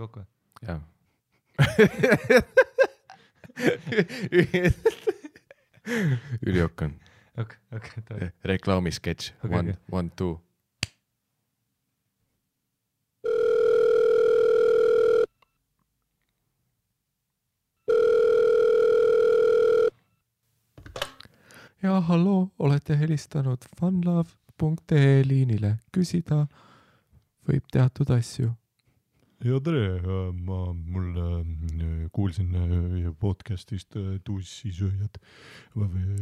kokku? Jaa. Üliokk on. Okay. Reklaamisketš. Okay. 1, 2. Ja halloo, olete helistanud funlove.ee liinile. Küsida võib teatud asju. Ja tere, mul kuulsin podcastist Tussisööjad.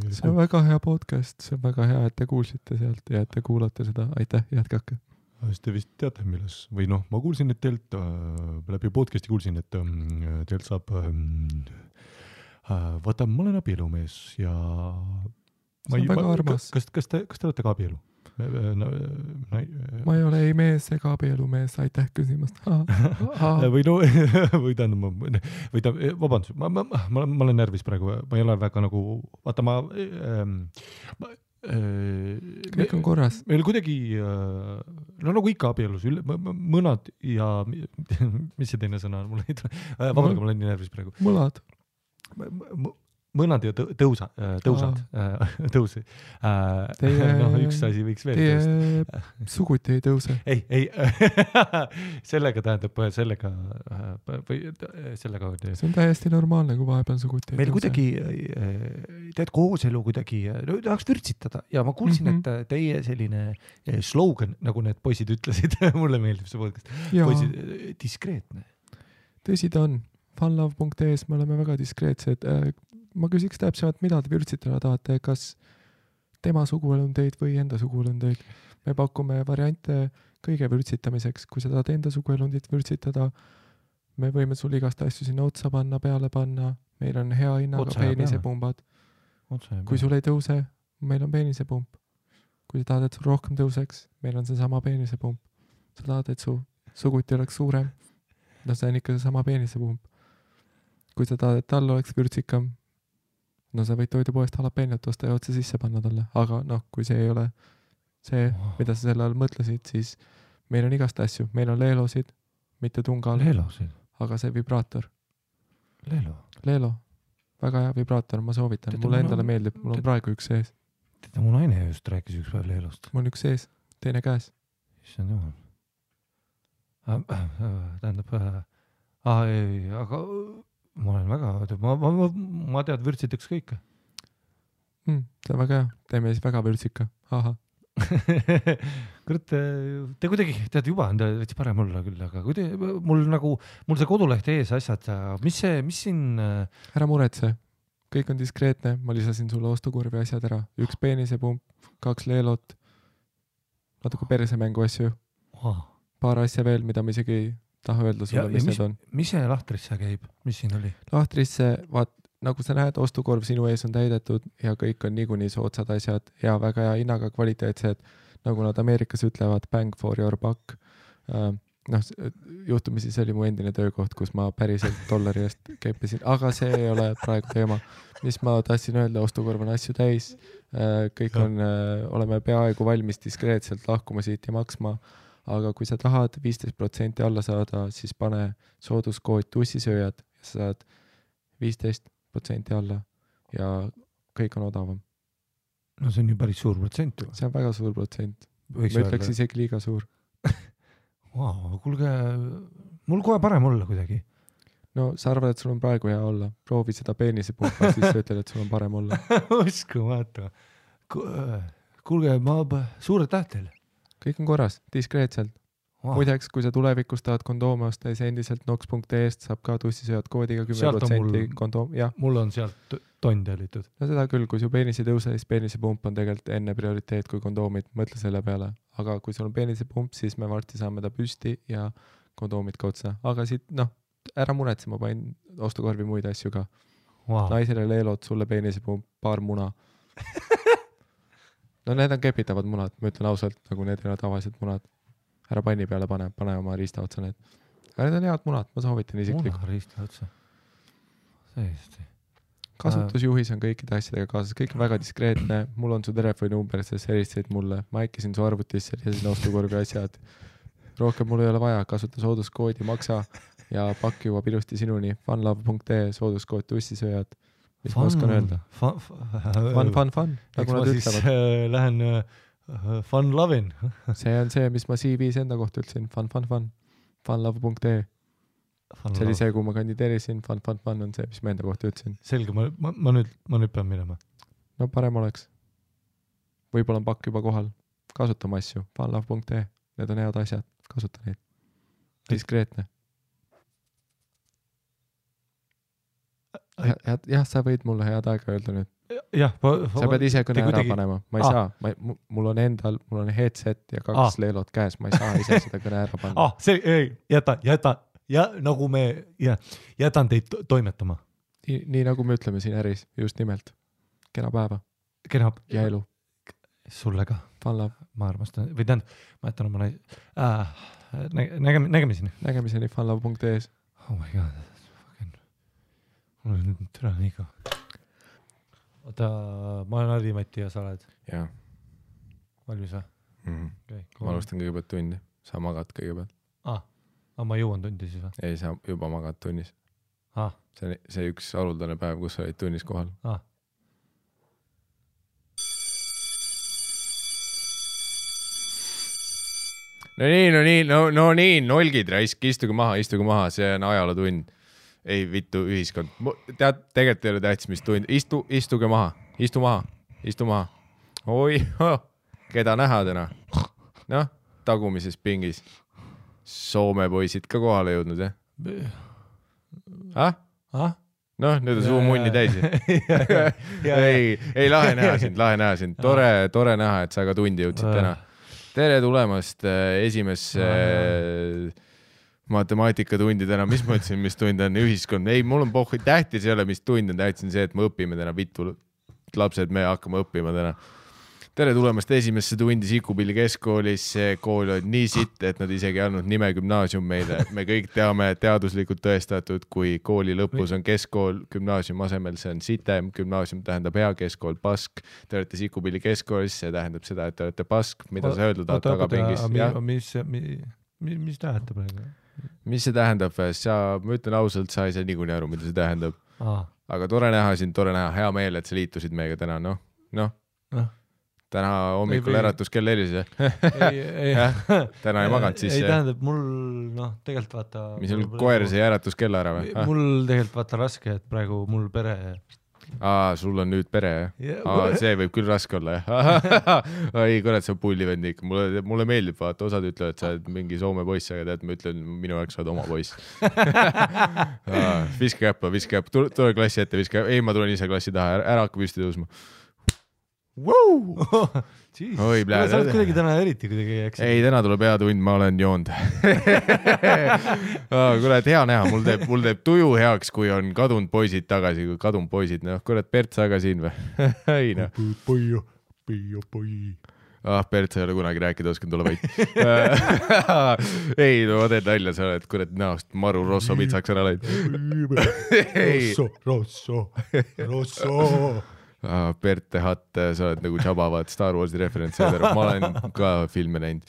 See on väga hea podcast, see on väga hea, et te kuulsite sealt ja et te kuulate seda. Aitäh, jätkake. Te vist teate, milles, või noh, ma kuulsin, et teilt läbi podcasti kuulsin, et teilt saab, vaata, ma olen abielumees ja see on väga armas. Kas te olete ka abielu? Ma ei ole ei mees ega abielumees, aitäh küsimast. Või no, või tähendab, vabandust, ma olen närvis praegu, ma ei ole väga nagu, vaata kõik on korras. Meil kuidagi, no nagu ikka abielus, mõnad ja, mis see teine sõna on, mul ei tule, vabandage, ma olen nii närvis praegu. Mõlad. Mõnad ja tõusad. No üks asi võiks veel tõusta. Teie suguti ei tõuse. Ei, sellega tähendab, sellega. See on täiesti normaalne, kui vahepeal suguti ei meil tõuse. kuidagi, tead kooselu kuidagi, tahaks vürtsitada ja ma kuulsin, et teie selline slogan, nagu need poisid ütlesid, mulle meeldib see podcast, poisid, diskreetne. Tõsi ta on. Funlove.ee-s me oleme väga diskreetsed. Ma küsiks täpsemalt, mida te vürtsitada tahate, kas tema suguelundeid või enda suguelundeid. Me pakume variante kõige vürtsitamiseks. Kui sa tahad enda suguelundit vürtsitada, me võime sul igast asju sinna otsa panna, peale panna. Meil on hea hinnaga peenisepumbad. Kui sul ei tõuse, meil on peenisepump. Kui sa tahad, et sul rohkem tõuseks, meil on see sama peenisepump. Sa tahad, et su suguti oleks suurem, no see on ikka see sama peenisepump. Kui sa tahad, et tal oleks vürtsikam, no sa võid toidupoest jalapeenjat osta ja otse sisse panna talle. Aga noh, kui see ei ole see, mida sa selle all mõtlesid, siis meil on igast asju. Meil on leelosid, mitte tungal. Leelosid? Aga see vibraator. Leelo? Väga hea vibraator, ma soovitan. Mulle endale meeldib, mul on praegu üks sees. Teda mu naine just rääkis üks päev leelost. Mul on üks sees, teine käes. Issand jumal. Tähendab, aga ma olen väga, ma tead vürtsitaks kõike. See on väga hea, teeme siis väga vürtsika. Aha. Kurat, te kuidagi, tead juba on veits parem olla küll, aga mul see koduleht ees asjad, mis siin... Ära muretse, kõik on diskreetne, ma lisasin sulle ostukurvi asjad ära. Üks peenisepump, 2 leelot, natuke persemängu asju, paar asja veel, mida ma isegi ei taha öelda sulle, mis need on. Mis see lahtrisse käib? Mis siin oli? Lahtrisse, vaat, nagu sa näed, ostukorv sinu ees on täidetud ja kõik on niikuinii soodsad asjad ja väga hea hinnaga kvaliteetsed, nagu nad Ameerikas ütlevad, bang for your buck. Juhtumisi see oli mu endine töökoht, kus ma päriselt dollari eest keppisin, aga see ei ole praegu teema. Mis ma tahtsin öelda, ostukorv on asju täis, kõik on, oleme peaaegu valmis diskreetselt lahkuma siit ja maksma. Aga kui sa tahad 15% alla saada, siis pane sooduskood tussisööjad ja sa saad 15% alla ja kõik on odavam. No see on ju päris suur protsent. See on väga suur protsent. Ma ütleks isegi liiga suur. Kuulge, mul kohe parem olla kuidagi. No sa arvad, et sul on praegu hea olla. Proovi seda peenisepumpa, siis sa ütled, et sul on parem olla. Uskumatu. Kuulge, suure tähtel. Kõik on korras, diskreetselt. Muideks, kui sa tulevikus tahad kondoome osta, siis endiselt nox.ee-st saab ka tussisööjad koodiga 10% kondoom. Mul on sealt tonn tellitud. No seda küll, kui su peenis ei tõuse, siis peenisepump on tegelikult enne prioriteet kui kondoomid. Mõtle selle peale. Aga kui sul on peenisepump, siis me varsti saame ta püsti ja kondoomid ka otsa. Aga siit, ära muretse, ma panin ostukorvi muid asju ka. Naisele leelod, sulle peenisepump, paar muna. No need on kepitavad munad, ma ütlen ausalt, nagu need ei ole tavalised munad. Ära panni peale pane oma riista otsa need. Aga need on head munad, ma soovitan isiklikult. Muna riista otsa. Tõesti. Kasutusjuhis on kõikide asjadega kaasas, kõik on väga diskreetne. Mul on su telefoninumber, sest helistasid mulle. Ma äkkisin su arvutisse ja sinna ostukorvi asjad. Rohkem mul ei ole vaja, kasuta sooduskoodi, maksa ja pakk jõuab ilusti sinuni funlove.ee sooduskood tussisööjad. Mis ma oskan öelda? Fun. Nagu nad ütlevad. Lähen fun lovin. See on see, mis ma CV-s enda kohta ütlesin. Fun. Funlove.ee. See oli see, kui ma kandideerisin. Fun on see, mis ma enda kohta ütlesin. Selge, ma nüüd pean minema. No parem oleks. Võib-olla on pakk juba kohal. Kasutama asju. Funlove.ee. Need on head asjad. Kasuta neid. Diskreetne. Jah, sa võid mulle head aega öelda nüüd. Jah, sa pead ise kõne ära panema. Ma ei saa. Mul on headset ja 2 leelot käes. Ma ei saa ise seda kõne ära panna. Jäta. Ja nagu me jätan teid toimetama. Nii nagu me ütleme siin äris. Just nimelt. Kena päeva. Ja elu. Sulle ka. Funlove. Ma armastan. Või tähendab, ma jätan oma nägemiseni. Nägemiseni funlove.ee. Oh my god. Mul on nüüd türa nii ka. Oota, ma olen Harri-Mati ja sa oled? Jaa. Valmis või? Okay, ma alustan kõigepealt tundi. Sa magad kõigepealt. Ma jõuan tundi siis või? Ei, sa juba magad tunnis. See üks haruldane päev, kus sa olid tunnis kohal. No nii, nolgid raisk, istuge maha, see on ajalootund. Ei vittu ühiskond. Tegelikult ei ole tähtis, mis tund. Istuge maha. Istu maha. Oi, keda näha täna? Noh, tagumises pingis. Soome poisid ka kohale jõudnud, jah? Noh, nüüd on suu munni täis. Ei, lahe näha sind. Tore näha, et sa ka tundi jõudsid täna. Tere tulemast esimesse matemaatikatundi täna. Mis ma ütlesin, mis tund on ühiskond? Ei, mul on pohhu. Tähtis ei ole, mis tund on. Tähtis on see, et me õpime täna. Vittu lapsed, me hakkame õppima täna. Tere tulemast esimesse tundi Sikupilli keskkoolis. See kool on nii sitt, et nad isegi andnud nime gümnaasium meile. Me kõik teame teaduslikult tõestatud, kui kooli lõpus on keskkool gümnaasium asemel, see on sitem. Gümnaasium tähendab hea, keskkool pask. Te olete Sikupilli keskkoolis, see tähendab seda, et te olete pask. Mida sa öeldud tagapingis? Mis tähendab praegu? Mis see tähendab? Ma ütlen ausalt, sa ei saa niikuinii aru, mida see tähendab. Aga tore näha sind, hea meel, et sa liitusid meiega täna. Noh. Täna hommikul äratus kell helis. Täna ei maganud siis. Ei tähendab, mul tegelikult vaata... Mis sul koer see äratus kell ära või? Mul tegelikult vaata raske, et praegu mul pere... sul on nüüd pere, jah? See võib küll raske olla, jah? Ei, kurat, see on pullivend ikka. Mulle meeldib, vaata, osad ütlevad, et sa oled mingi Soome poiss, aga tead, ma ütlen, minu jaoks sa oled oma poiss. Viske käppa. Tule klassi ette, viske. Ei, ma tulen ise klassi taha, ära hakka püsti tõusma. Oi, sa oled kuidagi täna eriti kuidagi eks. Ei, täna tuleb hea tund, ma olen joonud. Kurat, hea näha, mul teeb tuju heaks, kui on kadunud poisid tagasi, kui kadunud poisid, kurat, Bert, sa ka siin või? Ei, Bert, sa ei ole kunagi rääkida, oskan tulla vaid. Ei, ma teen nalja, sa oled kurat näost maru Rosso pitsaks ära läinud. Rosso. Bert Hatt, sa oled nagu Jabavad Star Warsi referentsi. Ma olen ka filme näinud.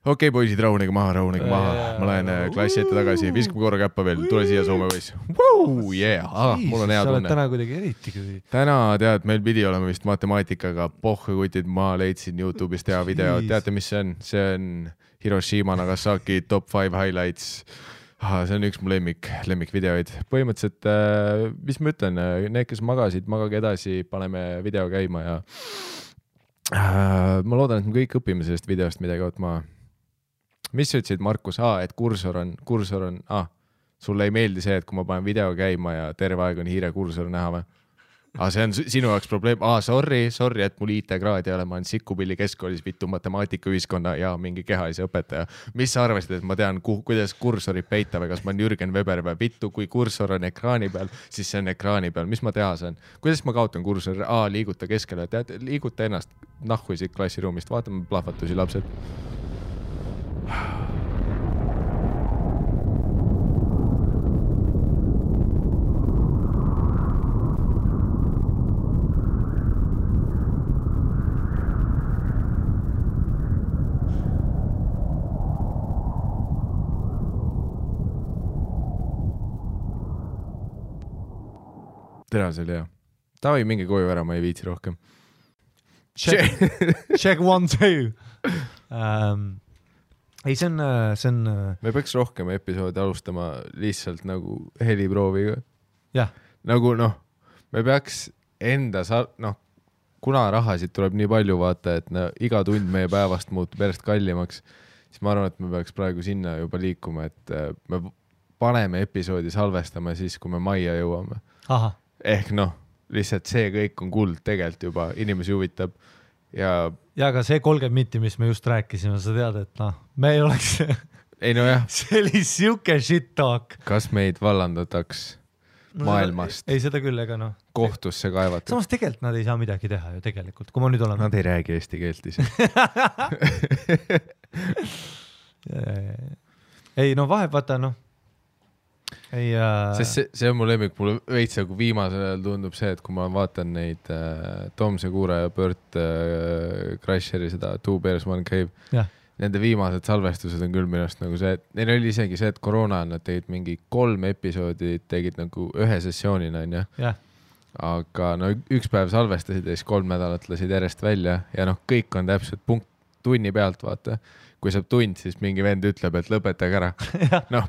Okei, poisid, rahunege maha. Ma lähen klassi ette tagasi. Viskame korra käppa veel. Tule siia Soome poiss. Mul on hea tunne. Sa oled täna kuidagi eriti. Täna, tead, meil pidi olema vist matemaatikaga. Pohhekutid, ma leidsin YouTube'ist hea video. Teate, mis see on? See on Hiroshima Nagasaki top 5 highlights. See on üks mu lemmikvideoid. Põhimõtteliselt, mis ma ütlen, need, kes magasid, magage edasi, paneme video käima ja ma loodan, et me kõik õpime sellest videost midagi ootma. Mis sa ütlesid, Markus? Et kursor on, sulle ei meeldi see, et kui ma panen video käima ja terve aeg on hiire kursor näha või? See on sinu jaoks probleem. Sorry, et mul IT-kraad ei ole. Ma olen Sikupilli keskkoolis vittu matemaatikaühiskonna ja mingi kehalise õpetaja. Mis sa arvasid, et ma tean, kuidas kursorit peita või kas ma olen Jürgen Weber või vittu, kui kursor on ekraani peal, siis see on ekraani peal. Mis ma teha saan? Kuidas ma kaotan kursor? Liiguta keskele. Tead, liiguta ennast nahku siit klassiruumist. Vaatame plahvatusi, lapsed. tere, see oli hea. Tavai, mingi koju ära, ma ei viitsi rohkem. Check 1, 2. Ei, see on... Me peaks rohkem episoodi alustama lihtsalt nagu heliprooviga. Jah. Nagu me peaks enda kuna rahasid tuleb nii palju vaata, et iga tund meie päevast muutub järjest kallimaks, siis ma arvan, et me peaks praegu sinna juba liikuma, et me paneme episoodi salvestama siis, kui me majja jõuame. Aha. Ehk lihtsalt see kõik on kuld tegelikult juba, inimesi huvitab ja aga see 30 minti, mis me just rääkisime, sa tead, et me ei oleks ei jah. See oli siuke shit talk. Kas meid vallandataks maailmast? Ei, seda küll, ega kohtusse kaevata. Samas tegelikult nad ei saa midagi teha ju tegelikult, kui ma nüüd olen... Nad ei räägi eesti keelt ise. Ei, vahe, vaata, Ei, Sest see on mu lemmik, mulle veits nagu viimasel ajal tundub see, et kui ma vaatan neid Tom Segura ja Bert Crasheri seda Two Bears One Cave, nende viimased salvestused on küll minust nagu see, et neil oli isegi see, et koroona nad tegid mingi 3 episoodi, tegid nagu ühe sessioonina, aga üks päev salvestasid ja siis 3 nädalat lasid järjest välja ja kõik on täpselt punkt tunni pealt, vaata. Kui saab tund, siis mingi vend ütleb, et lõpetage ära.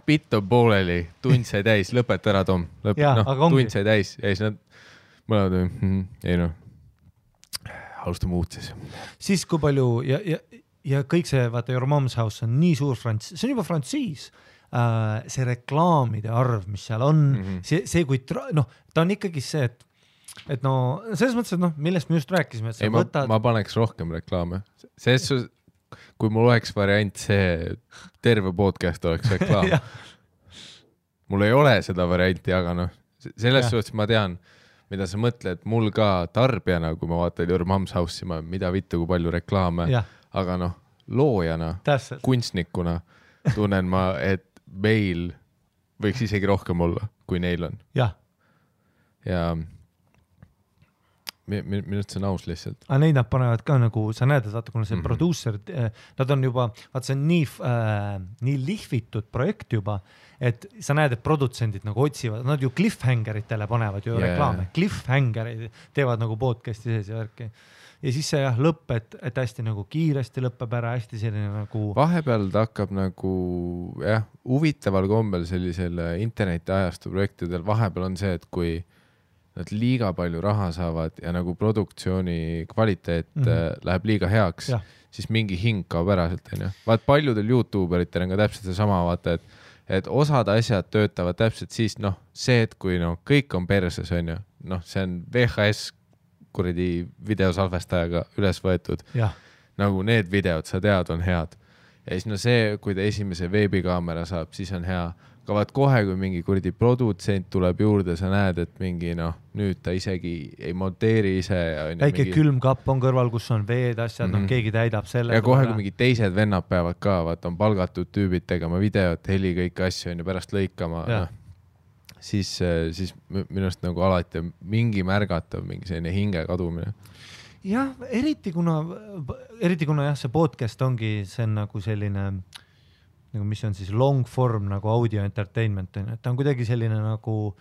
Bitt on pooleli, tund sai täis, lõpeta ära, Tom. Tund sai täis ja siis nad mõlemad, alustame uut siis. Siis kui palju ja kõik see, vaata, Your Mom's House on nii suur see on juba frantsiis. See reklaamide arv, mis seal on, see kui ta on ikkagi see, et selles mõttes, et millest me just rääkisime, et sa võtad... Ma paneks rohkem reklaame. Kui mul oleks variant see terve podcast oleks reklaam. Mul ei ole seda varianti, aga selles suhtes ma tean, mida sa mõtled, mul ka tarbijana, kui ma vaatan Your Mom's House'i, mida vittu, kui palju reklaame, aga loojana, kunstnikuna tunnen ma, et meil võiks isegi rohkem olla, kui neil on. Ja minust see on aus lihtsalt. Aga neid nad panevad ka nagu, sa näed, et vaata, kuna see producer, nad on juba, vaata, see on nii lihvitud projekt juba, et sa näed, et produtsendid nagu otsivad, nad ju cliffhangeritele panevad ju reklaame. Cliffhangerid teevad nagu podcasti sees ja värki. Ja siis see lõpp, et hästi nagu kiiresti lõppeb ära, hästi selline nagu... Vahepeal ta hakkab nagu, huvitaval kombel sellisel interneti ajastu projektidel vahepeal on see, et kui nad liiga palju raha saavad ja nagu produktsiooni kvaliteet läheb liiga heaks, siis mingi hing kaob ära sealt. Vaat paljudel YouTuberitel on ka täpselt see sama, vaata, et osad asjad töötavad täpselt siis, see, et kui kõik on perses, on ju, see on VHS kuradi videosalvestajaga üles võetud. Nagu need videod, sa tead, on head. Ja siis see, kui ta esimese veebikaamera saab, siis on hea. Aga vaat kohe, kui mingi kuradi produtsent tuleb juurde, sa näed, et mingi nüüd ta isegi ei monteeri ise. Väike külmkapp on kõrval, kus on veed asjad, keegi täidab selle. Ja kohe, kui mingi teised vennad peavad ka, vaat on palgatud tüübid tegema videot, heli kõik asju on ja pärast lõikama. Siis minust nagu alati mingi märgatav, mingi selline hinge kadumine. Jah, eriti kuna see podcast ongi, see on nagu selline... nagu mis on siis long form nagu audio entertainment, et ta on kuidagi selline nagu,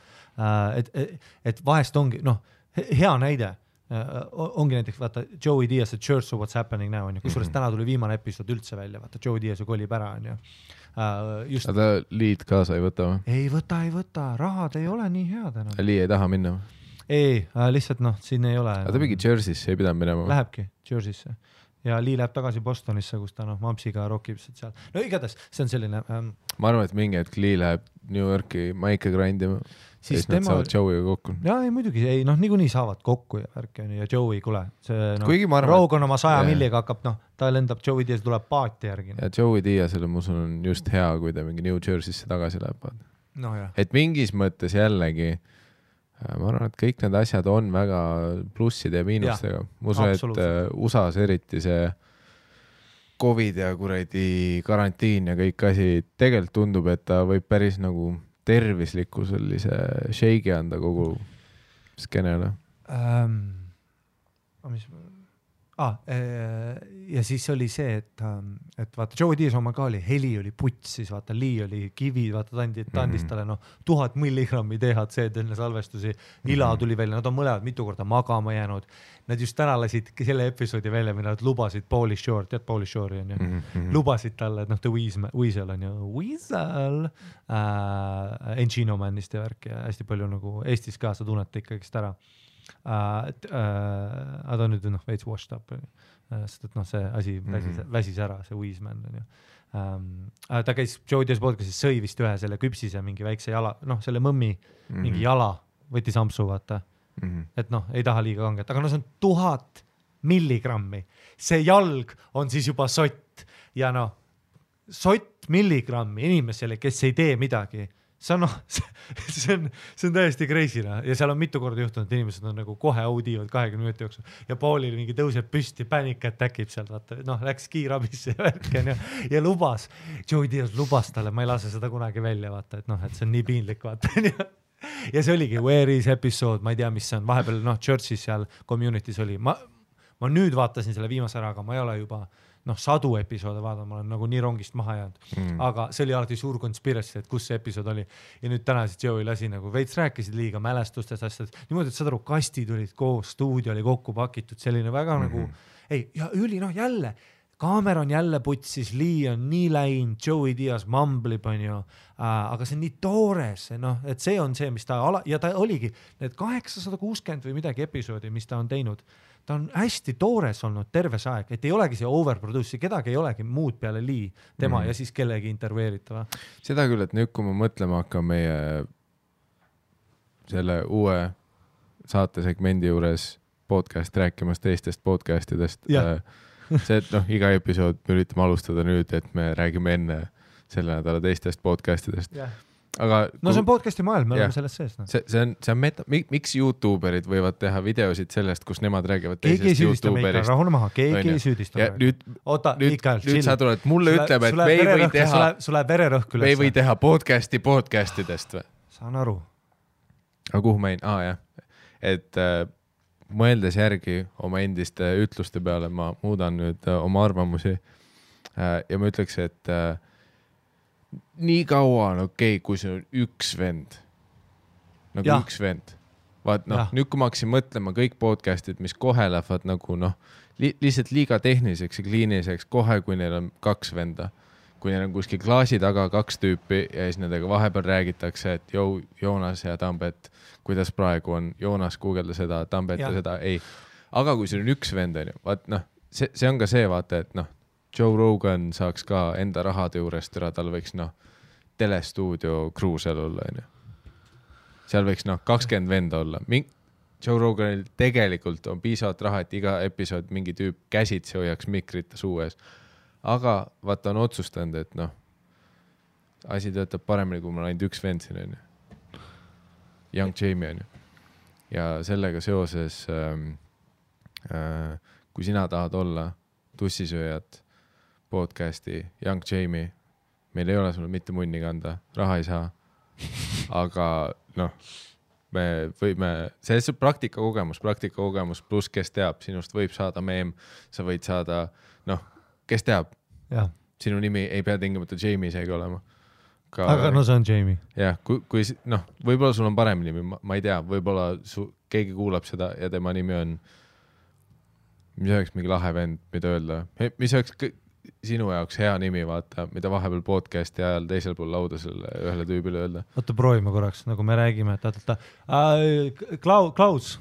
et vahest ongi, hea näide, ongi näiteks, vaata, Joey Diaz, Church of What's Happening Now, on ju, kusjuures täna tuli viimane episood üldse välja, vaata, Joey Diaz ju kolib ära, on ju. Aga ta liid kaasa ei võta või? Ei võta, rahad ei ole nii head enam. Lii ei taha minna või? Ei, lihtsalt siin ei ole. Aga ta mingi Jersey'sse ei pidanud minema või? Lähebki Jersey'sse. Ja Lee läheb tagasi Bostonisse, kus ta Mampsiga rockib seal. Igatahes, see on selline... Ma arvan, et mingi hetk Lee läheb New Yorki maike grindima. Siis nad saavad Joey'ga kokku. Jaa, ei muidugi, niikuinii saavad kokku ja värki on ja Joey, kule. Rogue on oma 100 milliga hakkab, ta lendab, Joey Diaz tuleb paati järgi. Ja Joey Diazile ma usun on just hea, kui ta mingi New Jersey'sse tagasi läheb. Et mingis mõttes jällegi ma arvan, et kõik need asjad on väga plusside ja miinustega. Ma usun, et USA's eriti see COVID ja kuradi karantiin ja kõik asi tegelikult tundub, et ta võib päris nagu tervisliku sellise shake'i anda kogu skeenele. Ja siis oli see, et vaata Joe Diaz oma ka oli, heli oli puts, siis vaata Lee oli kivi, vaata ta andis talle 1000 milligrammi THC-d enne salvestusi, Ila tuli välja, nad on mõlemad mitu korda magama jäänud. Nad just täna lasid selle episoodi välja, mida nad lubasid Pauly Shore, tead Pauly Shore'i on ju, lubasid talle, et The Weasel on ju, Weasel, Encino Manist ja värk ja hästi palju nagu Eestis ka sa tunnete ikkagist ära. Ta on nüüd veits washed up, sest et see asi väsis ära, see Weasman on ju. Ta käis Joe Diaz podcastis, sõi vist ühe selle küpsise mingi väikse jala, selle mõmmi mingi jala, võttis ampsu vaata, et ei taha liiga kanget, aga see on 1000 milligrammi, see jalg on siis juba sott ja sott milligrammi inimesele, kes ei tee midagi, see on täiesti crazy ja seal on mitu korda juhtunud, et inimesed on nagu kohe audiivad 20 minuti jooksul ja Paulil mingi tõuseb püsti, panic attack ib sealt, vaata, läks kiirabisse ja värken ja lubas, Joe Diaz lubas talle, ma ei lase seda kunagi välja, vaata, et see on nii piinlik, vaata. Ja see oligi Where is episode, ma ei tea, mis see on, vahepeal Churchis seal community's oli, ma nüüd vaatasin selle viimase ära, aga ma ei ole juba sadu episoode vaadanud, ma olen nagu nii rongist maha jäänud, aga see oli alati suur conspiracy, et kus see episood oli ja nüüd täna siis Joey lasi nagu veits rääkisid liiga mälestustest asjad, niimoodi, et saad aru, kastid olid koos, stuudio oli kokku pakitud, selline väga nagu ja jälle Cameron jälle putsis, Lee on nii läinud, Joey Diaz mamblib on ju, aga see on nii toores, et see on see, mis ta ja ta oligi need 860 või midagi episoodi, mis ta on teinud, ta on hästi toores olnud terve see aeg, et ei olegi see overproduce, kedagi ei olegi muud peale Lee, tema ja siis kellegi intervjueeritava. Seda küll, et nüüd kui ma mõtlema hakkan meie selle uue saatesegmendi juures podcast rääkimas teistest podcastidest, see, et iga episood me üritame alustada nüüd, et me räägime enne selle nädala teistest podcastidest. Aga see on podcasti maailm, me oleme selles sees. See on miks YouTuberid võivad teha videosid sellest, kus nemad räägivad teisest YouTuberist. Rahune maha, keegi ei süüdista. Nüüd sa tuled, mulle ütleb, et me ei või teha podcastidest või? Saan aru. Aga kuhu ma et mõeldes järgi oma endiste ütluste peale, ma muudan nüüd oma arvamusi ja ma ütleks, et nii kaua on okei, kui see on üks vend. Üks vend. Vaat nüüd kui ma hakkasin mõtlema kõik podcastid, mis kohe lähevad nagu lihtsalt liiga tehniliseks ja kliiniliseks kohe, kui neil on 2 venda. Kui neil on kuskil klaasi taga 2 tüüpi ja siis nendega vahepeal räägitakse, et Joonas ja Tambet, kuidas praegu on, Joonas guugelda seda, Tambet ja seda, ei. Aga kui see on üks vend, vaat see on ka see, vaata, et Joe Rogan saaks ka enda rahade juurest ära, tal võiks telestuudio kruusel olla. Seal võiks 20 venda olla. Joe Roganil tegelikult on piisavalt raha, et iga episood mingi tüüp käsitsi hoiaks mikrit suu ees. Aga vaata on otsustanud, et asi töötab paremini, kui ma olen ainult üks vend siin. Young Jamie on ju. Ja sellega seoses, kui sina tahad olla tussisööjad podcasti Young Jamie, meil ei ole sulle mitte munni kanda, raha ei saa, aga me võime, see on praktikakogemus pluss kes teab, sinust võib saada meem, sa võid saada, kes teab, sinu nimi ei pea tingimata Jamie seegi olema. Aga see on Jamie. Jah, kui võib-olla sul on parem nimi, ma ei tea, võib-olla keegi kuulab seda ja tema nimi on, mis oleks mingi lahe vend, mida öelda, mis oleks sinu jaoks hea nimi, vaata, mida vahepeal podcasti ajal teisel pool lauda selle ühele tüübile öelda. Oota, proovime korraks, nagu me räägime, Klaus.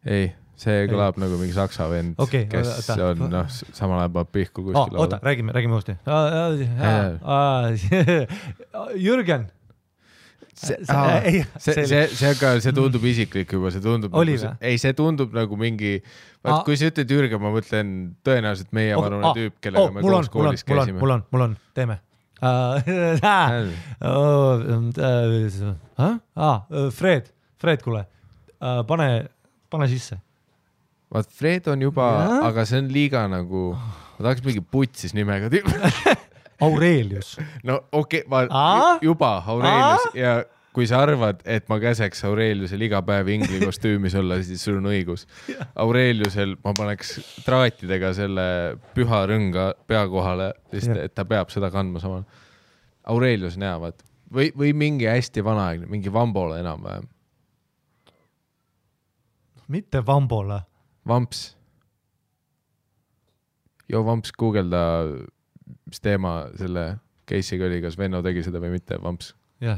Ei, see kõlab nagu mingi saksa vend, kes on samal ajal pihku kuskil lauda. Oota, räägime uuesti. Jürgen. See tundub isiklik juba, see tundub see tundub nagu mingi, kui sa ütled Jürgen, ma mõtlen tõenäoliselt meie vanune tüüp, kellega me koos koolis käisime. Mul on, teeme. Fred, kuule, pane sisse. Vaat Fred on juba, aga see on liiga nagu, ma tahaks mingi putsis nimega tüüp. Aurelius. No okei, juba Aurelius ja kui sa arvad, et ma käseks Aureliusel iga päev ingli kostüümis olla, siis sul on õigus. Aureliusel ma paneks traatidega selle püha rõnga pea kohale, sest et ta peab seda kandma samal. Aurelius näevad. Või mingi hästi vanaaegne, mingi Vambole enam-vähem. Mitte Vambole. Vamps. Vamps, guugelda, mis teema selle case'iga oli, kas Venno tegi seda või mitte, Vamps. Jah.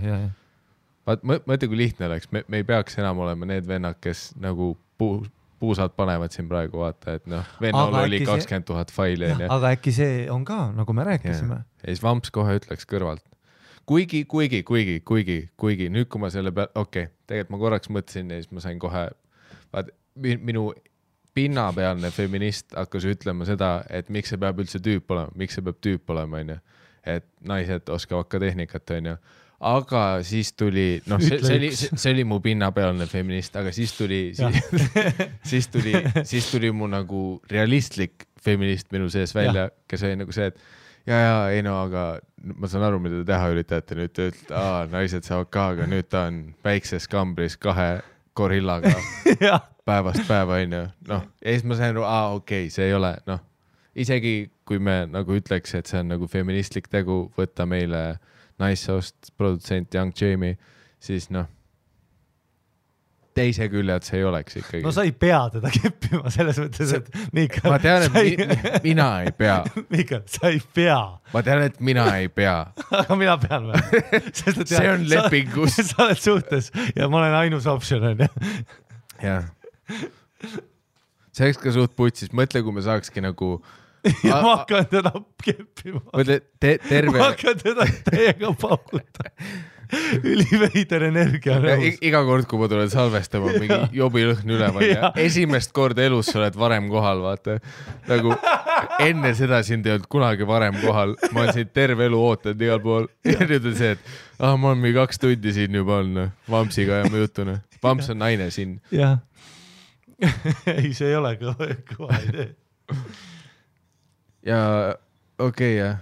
Vaat, mõtle, kui lihtne oleks. Me ei peaks enam olema need vennad, kes nagu puusad panevad siin praegu, vaata, et noh, Vennol oli 20 000 faili. Aga äkki see on ka, nagu me rääkisime. Ja siis Vamps kohe ütleks kõrvalt. Kuigi, nüüd kui ma selle peal, tegelikult ma korraks mõtlesin ja siis ma sain kohe, vaat minu pinnapealne feminist hakkas ütlema seda, et miks see peab üldse tüüp olema, miks see peab tüüp olema, onju. Et naised oskavad ka tehnikat, onju. Aga siis tuli, noh, see oli mu pinnapealne feminist, aga siis tuli mu nagu realistlik feminist minu sees välja, kes oli nagu see, et ei no, aga ma saan aru, mida te teha üritate nüüd, naised saavad ka, aga nüüd ta on väikses kambris 2 gorillaga päevast päeva, onju. Noh, ja siis ma sain aru, see ei ole, noh, isegi kui me nagu ütleks, et see on nagu feministlik tegu, võtta meile naissoost produtsent Young Jamie, siis noh, teise külje, et see ei oleks ikkagi. No sa ei pea teda keppima selles mõttes, et Mikael... Ma tean, et mina ei pea. Mikael, sa ei pea. Ma tean, et mina ei pea. Aga mina pean või? See on lepingus. Sa oled suhtes ja ma olen ainus option, on ju? Jah. See oleks ka suht putsis. Mõtle, kui me saakski nagu... Ja ma hakkan teda keppima. Mõtle, terve... Ma hakkan teda täiega paukuta. Üliveider energia. Iga kord, kui ma tulen salvestama, mingi jobilõhn üleval ja esimest korda elus sa oled varem kohal, vaata. Nagu enne seda sind ei olnud kunagi varem kohal. Ma olen siin terve elu ootanud igal pool. Ja nüüd on see, et ma olen mingi 2 tundi siin juba olnud Vampsiga ja ma jutun. Vamps on naine siin. Jah. Ei, see ei ole kõva idee. Ja jah.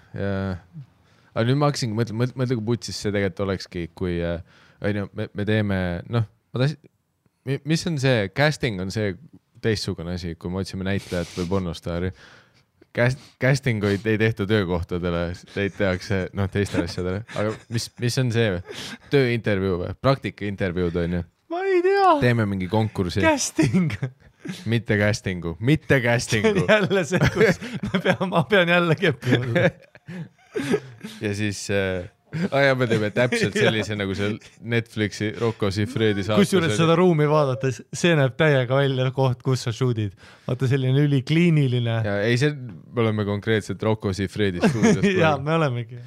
Aga nüüd ma hakkasingi mõtle, kui putsis see tegelikult olekski, kui me teeme, noh, mis on see, casting on see teistsugune asi, kui me otsime näitlejat või pornostaari. Casting ei tehta töökohtadele, teid tehakse teistele asjadele. Aga mis on see või? Tööintervjuu või? Praktikaintervjuud on ju? Ma ei tea. Teeme mingi konkursi. Casting. Mitte castingu. See on jälle see, kus ma pean jälle keppima. Ja siis me teeme täpselt sellise nagu see Netflixi Rocco Siffredi saatus. Kusjuures seda ruumi vaadates, see näeb täiega välja koht, kus sa shootid. Vaata selline ülikliiniline. Ja ei, me oleme konkreetselt Rocco Siffredi stuudios. Ja me olemegi.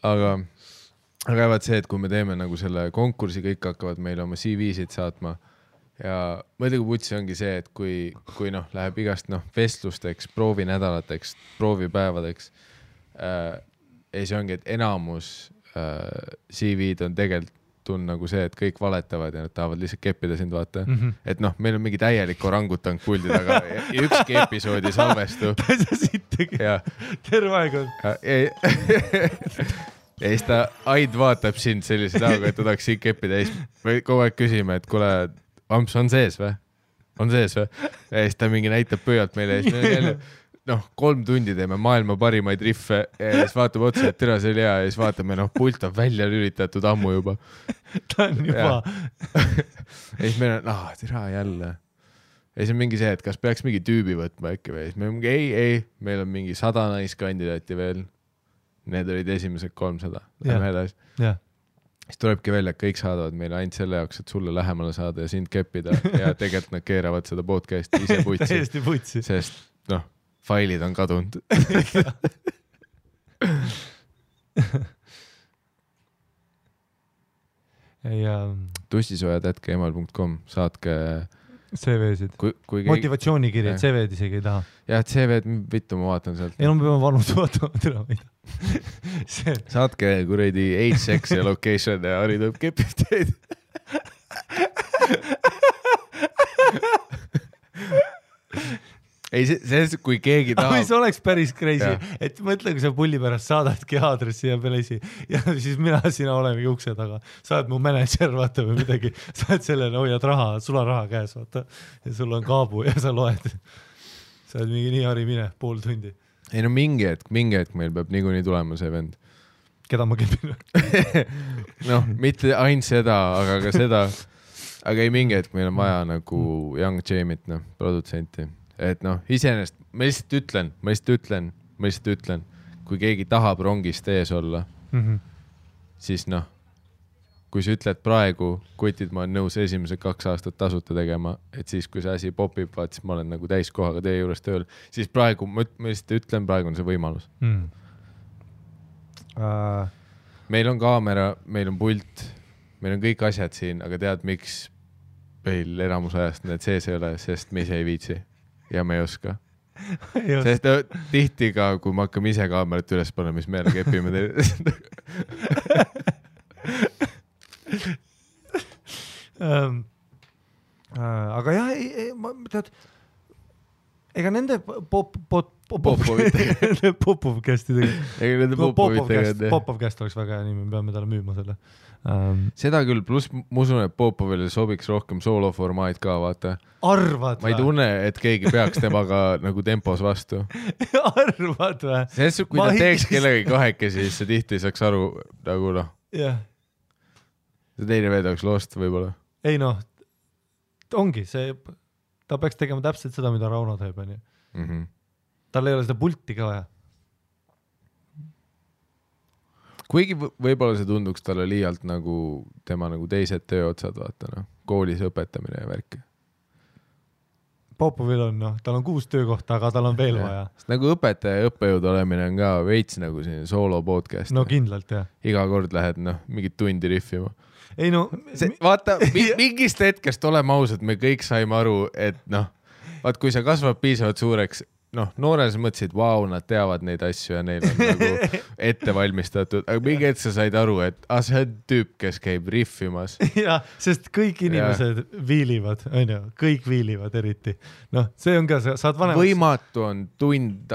Aga vaat see, et kui me teeme nagu selle konkursi, kõik hakkavad meile oma CV-sid saatma ja mõtle, kui putsi ongi see, et kui läheb igast vestlusteks, proovinädalateks, proovipäevadeks, ja see ongi, et enamus CV-d on tegelikult nagu see, et kõik valetavad ja nad tahavad lihtsalt keppida sind, vaata. Et meil on mingi täielik orangutang puldi taga ja ükski episoodi salvestu. Sa sittegi. Terve aeg on. Ja siis ta Aid vaatab sind sellise näoga, et ta tahaks siin keppida ja siis me kogu aeg küsime, et kuule, Vamps on sees või? On sees või? Ja siis ta mingi näitab pööalt meile ja siis me jälle 3 tundi teeme maailma parimaid riffe ja siis vaatab otsa, et tere, see oli hea ja siis vaatame, pult on välja lülitatud ammu juba. Ta on juba. Ja siis meil on, tere jälle. Ja siis on mingi see, et kas peaks mingi tüübi võtma äkki või. Siis meil on mingi, ei, meil on mingi 100 naiskandidaati veel. Need olid esimesed 300. Lähme edasi. Siis tulebki välja, et kõik saadavad meile ainult selle jaoks, et sulle lähemale saada ja sind keppida ja tegelikult nad keeravad seda podcasti ise putsi. Täiesti putsi. Sest, failid on kadunud. tussisojad@gmail.com saatke CV-sid. Motivatsioonikiri, CV-d isegi ei taha. Jah, CV-d vittu ma vaatan sealt. Ei, ma pean vanud vaatama. Saatke kuredi age, sex ja location ja Harri tuleb kepib teid. ei, see, kui keegi tahab. See oleks päris crazy, et mõtle, kui sa pulli pärast saadadki aadressi ja pelesi ja siis sina olemegi ukse taga. Sa oled mu manager, vaata või midagi. Sa oled sellele, hoiad raha, sul on raha käes, vaata. Ja sul on kaabu ja sa loed. Sa oled mingi nii hari mine, pool tundi. Ei no mingi hetk meil peab niikuinii tulema see vend. Keda ma kepin? Noh, mitte ainult seda, aga ka seda. Aga ei mingi hetk meil on vaja nagu Young Jamit, produtsenti. Et noh, iseenesest, ma lihtsalt ütlen, kui keegi tahab rongist ees olla, siis noh, kui sa ütled praegu, kutid ma olen nõus esimesed 2 aastat tasuta tegema, et siis kui see asi popib, vaat siis ma olen nagu täiskohaga teie juures tööl, siis praegu, ma lihtsalt ütlen, praegu on see võimalus. Meil on kaamera, meil on pult, meil on kõik asjad siin, aga tead, miks meil enamus ajast need sees ei ole, sest me ise ei viitsi ja me ei oska. Sest tihti ka, kui me hakkame ise kaamerat üles panema, mis meile kepime teile. Aga jah, tead, ega nende Popovcast oleks väga hea nimi, me peame talle müüma selle. Seda küll, pluss ma usun, et Popovile sobiks rohkem sooloformaat ka, vaata. Arvad ma ei tunne, et keegi peaks temaga nagu tempos vastu. Arvad või? Sest kui ta teeks kellegagi kahekesi, siis see tihti ei saaks aru nagu noh. Jah. See teine veed oleks lost võib-olla. Ei noh, ongi see, ta peaks tegema täpselt seda, mida Rauno teeb. Tal ei ole seda pulti ka vaja. Kuigi võib-olla see tunduks talle liialt nagu tema nagu teised tööotsad, vaata noh, koolis õpetamine ja värki. Popovil on, noh, tal on 6 töökohta, aga tal on veel vaja. Nagu õpetaja ja õppejõud olemine on ka veits nagu siin soolo podcast. No kindlalt, jah. Iga kord lähed, noh, mingit tundi riffima. Ei no... Vaata, mingist hetkest oleme ausad, me kõik saime aru, et noh, vaat kui sa kasvad piisavalt suureks, noh, noores mõtlesid, vau, nad teavad neid asju ja neil on nagu ette valmistatud, aga mingi hetk sa said aru, et see on tüüp, kes käib riffimas. Ja, sest kõik inimesed viilivad, on ju, kõik viilivad eriti. Noh, see on ka, saad vanemaks... Võimatu on tund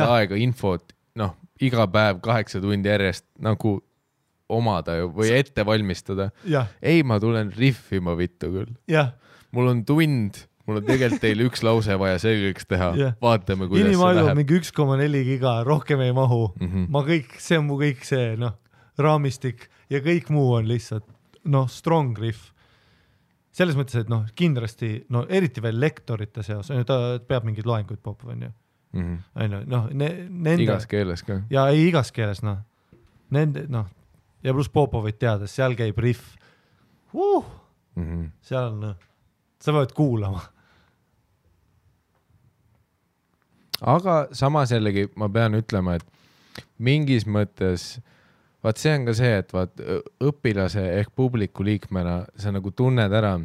aega infot, noh, iga päev 8 tundi järjest nagu omada ju, või ette valmistada. Ei, ma tulen riffima vittu küll. Mul on tund... Mul on tegelikult teil 1 lause vaja selgeks teha. Vaatame, kuidas inimaelu see läheb. Mingi 1,4 giga, rohkem ei mahu. Ma kõik, see on mu kõik see, noh, raamistik ja kõik muu on lihtsalt, noh, strong riff. Selles mõttes, et noh, kindlasti, no eriti veel lektorite seas, ta peab mingid loenguid Popov, on ju. Noh, igas keeles ka. Ja ei igas keeles, noh. Nende, noh, ja pluss Popovit teades, seal käib riff. Seal, noh, sa pead kuulama. Aga samas jällegi ma pean ütlema, et mingis mõttes, vaat see on ka see, et vaat õpilase ehk publiku liikmena sa nagu tunned ära,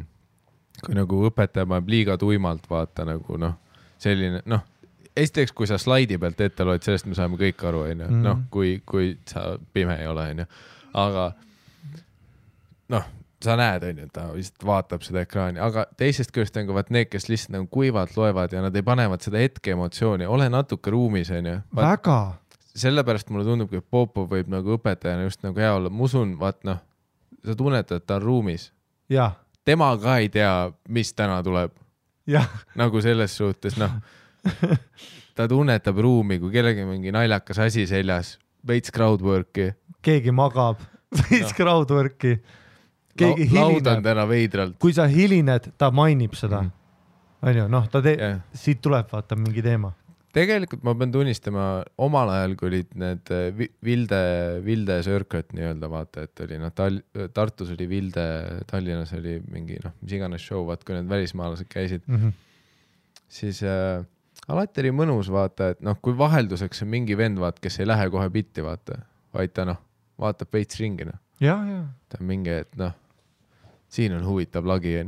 kui nagu õpetaja paneb liiga tuimalt, vaata nagu noh, selline, noh, esiteks, kui sa slaidi pealt ette loed, sellest me saame kõik aru, noh, kui sa pime ei ole, aga noh, sa näed, ta vist vaatab seda ekraani, aga teisest küljest on ka vaat need, kes lihtsalt nagu kuivalt loevad ja nad ei panevad seda hetke emotsiooni, ole natuke ruumis, Väga. Sellepärast mulle tundub, et Popov võib nagu õpetajana just nagu hea olla. Ma usun, vaat noh, sa tunnetad, et ta on ruumis. Ja. Tema ka ei tea, mis täna tuleb. Ja. Nagu selles suhtes, noh, ta tunnetab ruumi, kui kellegi mingi naljakas asi seljas, veits crowdworki. Keegi magab, veits crowdworki. Keegi laudan täna veidralt. Kui sa hilined, ta mainib seda. On ju, noh, siit tuleb vaata mingi teema. Tegelikult ma pean tunnistama, omal ajal, kui olid need Vilde Circuit nii-öelda, vaata, et oli, noh, Tartus oli Vilde, Tallinnas oli mingi, noh, mis iganes show, vaat, kui need välismaalased käisid, siis alati oli mõnus, vaata, et noh, kui vahelduseks on mingi vend, vaat, kes ei lähe kohe bitti, vaata, vaid ta, noh, vaatab veits ringi, noh. Ja. Ta on mingi, et noh, siin on huvitav lagi.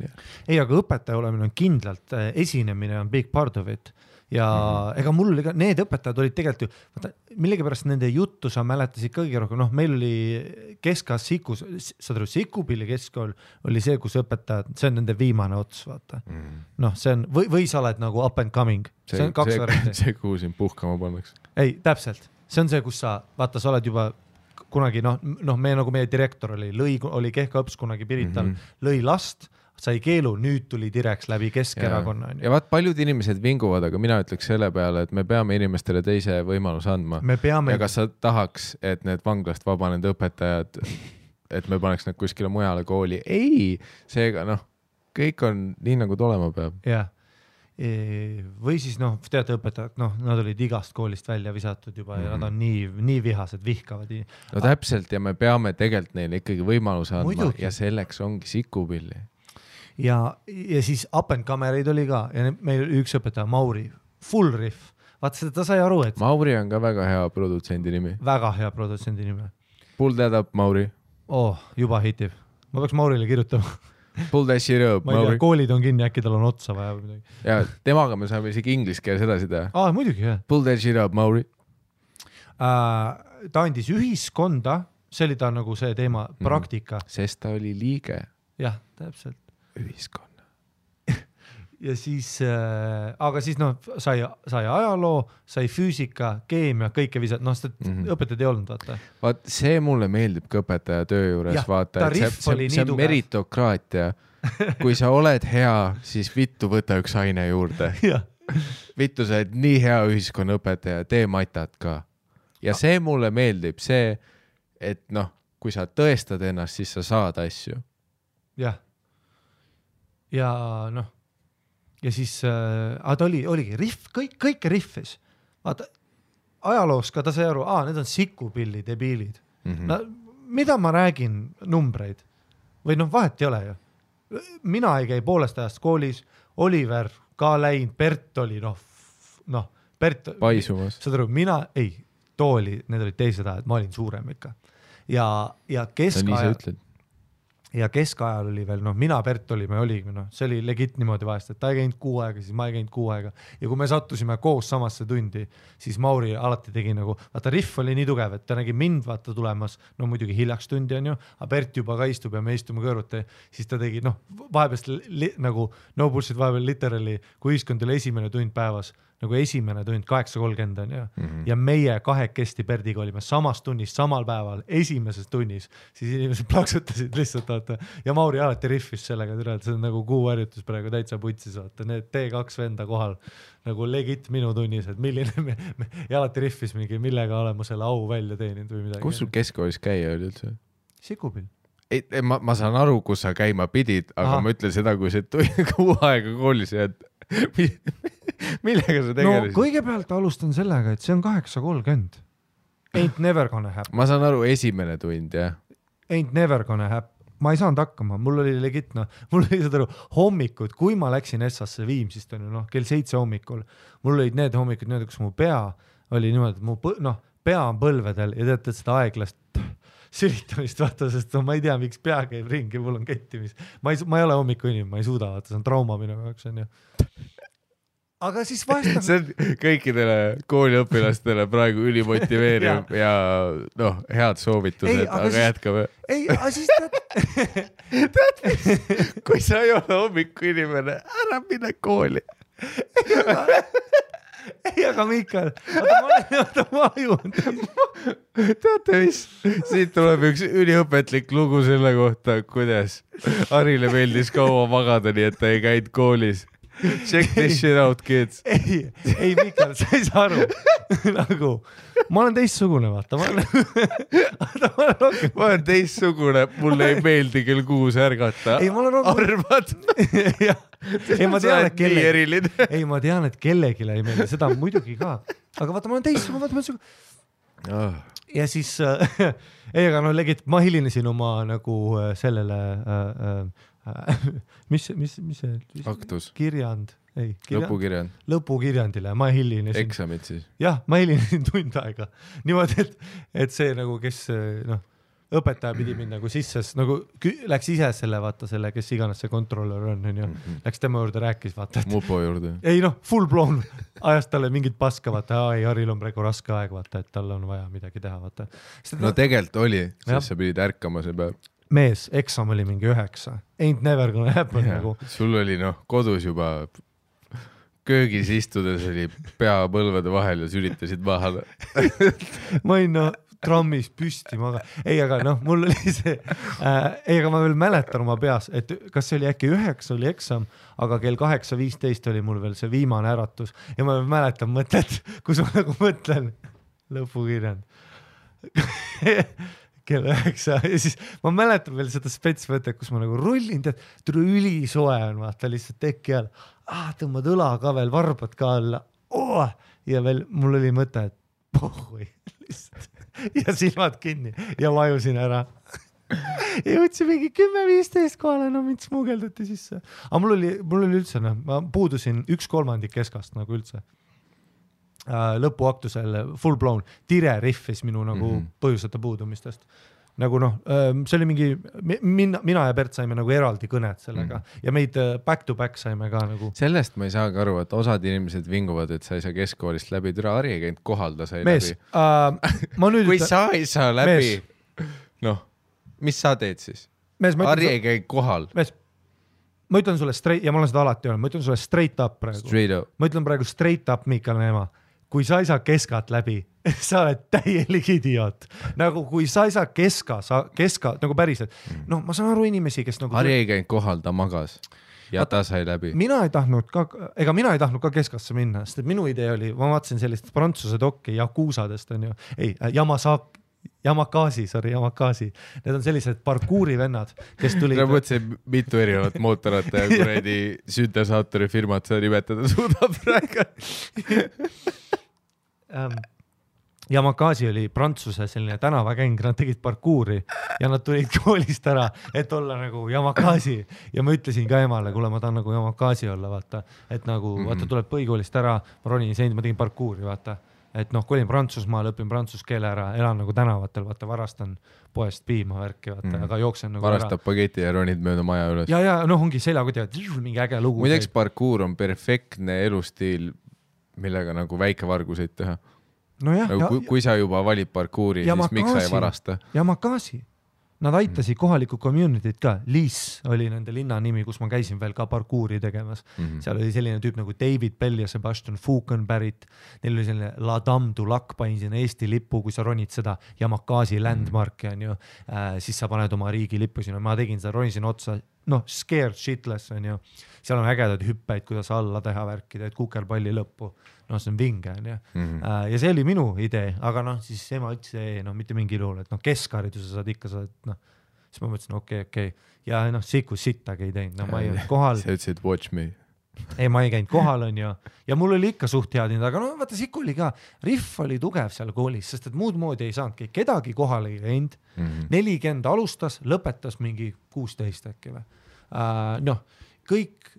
Ei, aga õpetaja olemine on kindlalt, esinemine on big part of it. ja ega mul need õpetajad olid tegelikult ju, vaata, millegipärast nende juttu sa mäletasid kõige rohkem, noh, meil oli Kesk-As Sikus, saad aru, Sikupilli keskkool oli see, kus õpetajad, see on nende viimane ots, vaata. Noh, see on, või sa oled nagu up and coming, see on 2 varianti. See, kuhu siin puhkama pannakse. Ei, täpselt, see on see, kus sa, vaata, sa oled juba kunagi, meie direktor oli Kehka-õps kunagi Pirital, lõi last, sai keelu, nüüd tuli direks läbi Keskerakonna. Ja vaat paljud inimesed vinguvad, aga mina ütleks selle peale, et me peame inimestele teise võimaluse andma. Ja kas sa tahaks, et need vanglast vabanenud õpetajad, et me paneks nad kuskile mujale kooli? Ei, seega kõik on nii, nagu olema peab. Jah. Või siis teate õpetajad, nad olid igast koolist välja visatud juba ja nad on nii vihased, vihkavad. No täpselt ja me peame tegelikult neile ikkagi võimaluse andma ja selleks ongi Sikupilli. Ja siis up and camereid oli ka ja meil üks õpetaja Mauri, full riff. Vaata seda, ta sai aru, et... Mauri on ka väga hea produtsendi nimi. Väga hea produtsendi nimi. Pull that up, Mauri. Juba hitib. Ma peaks Maurile kirjutama. Pull that shit up, Mauri. Ma ei tea, koolid on kinni, äkki tal on otsa vaja või midagi. Ja temaga me saame isegi inglise keeles edasi teha. Muidugi, jah. Pull that shit up, Mauri. Ta andis ühiskonda, see oli ta nagu see teema, praktika. Sest ta oli liige. Jah, täpselt. Ühiskonna. Ja siis, aga siis sai ajaloo, sai füüsika, keemia, kõike visad, õpetajad ei olnud, vaata. Vaat see mulle meeldib ka õpetaja töö juures, vaata, et see on meritokraatia. Kui sa oled hea, siis vittu võta üks aine juurde. Vittu, sa oled nii hea ühiskonnaõpetaja, tee matat ka. Ja see mulle meeldib, see, et kui sa tõestad ennast, siis sa saad asju. Jah. Ja ja siis ta oligi riff, kõike riffis. Vaata, ajaloos ka ta sai aru, need on Sikupilli debiilid. Mida ma räägin numbreid? Või vahet ei ole ju. Mina ei käi poolest ajast koolis, Oliver ka läinud, Bert oli Bert... Paisumas. Saad aru, need olid teised ajad, ma olin suurem ikka. Ja keskajal... Ja keskajal oli veel, mina Bert olime, see oli legit niimoodi vahest, et ta ei käinud 6 aega, siis ma ei käinud 6 aega. Ja kui me sattusime koos samasse tundi, siis Mauri alati tegi vaata riff oli nii tugev, et ta nägi mind vaata tulemas, muidugi hiljaks tundi on ju, aga Bert juba ka istub ja me istume kõrvuti, siis ta tegi, vahepeast no bullshit vahepeal literally, kui ühiskond oli esimene tund päevas, esimene tund 8:30 on ju. Ja meie kahekesti Berdiga olime samas tunnis, samal päeval, esimeses tunnis, siis inimesed plaksutasid lihtsalt, vaata. Ja Mauri alati riffis sellega, see on kuuharjutus praegu täitsa putsis, vaata. Need T2 venda kohal, legit minu tunnis, et milline ja alati riffis mingi, millega olema selle au välja teeninud või midagi. Kus sul keskkoolis käia oli üldse? Sikupill. Ma saan aru, kus sa käima pidid, aga ma ütlen seda, kui see 6 aega koolis jääd. Millega sa tegelesid? Kõigepealt alustan sellega, et see on 8:30. Ain't never gonna happen. Ma saan aru, esimene tund, jah. Ain't never gonna happen. Ma ei saanud hakkama, mul oli legit, mul oli seda hommikud, kui ma läksin Essasse Viimsist, kell 7 hommikul, mul olid need hommikud niimoodi, kus mu pea oli niimoodi, et mu pea on põlvedel ja teate seda aeglast sülitamist, vaata, sest ma ei tea, miks pea käib ringi, mul on kettimis. Ma ei ole hommiku inimene, ma ei suuda, vaata, see on trauma minu jaoks, on ju. Aga siis vahest... See on kõikidele kooliõpilastele praegu ülimotiveeriv ja head soovitused, aga jätkame. Ei, aga siis tead, kui sa ei ole hommiku inimene, ära mine kooli. Ei, aga Mikael, ma ajun. Teate mis? Siit tuleb üks üliõpetlik lugu selle kohta, kuidas Harile meeldis kaua magada, nii et ta ei käinud koolis. Check this shit out, kids. Ei, Mikael, sa ei saa aru. Ma olen teistsugune, vaata. Ma olen teistsugune, mulle ei meeldi kell 6 ärgata. Arvad? Ei, ma tean, et kellelegi ei meeldi, seda muidugi ka. Aga vaata, ma olen teistsugune, ja siis, aga legit, ma hilinesin oma sellele mis see aktus? Kirjand, lõpukirjandile, ma hilinesin. Eksamid siis? Jah, ma hilinesin tund aega. Niimoodi, et see kes õpetaja pidi mind nagu sisse, nagu läks ise selle, vaata selle, kes iganes see kontrollör on ju, läks tema juurde, rääkis, vaata. Mupo juurde. Ei noh, full blown, ajas talle mingit paska, vaata, ei, Haril on praegu raske aeg, vaata, et tal on vaja midagi teha, vaata. No tegelikult oli, sest sa pidid ärkama see päev. Mees, eksam oli mingi 9. Ain't never gonna happen nagu. Sul oli kodus juba köögis istudes oli pea põlvede vahel ja sülitasid maha. Ma olin trammis püsti maga. Ei, aga mul oli see, aga ma veel mäletan oma peas, et kas see oli äkki 9 oli eksam, aga kell 8:15 oli mul veel see viimane äratus ja ma mäletan mõtet, kus ma nagu mõtlen lõpukirjand. Kell 9 ja siis ma mäletan veel seda spetsmõtet, kus ma nagu rullin, tead, ülisoe on, vaata lihtsalt teki all. Tõmbad õla ka veel, varbad ka alla. Ja veel mul oli mõte, et pohhui lihtsalt. Ja silmad kinni ja vajusin ära. Ja võtsin mingi 10-15 kohale, mind smugeldati sisse. Aga mul oli üldse, ma puudusin 1/3 keskast nagu üldse. Lõpuaktusel full blown tire riffis minu nagu põhjuseta puudumistest. Nagu see oli mingi, mina ja Bert saime nagu eraldi kõned sellega ja meid back to back saime ka nagu. Sellest ma ei saagi aru, et osad inimesed vinguvad, et sa ei saa keskkoolist läbi, türa Harri ei käinud kohal, ta sai mees, läbi. Kui sa ei saa läbi, mis sa teed siis? Harri ei käinud kohal. Mees, ma ütlen sulle straight, ja ma olen seda alati öelnud, ma ütlen sulle straight up praegu. Ma ütlen praegu straight up Miikal Neema. Kui sa ei saa keskat läbi, sa oled täielik idioot. Nagu kui sa ei saa keska nagu päriselt. Ma saan aru inimesi, kes nagu... Harri ei käinud kohal, ta magas ja ta sai läbi. Mina ei tahtnud ka keskasse minna, sest et minu idee oli, ma vaatasin sellist prantsuse dokki Yakuusadest on ju, Yamakasi. Need on sellised parkuuri vennad, kes tulid... Ma mõtlesin, mitu erinevat mootorata ja kuredi süntesaatori firmat sa nimetada suudab praegu. Yamakasi oli Prantsuse selline tänavakäng, nad tegid parkuuri ja nad tulid koolist ära, et olla nagu Yamakasi ja ma ütlesin ka emale, kuule ma tahan nagu Yamakasi olla, vaata, et nagu vaata tuleb põhikoolist ära, ma ronin seint, ma tegin parkuuri, vaata, et kolin Prantsusmaal, õpin prantsuse keele ära, elan nagu tänavatel, vaata, varastan poest piima värki, vaata, aga jooksen nagu varastab ära. Pageti ja ronid mööda maja üles. Ja ongi seljakotivad, mingi äge lugu. Muideks parkuur on perfektne elustiil, millega nagu väikevarguseid teha. No jah, nagu, kui sa juba valid parkuuri, siis miks sa ei varasta? Yamakasi. Nad aitasid kohalikku communityt ka. Liis oli nende linna nimi, kus ma käisin veel ka parkuuri tegemas. Seal oli selline tüüp nagu David Bell ja Sebastian Fukenberrit. Neil oli selline La Dame du Lac, panin sinna Eesti lippu, kui sa ronid seda Yamakasi landmarki, on ju, siis sa paned oma riigi lippu sinna. Ma tegin seda, ronisin otsa, scared shitless, on ju. Seal on ägedad hüppeid, kuidas alla teha värki, teed kukerpalli lõppu. See on vinge, on ju. Ja see oli minu idee, aga siis ema ütles, mitte mingi luul, et keskhariduse saad ikka, siis ma mõtlesin, okei. Ja sikus sittagi ei teinud, ma ei olnud kohal. Sa ütlesid, watch me. Ei, ma ei käinud kohal, on ju. Ja mul oli ikka suht head, aga vaata, siku oli ka, riff oli tugev seal koolis, sest et muud moodi ei saanudki, kedagi kohal ei käinud. 40 alustas, lõpetas mingi 16 äkki või. Kõik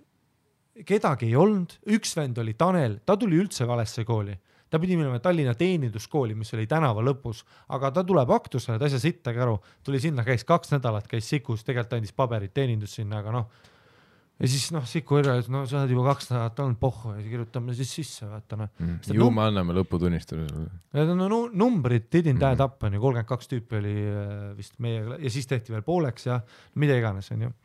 kedagi ei olnud, üks vend oli Tanel, ta tuli üldse valesse kooli. Ta pidi minema Tallinna teeninduskooli, mis oli tänava lõpus, aga ta tuleb aktusele, ta ei saa sittagi aru. Tuli sinna, käis 2 nädalat, käis sikus, tegelikult andis paberit teenindus sinna, aga ja siis siku üle, et sa oled juba 2 nädalat olnud pohhu ja kirjutame siis sisse, vaata. Ju me anname lõputunnistusele. Need on numbrid, didn't add up, 32 tüüpi oli vist meiega ja siis tehti veel pooleks ja mida iganes, on ju.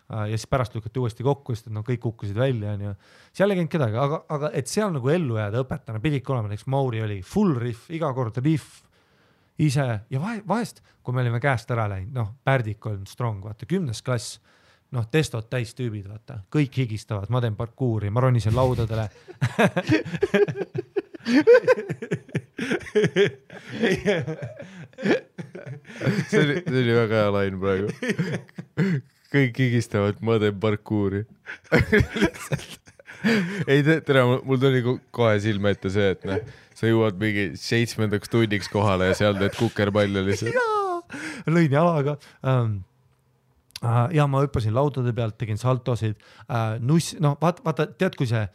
Ja siis pärast lükati uuesti kokku, sest et kõik kukkusid välja, on ju. Seal ei käinud kedagi, aga et seal nagu ellu jääda õpetana pididki olema, näiteks Mauri oli full riff, iga kord riff ise ja vahest, kui me olime käest ära läinud, Pärdik on strong, vaata, 10. klass, testod täis tüübid, vaata, kõik higistavad, ma teen parkuuri, ma ronisin laudadele. see oli väga hea lain praegu. Kõik higistavad, ma teen parkuuri. Ei, tere, mul tuli kohe silme ette see, et sa jõuad mingi 7. tunniks kohale ja seal teed kukerpalli lihtsalt. Jaa, lõin jalaga. Ja ma hüppasin laudade pealt, tegin saltosid. Vaata, tead, kui see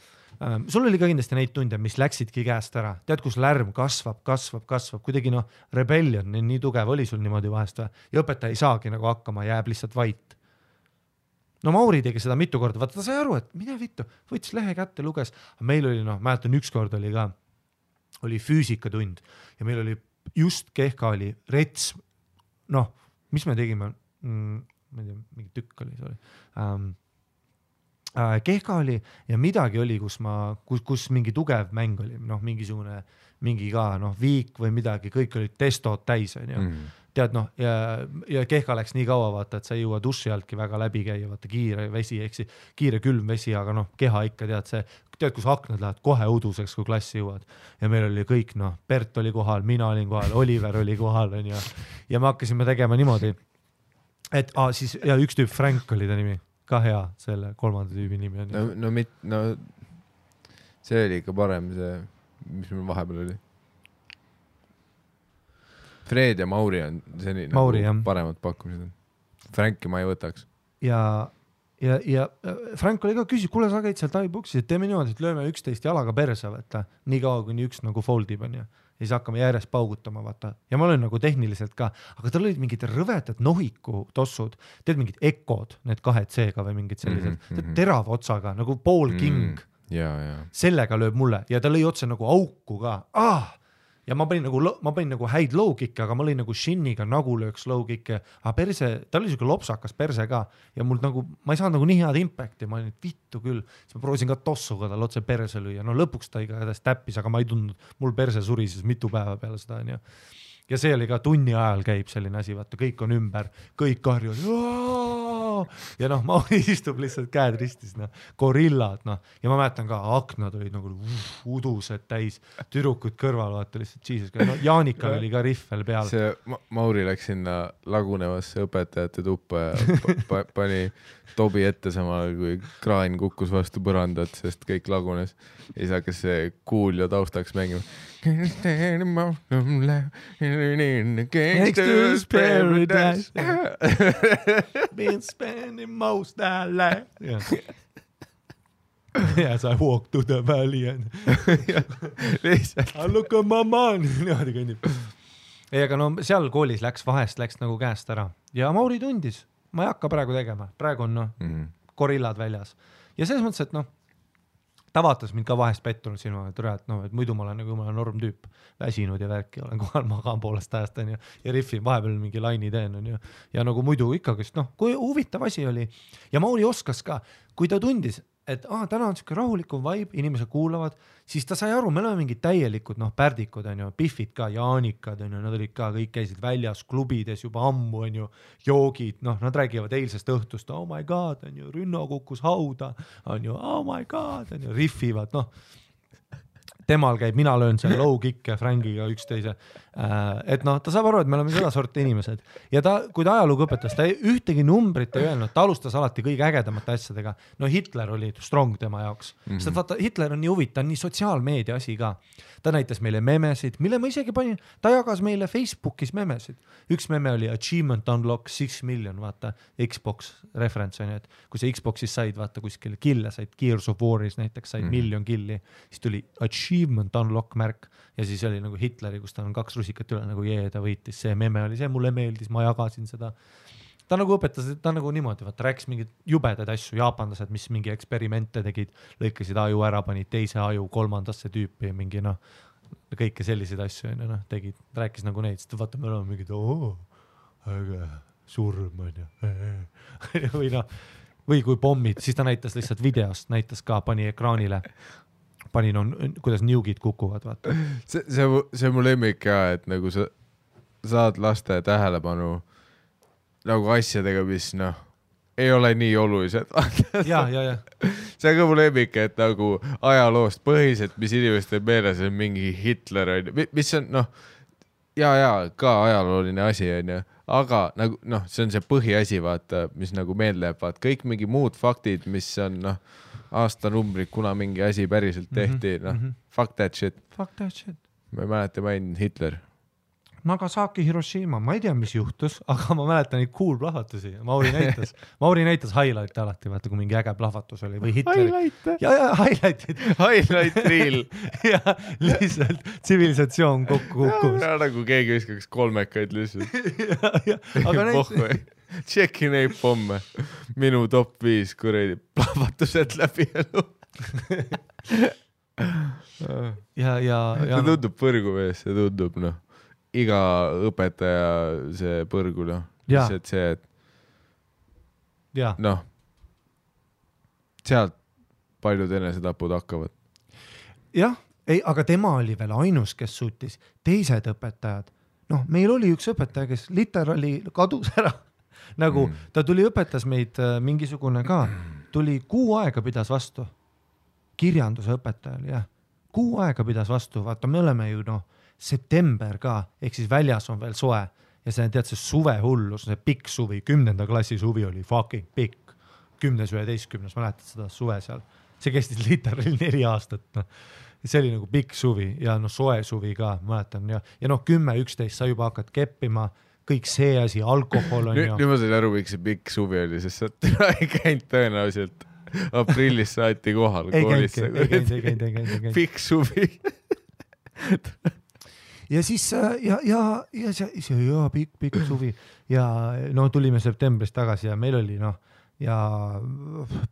sul oli ka kindlasti neid tunde, mis läksidki käest ära, tead, kus lärm kasvab, kuidagi rebellion nii tugev oli sul niimoodi vahest ja õpetaja ei saagi nagu hakkama, jääb lihtsalt vait. No Mauri tegi seda mitu korda, vaata ta sai aru, et mine vittu, võttis lehe kätte, luges, meil oli mäletan ükskord oli füüsikatund ja meil oli just kehka oli rets, mis me tegime, ma ei tea, mingi tükk oli, kehka oli ja midagi oli, kus mingi tugev mäng oli, mingi ka viik või midagi, kõik olid testod täis, tead ja kehka läks nii kaua, vaata, et sa ei jõua duši altki väga läbi käia, vaata kiire vesi, kiire külm vesi, aga keha ikka tead, kus aknad lähevad kohe uduseks, kui klassi jõuad ja meil oli kõik, Bert oli kohal, mina olin kohal, Oliver oli kohal ja me hakkasime tegema niimoodi, et siis ja üks tüüp Frank oli ta nimi, ka hea, selle kolmanda tüübi nimi on. See oli ikka parem see, mis meil vahepeal oli. Fred ja Mauri on see paremad pakkumised. Franki ma ei võtaks. Ja Frank oli ka küsib, kuule sa käid seal taibuksis, et teeme niimoodi, et lööme 11 jalaga perse, vaata, nii kaua kuni üks foldib on ja siis hakkame järjest paugutama, vaata. Ja ma olen tehniliselt ka, aga tal olid mingid rõvetad nohiku tossud, teed mingid ekod, need 2C-ga või mingid sellised, terava otsaga, nagu Paul King. Sellega lööb mulle ja ta lõi otse nagu auku ka. Ja ma panin nagu häid low-kicke, aga ma lõin nagu shinniga nagu lööks low-kicke, aga perse, ta oli siuke lopsakas perse ka ja mul ma ei saanud nagu nii head impacti, ma olin vittu küll, siis ma proovisin ka tossuga tal otse perse lüüa, lõpuks ta igatahes täppis, aga ma ei tundnud, mul perse surises mitu päeva peale seda ja see oli ka tunni ajal käib selline asi, vaata, kõik on ümber, kõik karjud ja Mauri istub lihtsalt käed ristis, gorillad, ja ma mäletan ka, aknad olid nagu udused täis, tüdrukud kõrval, vaata lihtsalt Jesus, Jaanikal oli ka riff veel peal. See Mauri läks sinna lagunevasse õpetajate tuppa ja pani tobi ette samal, kui kraan kukkus vastu põrandat, sest kõik lagunes ja siis hakkas see kuulja taustaks mängima. Gangsters paradise been spending most of life Yes, I walk to the valley and I look at my man niimoodi kõnnib. Aga seal koolis läks nagu käest ära ja Mauri tundis, ma ei hakka praegu tegema, praegu on gorillad väljas ja selles mõttes, et ta vaatas mind ka vahest pettunud silma, et muidu ma olen nagu jumala norm tüüp, väsinud ja värki, olen kohal magaan poolest ajast ja riffin, vahepeal mingi laini teen ja nagu muidu ikkagi, kui huvitav asi oli ja Mauri oskas ka, kui ta tundis, et täna on siuke rahulikum vibe, inimesed kuulavad, siis ta sai aru, me oleme mingid täielikud, pärdikud Biffid ka, Jaanikad nad olid ka, kõik käisid väljas klubides juba ammu joogid, nad räägivad eilsest õhtust, oh my god, Rünno kukkus hauda, oh my god, riffivad, temal käib, mina löön seal low kick'e Frankiga üksteise, et ta saab aru, et me oleme seda sorti inimesed ja kui ta ajalugu õpetas, ta ühtegi numbrit ei öelnud, ta alustas alati kõige ägedamate asjadega, Hitler oli strong tema jaoks, sest vaata, Hitler on nii huvitav, nii sotsiaalmeedia asi ka, ta näitas meile memesid, mille ma isegi panin, ta jagas meile Facebookis memesid, üks meme oli Achievement Unlock 6 million, vaata, Xbox reference et kui sa Xboxis said, vaata, kuskil kille said, Gears of War'is näiteks said miljon killi, siis tuli Achievement Unlock märk ja siis oli nagu Hitleri, kus ta on 2 rusikat üle, nagu ta võitis, see meme oli see, mulle meeldis, ma jagasin seda. Ta nagu õpetas, ta nagu niimoodi, vaata, rääkis mingid jubedaid asju, jaapanlased, mis mingi eksperimente tegid, lõikasid aju ära, panid teise aju kolmandasse tüüpi, mingi kõike selliseid asju tegid, rääkis nagu neid, sest vaata, me oleme mingid, äge, surm või kui pommid, siis ta näitas lihtsalt videost, näitas ka, pani ekraanile, kuidas niugid kukuvad, vaata. See mu lemmik ka, et nagu sa saad laste tähelepanu nagu asjadega, mis ei ole nii olulised. Ja. See on ka mu lemmik, et nagu ajaloost põhiselt, mis inimestel meeles on mingi Hitler, mis on ka ajalooline asi, aga nagu see on see põhiasi, vaata, mis nagu meelde jääb, vaata, kõik mingi muud faktid, mis on aastanumbrid, kuna mingi asi päriselt tehti, fuck that shit. Fuck that shit. Ma ei mäleta, ma olin Hitler. Nagasaki, Hiroshima, ma ei tea, mis juhtus, aga ma mäletan neid cool plahvatusi. Mauri näitas highlight'e alati, vaata kui mingi äge plahvatus oli või Hitleri. Ja highlight'id. Highlight reel. ja lihtsalt tsivilisatsioon kokku kukkus. Nagu keegi viskaks kolmekaid lihtsalt. aga neid... Tšeki neid pomme. Minu top 5 kuradi plahvatused läbi elu. See tundub põrgu vees, see tundub iga õpetaja see põrgu lihtsalt see, et sealt paljud enesetapud hakkavad. Jah, aga tema oli veel ainus, kes suutis. Teised õpetajad, meil oli üks õpetaja, kes literaali kadus ära. Nagu ta tuli õpetas meid mingisugune ka, tuli 6 aega pidas vastu. Kirjanduse õpetajal, jah. 6 aega pidas vastu, vaata me oleme ju september ka, ehk siis väljas on veel soe ja see tead see suve hullus, see pikk suvi, 10. klassi suvi oli fucking pikk, 10-11, mäletad seda suve seal, see kestis literally 4 aastat, see oli nagu pikk suvi ja soe suvi ka, mäletan ja 10-11 sa juba hakkad keppima, kõik see asi, alkohol on nüüd ma sain aru, miks see pikk suvi oli, sest sa ei käinud tõenäoliselt aprillis saati kohal koolisse. Ei käinud. Pikk suvi. Ja siis pikk suvi ja tulime septembris tagasi ja meil oli ja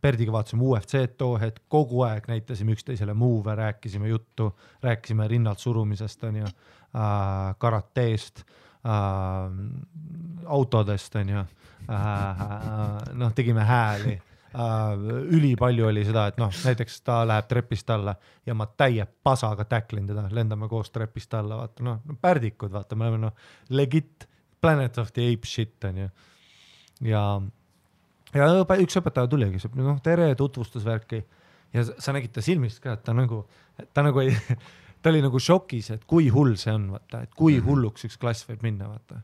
Perdiga vaatasime UFC-d too hetk, kogu aeg näitasime üksteisele moove, rääkisime juttu, rääkisime rinnalt surumisest, karateest, autodest, tegime hääli. Üli palju oli seda, et näiteks ta läheb trepist alla ja ma täie pasaga täklin teda, lendame koos trepist alla, vaata, pärdikud, vaata, me oleme legit Planet of the Apes shit, ja üks õpetaja tuligi, tere, tutvustusvärki ja sa nägid ta silmist ka, et ta oli nagu šokis, et kui hull see on, vaata, et kui hulluks üks klass võib minna, vaata.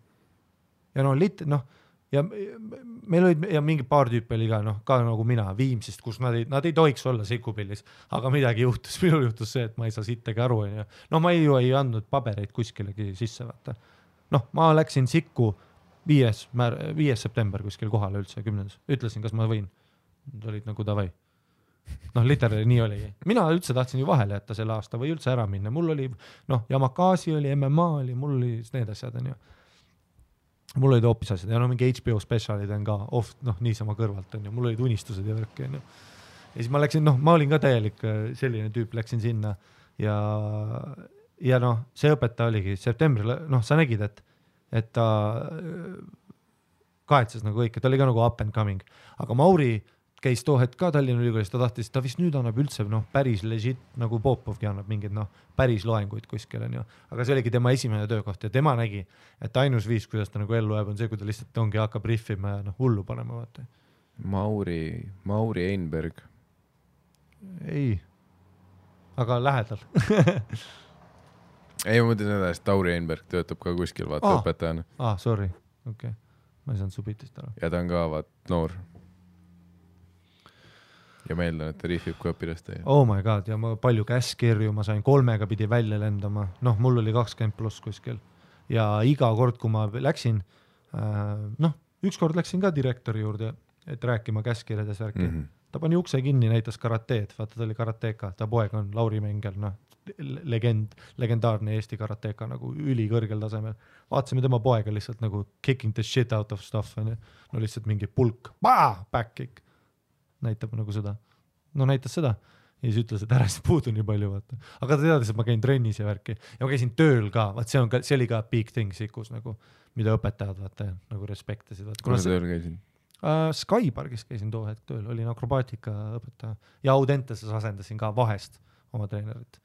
Ja ja meil olid ja mingi paar tüüpi oli ka nagu mina Viimsist, kus nad ei tohiks olla Sikupillis, aga midagi juhtus, minul juhtus see, et ma ei saa sittagi aru, ma ei andnud pabereid kuskilegi sisse, vaata. Ma läksin Sikku 5. september kuskil kohale üldse 10. Ütlesin, kas ma võin. Nad olid nagu davai. Literally nii oli. Mina üldse tahtsin ju vahele jätta selle aasta või üldse ära minna. Mul oli, Yamakasi oli, MMA oli, mul oli need asjad, Mul olid hoopis asjad ja mingi HBO spetsialid on ka niisama kõrvalt, mul olid unistused ja värk, ja siis ma läksin, ma olin ka täielik selline tüüp, läksin sinna ja see õpetaja oligi septembril, sa nägid, et ta kahetses nagu kõik, et ta oli ka nagu up and coming, aga Mauri käis too hetk ka Tallinna Ülikoolis, ta vist nüüd annab üldse päris legit, nagu Popovgi annab mingid päris loenguid kuskil, aga see oligi tema esimene töökoht ja tema nägi, et ainus viis, kuidas ta nagu ellu jääb, on see, kui ta lihtsalt ongi hakkab riffima ja hullu panema, vaata. Mauri Einberg. Ei, aga lähedal. Ei, ma mõtlen seda, et Tauri Einberg töötab ka kuskil, vaata õpetajana. Sorry, okei. Ma ei saanud su bitist ära. Ja ta on ka noor. Ja ma eeldan, et ta riifib kui õpilaste. Oh my god, ja ma palju käskirju, ma sain 3 pidi välja lendama. Mul oli 20+ kuskil. Ja iga kord, kui ma läksin, ükskord läksin ka direktori juurde, et rääkima käskirjades värki. Ta pani ukse kinni, näitas karateed, vaata ta oli karateka, ta poeg on Lauri Mengel, legendaarne Eesti karateka nagu ülikõrgel tasemel. Vaatasime tema poega lihtsalt nagu kicking the shit out of stuff, lihtsalt mingi pulk, back kick. Näitab nagu seda. Näitas seda. Ja siis ütles, et ära siis puudu nii palju, vaata. Aga ta teadis, et ma käin trennis ja värki. Ja ma käisin tööl ka, vaat see oli ka big thing Sikus, nagu, mida õpetajad vaata, nagu respektasid. Kuna tööl käisin? Skypargis käisin too hetk tööl, olin akrobaatika õpetaja. Ja Audenteses asendasin ka vahest oma treenerit.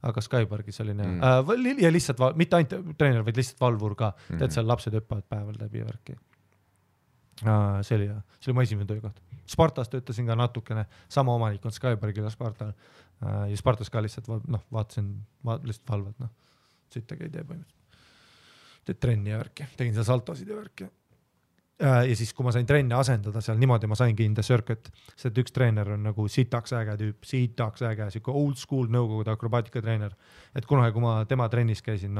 Aga Skypargis olin ja lihtsalt, mitte ainult treener, vaid lihtsalt valvur ka. Tead, seal lapsed õppavad päeval läbi värki. See oli mu esimene töökoht. Spartas töötasin ka natukene, sama omanik on Skybergil ja Spartal ja Spartas ka lihtsalt vaatasin lihtsalt valvad, sittagi ei tee põhimõtteliselt. Teed trenni ja värki, tegin seal saltosid ja värki. Ja siis, kui ma sain trenni asendada seal niimoodi, ma saingi in the circuit, sest üks treener on nagu sitaks äge tüüp, siike old school nõukogude akrobaatika treener, et kunagi, kui ma tema trennis käisin,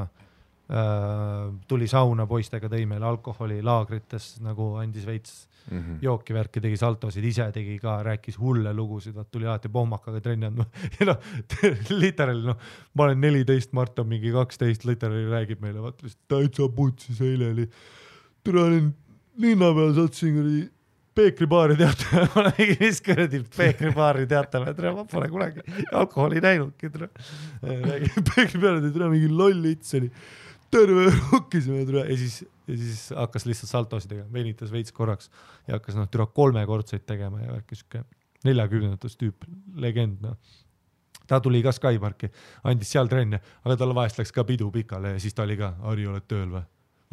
tuli sauna poistega, tõi meile alkoholi laagrites, nagu andis veits jooki värki, tegi saltosid, ise tegi ka, rääkis hulle lugusid, tuli alati pohmakaga trenni andma ja noh, literaali, noh, ma olen 14, Mart on mingi 12, literaali räägib meile, vaata, täitsa putsis eile oli, türa olin linna peal, satsin kuradi peekribaari teatame, ma olen mingi viskuradi peekribaari teatame, ma pole kunagi alkoholi näinudki, peekribaari teatame, mingi loll its oli, terve rokkisime ja siis hakkas lihtsalt saltosi tegema, venitas veits korraks ja hakkas türa 3-kordseid tegema ja värkis 40-ndatus tüüp, legend. Ta tuli ka Skyparki, andis seal trenne, aga tal vahest läks ka pidu pikale ja siis ta oli ka, Harri, oled tööl või?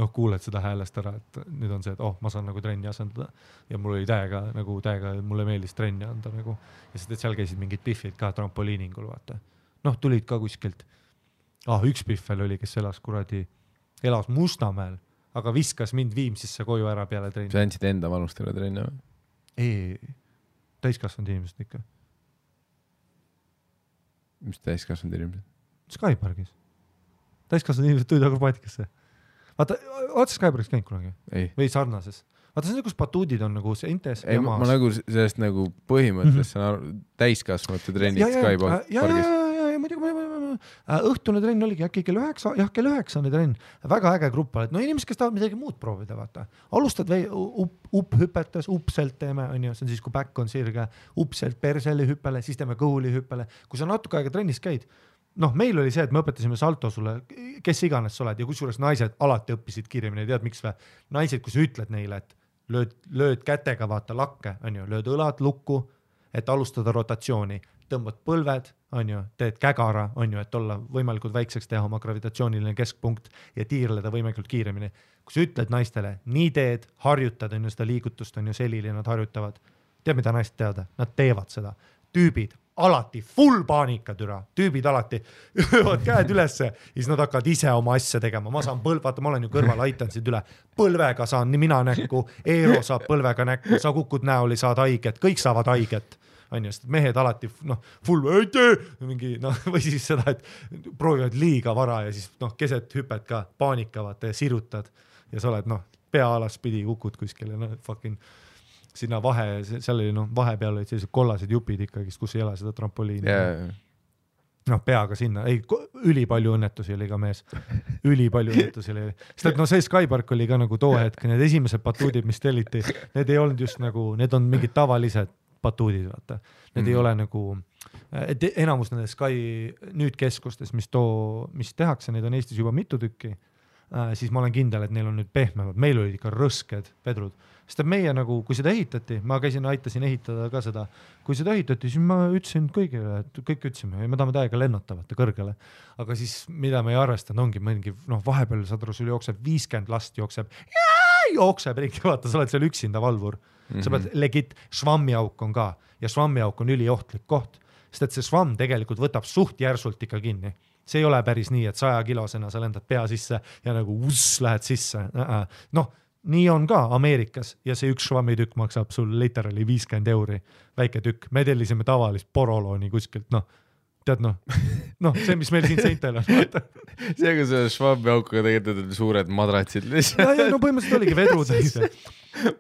Noh, kuuled seda häälest ära, et nüüd on see, et ma saan nagu trenni asendada ja mul oli täiega, mulle meeldis trenni anda nagu ja sest, et seal käisid mingid piffid ka trampoliiningul, vaata. Noh, tulid ka kuskilt. Üks piffel oli, kes elas Mustamäel, aga viskas mind Viimsisse koju ära peale trenni. Sa andsid enda vanustele trenni või? Ei, täiskasvanud inimesed ikka. Mis täiskasvanud inimesed? Skyparkis. Täiskasvanud inimesed tulid akrobaatikasse. Vaata, oled Skyparkis käinud kunagi? Ei. Või sarnases? Vaata, see on kus batuudid on nagu see Intes ja maas. Ma nagu sellest nagu põhimõtteliselt täiskasvanute trennid Skyparkis. Õhtune trenn oligi äkki kell 9, kell 9 trenn, väga äge grupp, et no inimesed, kes tahavad midagi muud proovida, vaata. Alustad hüpetes, upselt teeme, see on siis, kui back on sirge, upselt perseli hüppele, siis teeme kõhuli hüppele. Kui sa natuke aega trennis käid, noh, meil oli see, et me õpetasime salto sulle, kes iganes sa oled ja kusjuures naised alati õppisid kiiremini, tead miks või? Naised, kui sa ütled neile, et lööd kätega, vaata lakke, lööd õlad lukku, et alustada rotatsiooni, tõmbad põlved, teed kägara, et olla võimalikult väikseks teha oma gravitatsiooniline keskpunkt ja tiirleda võimalikult kiiremini. Kui sa ütled naistele, nii teed, harjutad, seda liigutust, selili nad harjutavad. Tead, mida naised teavad? Nad teevad seda. Tüübid alati, full paanika türa, tüübid alati öövad käed ülesse ja siis nad hakkavad ise oma asja tegema. Ma saan vaata, ma olen ju kõrval, aitan sind üle. Põlvega saan nii mina näkku, Eero saab põlvega näkku, sa kukud näoli, saad haiget, kõik saavad haiget. Sest mehed alati full mingi, või siis seda, et proovivad liiga vara ja siis keset hüpet ka paanikavad ja sirutad ja sa oled pea alas pidi kukud kuskile fucking sinna seal oli vahepeal olid sellised kollased jupid ikkagi, kus ei ole seda trampoliini peaga sinna, ülipalju õnnetusi oli ka mees, ülipalju õnnetusi oli, sest et see Skypark oli ka nagu too hetk, need esimesed batuudid, mis telliti, need ei olnud just nagu, need on mingid tavalised batuudid, vaata. Need ei ole nagu, et enamus nende Sky nüüd keskustes, mis tehakse, neid on Eestis juba mitu tükki, siis ma olen kindel, et neil on nüüd pehmemad, meil olid ikka rõsked vedrud. Sest meie nagu, kui seda ehitati, ma aitasin ehitada ka seda, kui seda ehitati, siis ma ütlesin kõigile, et kõik ütlesime, me tahame täiega lennutavate kõrgele, aga siis mida me ei arvestanud, ongi mingi, vahepeal sadru sul jookseb 50 last jookseb ringi, vaata, sa oled seal üksinda valvur. Sa pead legit, švammiauk on ka ja švammiauk on üliohtlik koht, sest et see švamm tegelikult võtab suht järsult ikka kinni. See ei ole päris nii, et 100 kilosena sa lendad pea sisse ja nagu lähed sisse. Nii on ka Ameerikas ja see üks švammitükk maksab sul literally 50 €, väike tükk. Me tellisime tavalist porolooni kuskilt, tead see, mis meil siin seintel on. See, kui see švammiaukuga tegelikult suured madratsid lihtsalt. Ja, põhimõtteliselt oligi vedrud.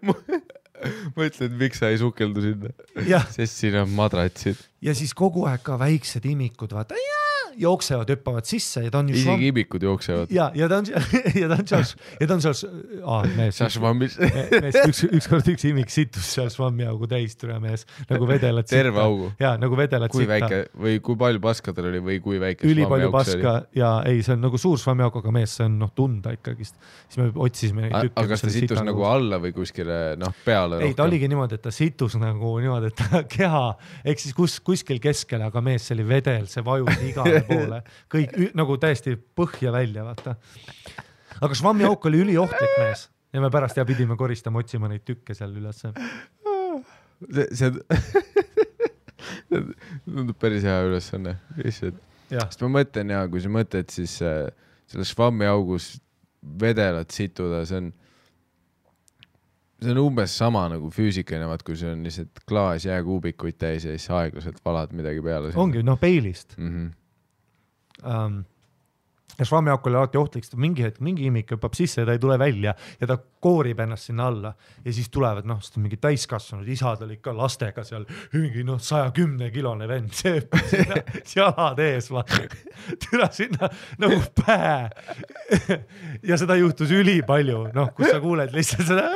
Ma ütlen, et miks sa ei sukeldu sinna, sest siin on madratsid. Ja siis kogu aeg ka väiksed imikud, vaata, jooksevad, hüppavad sisse ja ta on isegi imikud jooksevad. Ja ta on seal mees, ükskord üks imik situs seal švammiaugu täis türa mees, nagu vedelad sitta. Terve augu? Ja, nagu vedelad kui sitta. Väike, või kui palju paska tal oli või kui väike švammiauk see oli? Üli palju paska ja ei, see on nagu suur švammiauk, aga mees, see on tunda ikkagist. Siis me otsisime neid tükke. Aga kas ta situs nagu alla või kuskile peale rohkem? Ei, ta oligi niimoodi, et ta situs nagu niimoodi, et ta keha, ehk siis kuskil keskele, aga mees, see oli vedel, see vajus igale poole, kõik nagu täiesti põhja välja, vaata. Aga švammiauk oli üliohtlik mees ja me pärast pidime koristama, otsima neid tükke seal üles. See tundub päris hea ülesanne. Sest ma mõtlen kui sa mõtled, siis selle švammiaugus vedelat situda, see on umbes sama nagu füüsikaline, kui see on lihtsalt klaas jääkuubikuid täis ja siis aeglaselt valad midagi peale. Ongi, peilist. ja švammiauk oli alati ohtlik, sest mingi hetk mingi imik hüppab sisse ja ta ei tule välja ja ta koorib ennast sinna alla ja siis tulevad, sest mingi täiskasvanud isad olid ka lastega seal, mingi 110-kilone vend, see hüppab sinna jalad ees, türa sinna nagu pähe ja seda juhtus ülipalju, kus sa kuuled lihtsalt seda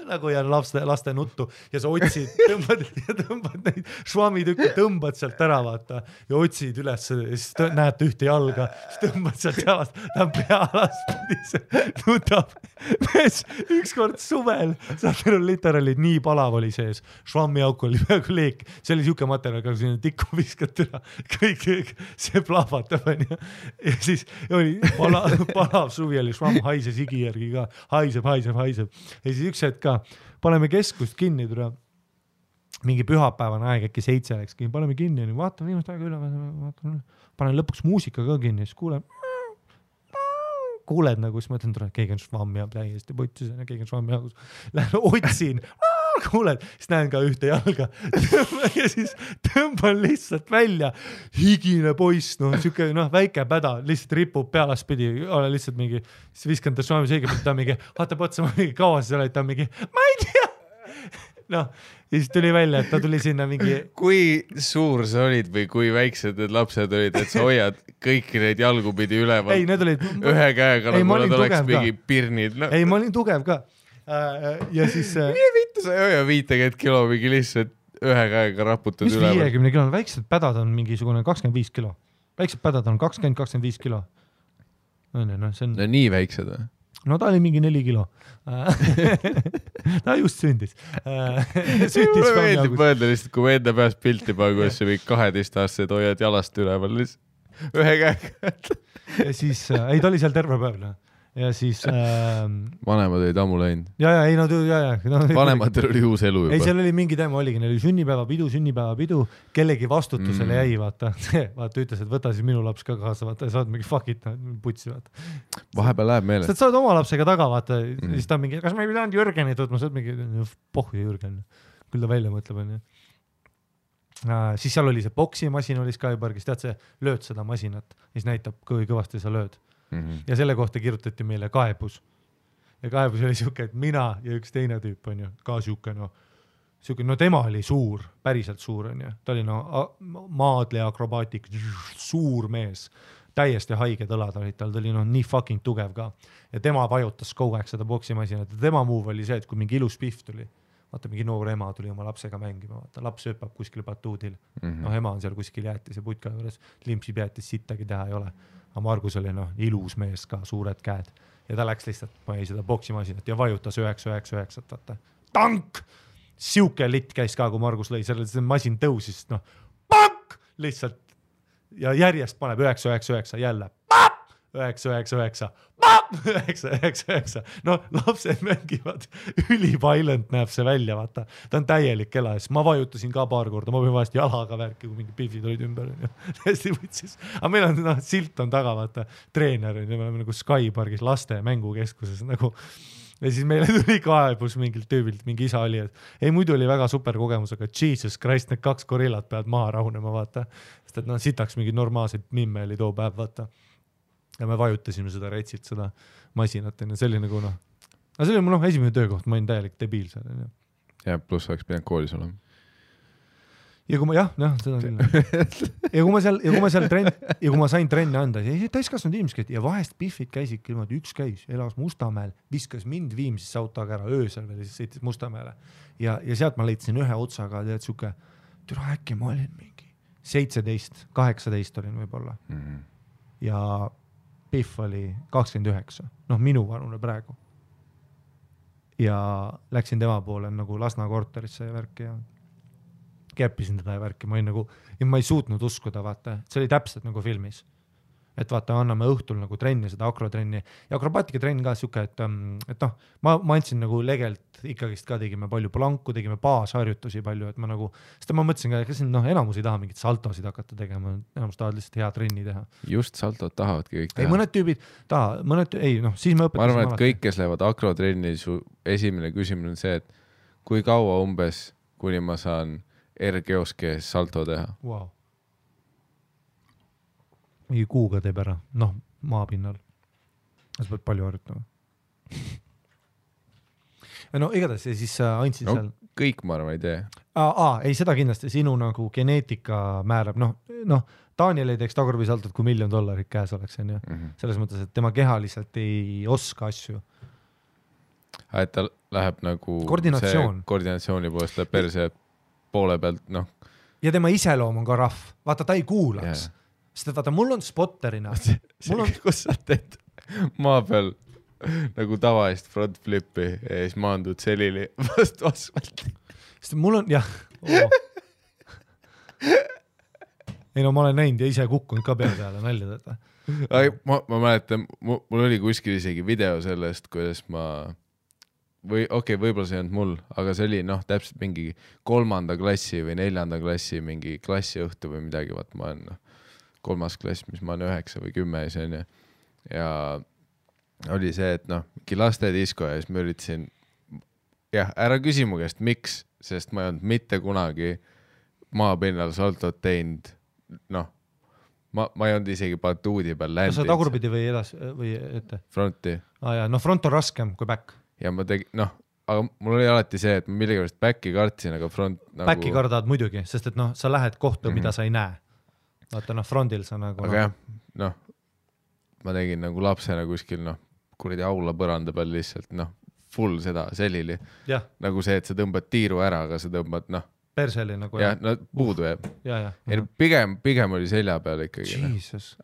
nagu ja laste nuttu ja sa otsid, tõmbad neid švammitükki, tõmbad sealt ära, vaata, ja otsid üles ja siis näed ühte jalga, siis tõmbad sealt jalast, ta on pealaspidis, nutab. Ükskord suvel, saad aru, literaalid nii palav oli sees, švammiauk oli peaaegu leek, see oli siuke materjal, kui sinna tikku viskad üle, kõik see plahvatab, ja siis oli palav suvi oli, švamm haises higi järgi ka, haiseb. Ja siis üks hetk ka paneme keskust kinni, mingi pühapäevane aeg, äkki 7 läks kinni, paneme kinni, vaatame viimast aega üle, panen lõpuks muusika ka kinni, siis kuuled nagu, siis mõtlen, keegi on švammi ja täiesti putsis, keegi on švammi jagus, lähen otsin, kuuled, siis näen ka ühte jalga ja siis tõmban lihtsalt välja, higine poiss, siuke väike päda, lihtsalt ripub pealaspidi, ole lihtsalt mingi, siis viskan ta švammi seegi, ta mingi, vaatab otsa, ma mingi kaua sa oled, ta mingi, ma ei tea. Ja siis tuli välja, et ta tuli sinna mingi... Kui suur sa olid või kui väiksed need lapsed olid, et sa hoiad kõiki neid jalgupidi üleval? Ei, need olid... Ühe käega, nagu nad oleks mingi pirnid. Ei, ma olin tugev ka. Ja siis... Mine vittu, sa ei hoia 50 kilo mingi lihtsalt ühe käega raputad üleval. Mis 50 kilo? Väiksed pädad on mingisugune 25 kilo. Väiksed pädad on 20-25 kilo. See on... No nii väiksed või? No ta oli mingi 4 kilo. Ta just sündis. Mulle meeldib mõelda lihtsalt, kui me enda peast pilti panen, kuidas sa mingi 12-aastased hoiad jalast üleval lihtsalt ühe käega. Ja siis, ei ta oli seal terve päev. Ja siis... Vanemad olid ammu läinud. Vanematel oli uus elu juba. Ei, seal oli mingi teema, oligi, neil oli sünnipäevapidu, kellegi vastutusele jäi, vaata, ütles, et võta siis minu laps ka kaasa, vaata, saad mingi fuck it, putsi, vaata. Vahepeal läheb meele. Sa saad oma lapsega taga, vaata, siis ta mingi, kas ma ei pidanud Jürgeni tutma, saad mingi, pohhu Jürgen, küll ta välja mõtleb, on ju. Siis seal oli see boksimasin oli Skypargis, tead see, lööd seda masinat, siis näitab, kui kõvasti sa lööd. Ja selle kohta kirjutati meile kaebus. Ja kaebus oli siuke, et mina ja üks teine tüüp on ju, ka siuke, tema oli suur, päriselt suur on ju. Ta oli maadle akrobaatik, suur mees, täiesti haiged õlad olid tal, ta oli nii fucking tugev ka. Ja tema vajutas kogu aeg seda boksimasinat ja tema move oli see, et kui mingi ilus pihv tuli, vaata mingi noor ema tuli oma lapsega mängima, vaata laps hüppab kuskil batuudil, ema on seal kuskil jäätis ja putka juures, limpsib jäätis, sittagi teha ei ole. Aga Margus oli ilus mees ka, suured käed ja ta läks lihtsalt, ma ei seda boksimasinat ja vajutas 999, vaata. Tank! Siuke litt käis ka, kui Margus lõi, see masin tõusis, pank! Lihtsalt ja järjest paneb 999 jälle. 999, 999. Lapsed mängivad, üliviolent näeb see välja, vaata. Ta on täielik ela, siis ma vajutasin ka paar korda, ma võin vahest jalaga värki, kui mingi pihvid olid ümber. Hästi võtsis. Aga meil on silt on taga, vaata, treener, me oleme nagu Skypargis laste mängukeskuses nagu. Ja siis meile tuli kaebus mingilt tüübilt, mingi isa oli, et ei, muidu oli väga super kogemus, aga Jesus Christ, need 2 gorillat peavad maha rahunema, vaata. Sest et sitaks mingi normaalseid mimme oli too päev, vaata. Ja me vajutasime seda retsilt, seda masinat, ja see oli nagu aga see oli mu esimene töökoht, ma olin täielik debiil seal. Ja pluss oleks pidanud koolis olema. Ja kui ma, seda küll. Ja kui ma sain trenni anda, siis täiskasvanud inimesed ja vahest Biffid käisid küll, üks käis, elas Mustamäel, viskas mind Viimsisse autoga ära öösel veel, siis sõitis Mustamäele. Ja sealt ma leidsin ühe otsaga, tead siuke, türa äkki ma olin mingi 17, 18 olin võib-olla. Ja Biff oli 29, minu vanune praegu. Ja läksin tema poole nagu Lasna korterisse ja värki ja käppisin teda ja värki. Ma ei suutnud uskuda, vaata, see oli täpselt nagu filmis. Et vaata, anname õhtul nagu trenni, seda akrotrenni ja akrobaatika trenn ka siuke, et ma andsin nagu legelt ikkagist ka tegime palju planku, tegime baasharjutusi palju, et ma nagu, sest ma mõtlesin ka, kas enamus ei taha mingit saltosid hakata tegema, enamus tahavad lihtsalt hea trenni teha. Just saltot tahavadki kõik teha. Ei, mõned tüübid siis me õpetasin. Ma arvan, et kõik, kes lähevad akrotrenni, su esimene küsimus on see, et kui kaua umbes, kuni ma saan R-geoskees salto teha? Wow. Mingi kuuga teeb ära. maapinnal. Sa pead palju harjutama. No igatahes ja siis andsid seal. Kõik ma arvan ei tee. Ei, seda kindlasti, sinu nagu geneetika määrab, Daniel ei teeks tagurpisaltot, kui $1 000 000 käes oleks, on ju. Selles mõttes, et tema keha lihtsalt ei oska asju. Et ta läheb nagu koordinatsiooni poolest läheb perse poole pealt, Ja tema iseloom on ka rahv. Vaata, ta ei kuulaks. Sest et vaata, mul on spotterina. Kus sa teed maa peal nagu tavalist front flippi ja siis maandud selili vastu asfalti. Sest mul on, jah. Ei ma olen näinud ja ise kukkunud ka peale nalja teda. Ma mäletan, mul oli kuskil isegi video sellest, kuidas võib-olla see ei olnud mul, aga see oli täpselt mingi 3. klassi või 4. klassi mingi klassiõhtu või midagi, vaat ma olen 3. klass, mis ma olen 9 või 10 see on ja oli see, et mingi lastedisko ja siis ma üritasin ära küsi mu käest, miks, sest ma ei olnud mitte kunagi maapinnal saltot teinud, ma ei olnud isegi batuudi peal ländid. Sa tagurpidi või edas või ette? Fronti. Front on raskem kui back. Ja ma tegin, aga mul oli alati see, et ma millegipärast backi kartsin, aga front nagu... Backi kardad muidugi, sest et sa lähed kohta, mida sa ei näe. Vaata, frontil sa nagu... Aga ma tegin nagu lapsena kuskil, kuradi aula põranda peal lihtsalt, full seda selili. Nagu see, et sa tõmbad tiiru ära, aga sa tõmbad, perseli nagu. Puudu jääb. Pigem oli selja peal ikkagi.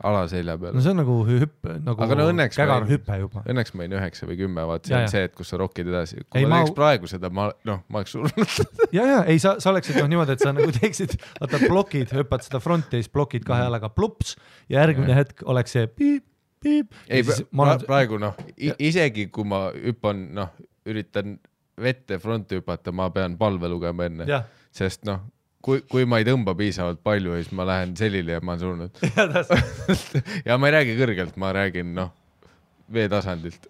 Ala selja peal. No see on nagu hüppe, nagu kägar hüppe juba. Õnneks ma olin 9 või 10, vaat see on see, et kus sa rokid edasi. Kui ma teeks praegu seda, ma oleks surnud. Ei, sa oleksid niimoodi, et sa nagu teeksid, vaata blokid, hüppad seda fronti ja siis blokid 2 jalaga plups ja järgmine hetk oleks see piip. Ei, praegu isegi kui ma hüppan, üritan vette fronti hüpata, ma pean palve lugema enne. Sest kui ma ei tõmba piisavalt palju, siis ma lähen selili ja ma olen surnud. Ja ma ei räägi kõrgelt, ma räägin veetasandilt.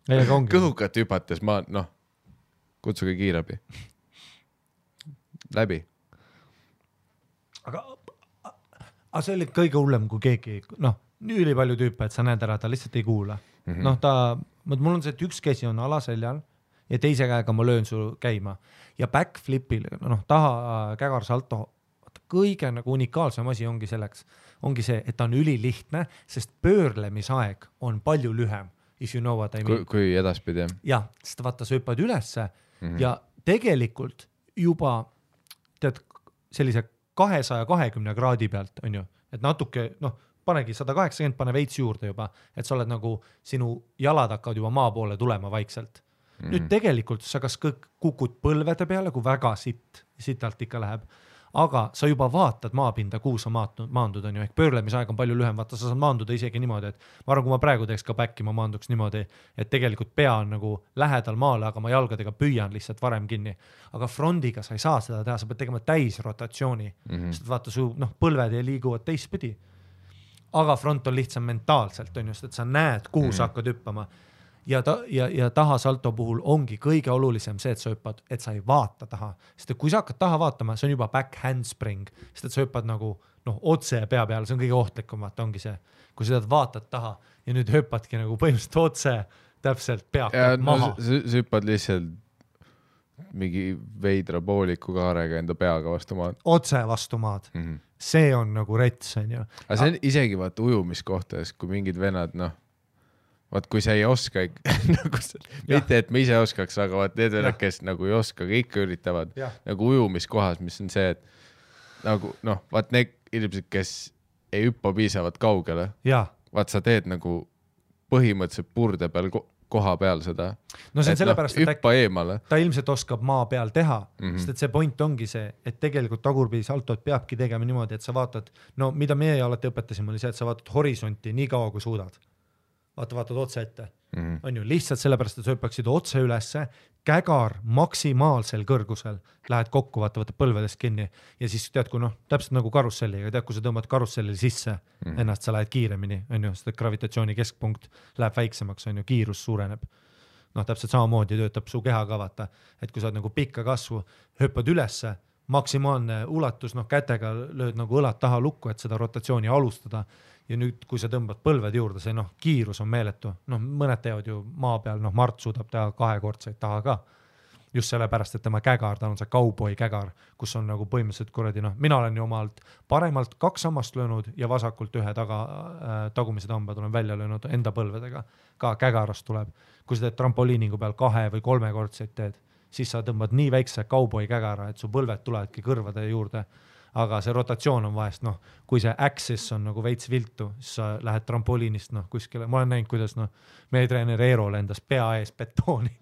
Kõhukat hüpates ma, kutsuge kiirabi. Läbi. Aga see oli kõige hullem, kui keegi, nii palju tüüpe, et sa näed ära, ta lihtsalt ei kuula. Mul on see, et üks käsi on alaseljal ja teise käega ma löön su käima ja backflipil, taha kägar salto, kõige nagu unikaalsem asi ongi selleks, ongi see, et ta on ülilihtne, sest pöörlemisaeg on palju lühem, if you know what I mean. Kui edaspidi. Jah, sest vaata, sa hüppad ülesse ja tegelikult juba tead sellise 220 kraadi pealt, on ju, et natuke, panegi 180, pane veits juurde juba, et sa oled nagu, sinu jalad hakkavad juba maa poole tulema vaikselt. Nüüd tegelikult sa kas kukud põlvede peale, kui väga sitalt ikka läheb, aga sa juba vaatad maapinda, kuhu sa maandud, on ju, ehk pöörlemisaeg on palju lühem, vaata, sa saad maanduda isegi niimoodi, et ma arvan, kui ma praegu teeks ka backi, ma maanduks niimoodi, et tegelikult pea on nagu lähedal maale, aga ma jalgadega püüan lihtsalt varem kinni. Aga frondiga sa ei saa seda teha, sa pead tegema täisrotatsiooni, sest vaata, su põlved ei liiguvad teistpidi. Aga front on lihtsam mentaalselt, on just, et sa näed, kuhu sa hakkad hüppama. Ja taha salto puhul ongi kõige olulisem see, et sa hüppad, et sa ei vaata taha. Sest et kui sa hakkad taha vaatama, see on juba back handspring, sest et sa hüppad nagu otse pea peale, see on kõige ohtlikum, vaata ongi see, kui sa vaatad taha ja nüüd hüppadki nagu põhimõtteliselt otse täpselt peakad maha. Sa hüppad lihtsalt mingi veidra pooliku kaarega enda peaga vastu maad. Otse vastu maad. See on nagu rets, on ju. Aga see on isegi vaata ujumiskohtades, kui mingid venad, vaat kui sa ei oska mitte, et ma ise oskaks, aga vaat need venad, kes nagu ei oska, kõik üritavad nagu ujumiskohas, mis on see, et nagu vaat need inimesed, kes ei hüppa piisavalt kaugele, vaat sa teed nagu põhimõtteliselt purde peal koha peal seda, et hüppa eemale. Ta ilmselt oskab maa peal teha, sest et see point ongi see, et tegelikult tagurpidi saltot peabki tegema niimoodi, et sa vaatad, mida meie alati õpetasime, oli see, et sa vaatad horisonti nii kaua, kui suudad. Vaatad otse ette. On ju, lihtsalt sellepärast, et sa hüppaksid otse ülesse, kägar maksimaalsel kõrgusel, lähed kokku, vaatavad põlvedest kinni ja siis tead, kui täpselt nagu karusselliga, tead, kui sa tõmbad karussellil sisse, ennast sa lähed kiiremini, on ju, sest gravitatsiooni keskpunkt läheb väiksemaks, on ju, kiirus suureneb. Täpselt samamoodi töötab su keha ka, vaata, et kui sa oled nagu pikka kasvu, hüppad ülesse, maksimaalne ulatus, noh kätega lööd nagu õlad taha lukku, et seda rotatsiooni alustada ja nüüd, kui sa tõmbad põlved juurde, see noh, kiirus on meeletu, noh mõned teevad ju maa peal, noh Mart suudab teha 2-kordseid taha ka, just sellepärast, et tema kägar, ta on see cowboy kägar, kus on nagu põhimõtteliselt kuradi, noh, mina olen ju omalt paremalt 2 sammast löönud ja vasakult 1 tagumised hambad olen välja löönud enda põlvedega, ka kägarast tuleb, kui sa teed trampoliiningu peal 2 või 3-kordseid teed, siis sa tõmbad nii väikse cowboy kägara, et su põlved tulevadki kõrvade juurde, aga see rotatsioon on vahest, noh, kui see axis on nagu veits viltu, siis sa lähed trampoliinist, noh, kuskile, ma olen näinud, kuidas, noh, meie treener Eero lendas pea ees betooni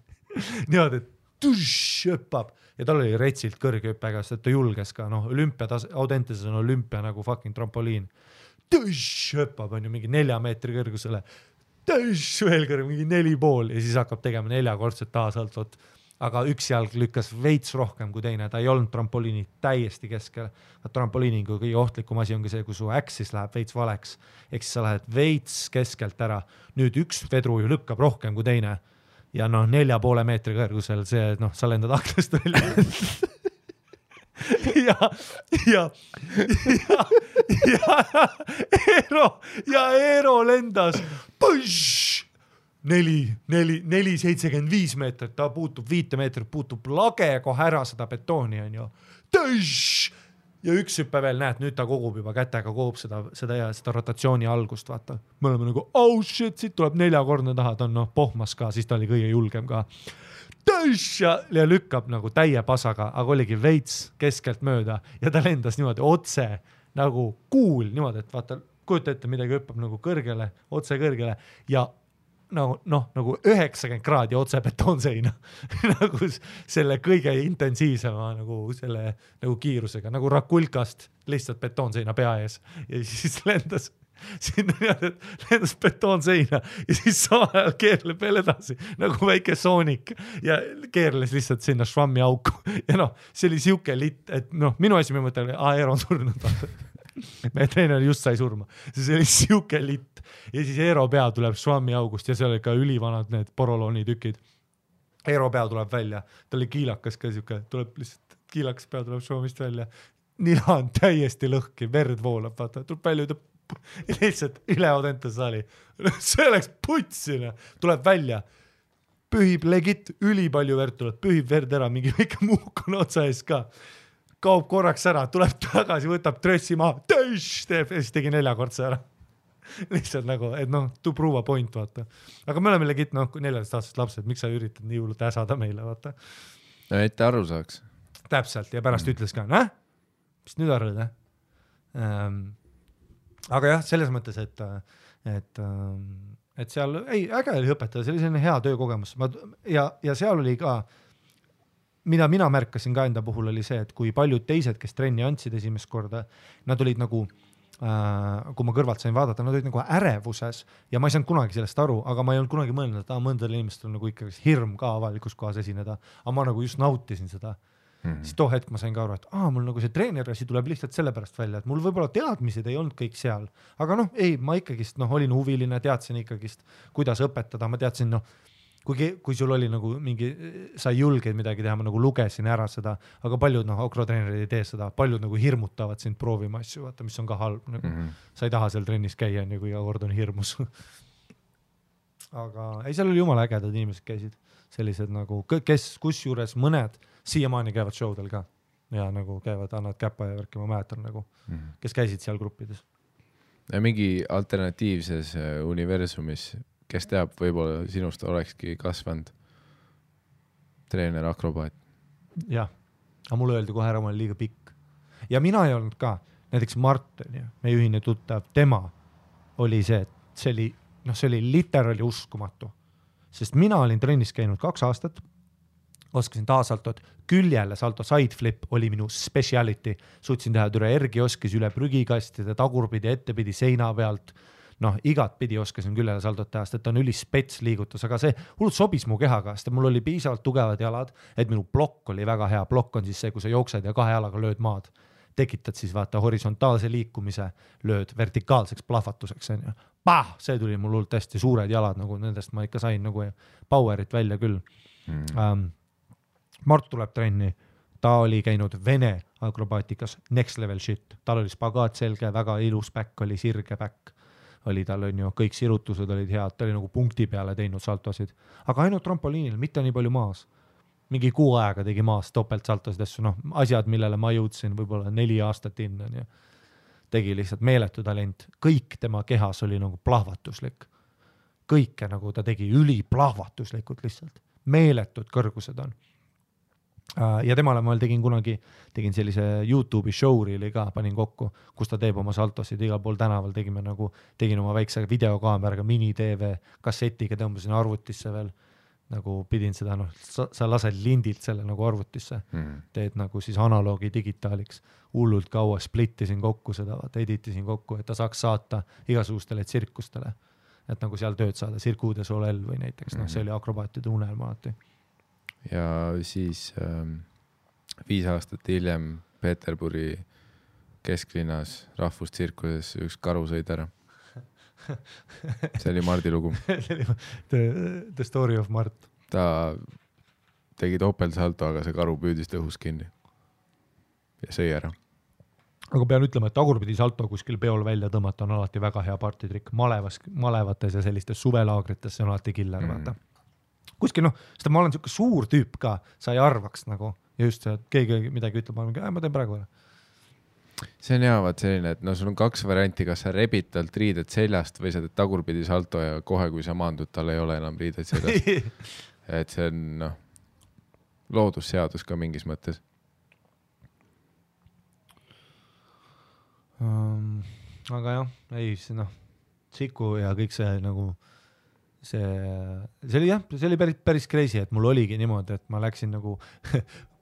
niimoodi, et hüppab ja tal oli retsilt kõrge hüppega, sest ta julges ka, noh, Audenteses on olümpia nagu fucking trampoliin. Hüppab, on ju mingi 4 meetri kõrgusele, veel kõrge, mingi 4,5 ja siis hakkab tegema 4-kordset taasaltot. Aga üks jalg lükkas veits rohkem kui teine, ta ei olnud trampoliini täiesti keskel. Trampoliiningu kõige ohtlikum asi ongi see, kui su axis läheb veits valeks, ehk siis sa lähed veits keskelt ära. Nüüd üks vedru ju lükkab rohkem kui teine. Ja noh, 4,5 meetri kõrgusel see, noh, sa lendad aknast välja. Eero lendas 4,75 meetrit, ta puutub 5 meetrit, puutub lage kohe ära seda betooni, on ju. Ja üks hüppe veel, näed, nüüd ta kogub juba kätega, kogub seda rotatsiooni algust, vaata. Me oleme nagu, oh shit, siit tuleb 4-kordne taha, ta on noh, pohmas ka, siis ta oli kõige julgem ka. Ja lükkab nagu täie pasaga, aga oligi veits keskelt mööda ja ta lendas niimoodi otse nagu kuul, niimoodi, et vaata, kujuta ette, midagi hüppab nagu kõrgele, otse kõrgele ja nagu 90 kraadi otse betoonseina nagu selle kõige intensiivsema nagu selle nagu kiirusega, nagu Rakulkast lihtsalt betoonseina pea ees ja siis lendas sinna lendas betoonseina ja siis samal keerleb veel edasi nagu väike Sonic ja keerles lihtsalt sinna švammi auku ja noh, see oli siuke litt, et noh, minu esimene mõte oli, Eero on surnud meie treener just sai surma, see oli siuke litt ja siis Eero pea tuleb švammi august ja seal oli ka ülivanad need porolooni tükid. Eero pea tuleb välja, ta oli kiilakas ka siuke, tuleb lihtsalt kiilakas pea tuleb švamist välja, nina on täiesti lõhki, verd voolab, vaata, tuleb välja ja lihtsalt üle Audentes saali, see oleks putsina, tuleb välja, pühib legit, ülipalju verd tuleb, pühib verd ära, mingi väike muuk on otsa ees ka. Kaob korraks ära, tuleb tagasi, võtab trössi maha, teeb ja siis tegi 4-kordse ära. Lihtsalt nagu, et noh, to prove a point, vaata. Aga me oleme legit, noh, 14-aastased lapsed, miks sa üritad nii hullult äsada meile, vaata. No, et aru saaks. Täpselt, ja pärast ütles ka, mis nüüd arvad, Aga jah, selles mõttes, et seal, äge oli õpetada, see oli selline hea töökogemus. Ja seal oli ka mida mina märkasin ka enda puhul oli see, et kui paljud teised, kes trenni andsid esimest korda, nad olid nagu, kui ma kõrvalt sain vaadata, nad olid nagu ärevuses ja ma ei saanud kunagi sellest aru, aga ma ei olnud kunagi mõelnud, et mõndal inimestel on nagu ikkagi hirm ka avalikus kohas esineda, aga ma nagu just nautisin seda. Siis too hetk ma sain ka aru, et mul nagu see treenerasi tuleb lihtsalt sellepärast välja, et mul võib-olla teadmised ei olnud kõik seal, aga noh, ei, ma ikkagist olin huviline, teadsin ikkagist, kuidas õpetada, ma teadsin, kui sul oli nagu mingi, sa julgeid midagi teha, ma nagu lugesin ära seda, aga paljud akrotreenerid ei tee seda, paljud nagu hirmutavad sind proovima asju, vaata, mis on ka halb, nagu sa ei taha seal trennis käia, kui iga kord on hirmus. Aga ei, seal oli jumala ägedad inimesed käisid, sellised nagu, kus juures mõned siiamaani käivad showdel ka ja nagu käivad, annavad käpa ja värki, ma mäletan nagu, kes käisid seal gruppides. Ja mingi alternatiivses universumis, kes teab, võib-olla sinust olekski kasvanud treener akrobaat. Jah, aga mulle öeldi kohe ära, ma olen liiga pikk. Ja mina ei olnud ka, näiteks Martin, meie ühine tuttav, tema oli see, et see oli literaali uskumatu. Sest mina olin trennis käinud 2 aastat, oskasin taasaltot, küljele salto sideflip oli minu speciality, suutsin teha türa ergioskis üle prügikastide, tagurpidi, ettepidi, seina pealt, igat pidi oskasin küljele saldot teha, sest et on ülispets liigutus, aga see hullult sobis mu kehaga, sest mul oli piisavalt tugevad jalad, et minu blokk oli väga hea, blokk on siis see, kui sa jooksed ja 2 jalaga lööd maad, tekitad siis vaata horisontaalse liikumise, lööd vertikaalseks plahvatuseks, see tuli mul hullult hästi suured jalad, nagu nendest ma ikka sain nagu powerit välja küll. Mart tuleb trenni, ta oli käinud Vene akrobaatikas, next level shit, tal oli spagaat selge, väga ilus back, oli sirge back, oli tal on ju, kõik sirutused olid head, ta oli nagu punkti peale teinud saltosid, aga ainult trampoliinil, mitte nii palju maas. Mingi 6 aega tegi maas topelt saltosid asju, noh, asjad, millele ma jõudsin võib-olla 4 aastat inna, nii. Tegi lihtsalt meeletu talent, kõik tema kehas oli nagu plahvatuslik. Kõike nagu ta tegi üliplahvatuslikult lihtsalt, meeletud kõrgused on. Ja temale ma tegin sellise YouTube'i showreeli ka, panin kokku, kus ta teeb oma saltosid igal pool tänaval, tegin oma väikse videokaameraga mini-TV kassetiga, tõmbasin arvutisse veel, nagu pidin seda, noh, sa lased lindilt selle nagu arvutisse, teed nagu siis analoogi digitaaliks, hullult kaua splittisin kokku seda, editisin kokku, et ta saaks saata igasugustele tsirkustele, et nagu seal tööd saada, Cirque du Soleil või näiteks, noh, see oli akrobaatide unelma alati. Ja siis 5 aastat hiljem Peterburi kesklinnas rahvustsirkuses üks karu sõid ära. See oli Mardi lugu. The story of Mart. Ta tegi topelsalto, aga see karu püüdis õhus kinni ja sõi ära. Aga pean ütlema, et tagurpidi salto kuskil peol välja tõmmata on alati väga hea partitrikk. Malevates ja sellistes suvelaagrites see on alati killer, vaata. Kuskil, noh, seda ma olen siuke suur tüüp ka, sa ei arvaks nagu, ja just see, et keegi midagi ütleb, ma teen praegu ära. See on hea, vaat selline, et no sul on 2 varianti, kas sa rebid talt riided seljast või sa teed tagurpidi salto ja kohe, kui sa maandud, tal ei ole enam riided seljast. Et see on, noh, loodusseadus ka mingis mõttes. Aga jah, ei, see noh, Siku ja kõik see nagu, see oli päris crazy, et mul oligi niimoodi, et ma läksin nagu,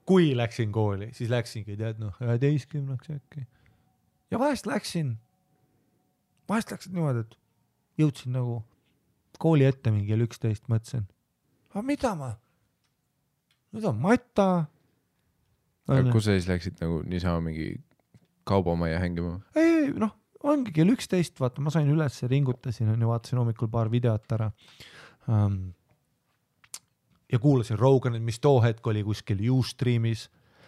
kui läksin kooli, siis läksingi, tead, noh, 11-ks äkki. Ja vahest läksin niimoodi, et jõudsin nagu kooli ette mingi 11, mõtlesin, aga mida ma? Nüüd on Mata. Kus sa siis läksid nagu niisama mingi kaubamaja hängima? Ei, noh, ongi kell 11, vaata, ma sain üles ja ringutasin, ja vaatasin hommikul paar videot ära. Ja kuulasin Roganit, mis too hetk oli kuskil Ustreamis,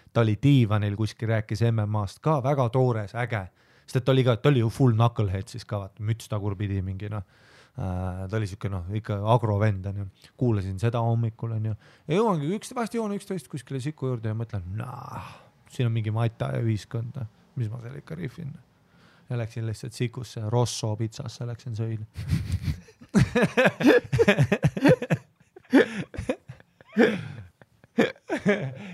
ta oli diivanil kuskil, rääkis MMA-st ka, väga toores, äge, sest ta oli ju full knucklehead siis ka, vaata, müts tagurpidi mingi, noh, ta oli siuke, noh, ikka agrovend, on ju, kuulasin seda hommikul, on ju, ja jõuangi vahest jõuan 11 kuskile Siku juurde ja mõtlen, siin on mingi Mata ja ühiskond, mis ma seal ikka riffin. Ja läksin lihtsalt Sikusse, Rosso pitsasse läksin sõil.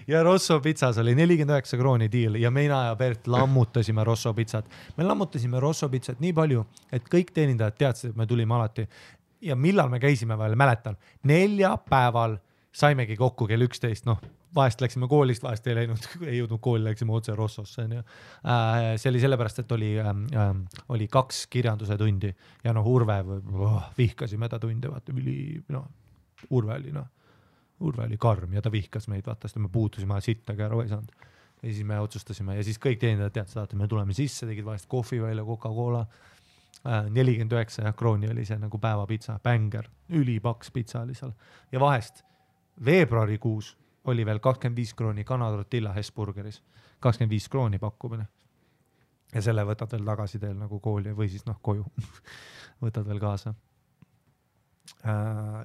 Ja Rosso pitsas oli 49 krooni diil ja mina ja Bert lammutasime Rosso pitsat. Me lammutasime Rosso pitsat nii palju, et kõik teenindajad teadsid, et me tulime alati. Ja millal me käisime veel, mäletan, 4 päeval saimegi kokku kell 11, noh, vahest läksime koolist, vahest ei jõudnud kooli, läksime otse Rossosse. See oli sellepärast, et oli 2 kirjanduse tundi ja noh, Urve vihkasime ta tunde, vaata, Urve oli karm ja ta vihkas meid, vaata, sest me puutusime sittagi ära, ei saanud. Ja siis me otsustasime ja siis kõik teenindajad teadsid, et me tuleme sisse, tegid vahest kohvi välja, Coca-Cola, 49 krooni oli see nagu päevapitsa, bänger, ülipaks pitsa oli seal. Ja vahest veebruarikuus oli veel 25 krooni Canada-Tortilla Hesburgeris, 25 krooni pakkumine. Ja selle võtad veel tagasi teel nagu kooli või siis noh koju, võtad veel kaasa.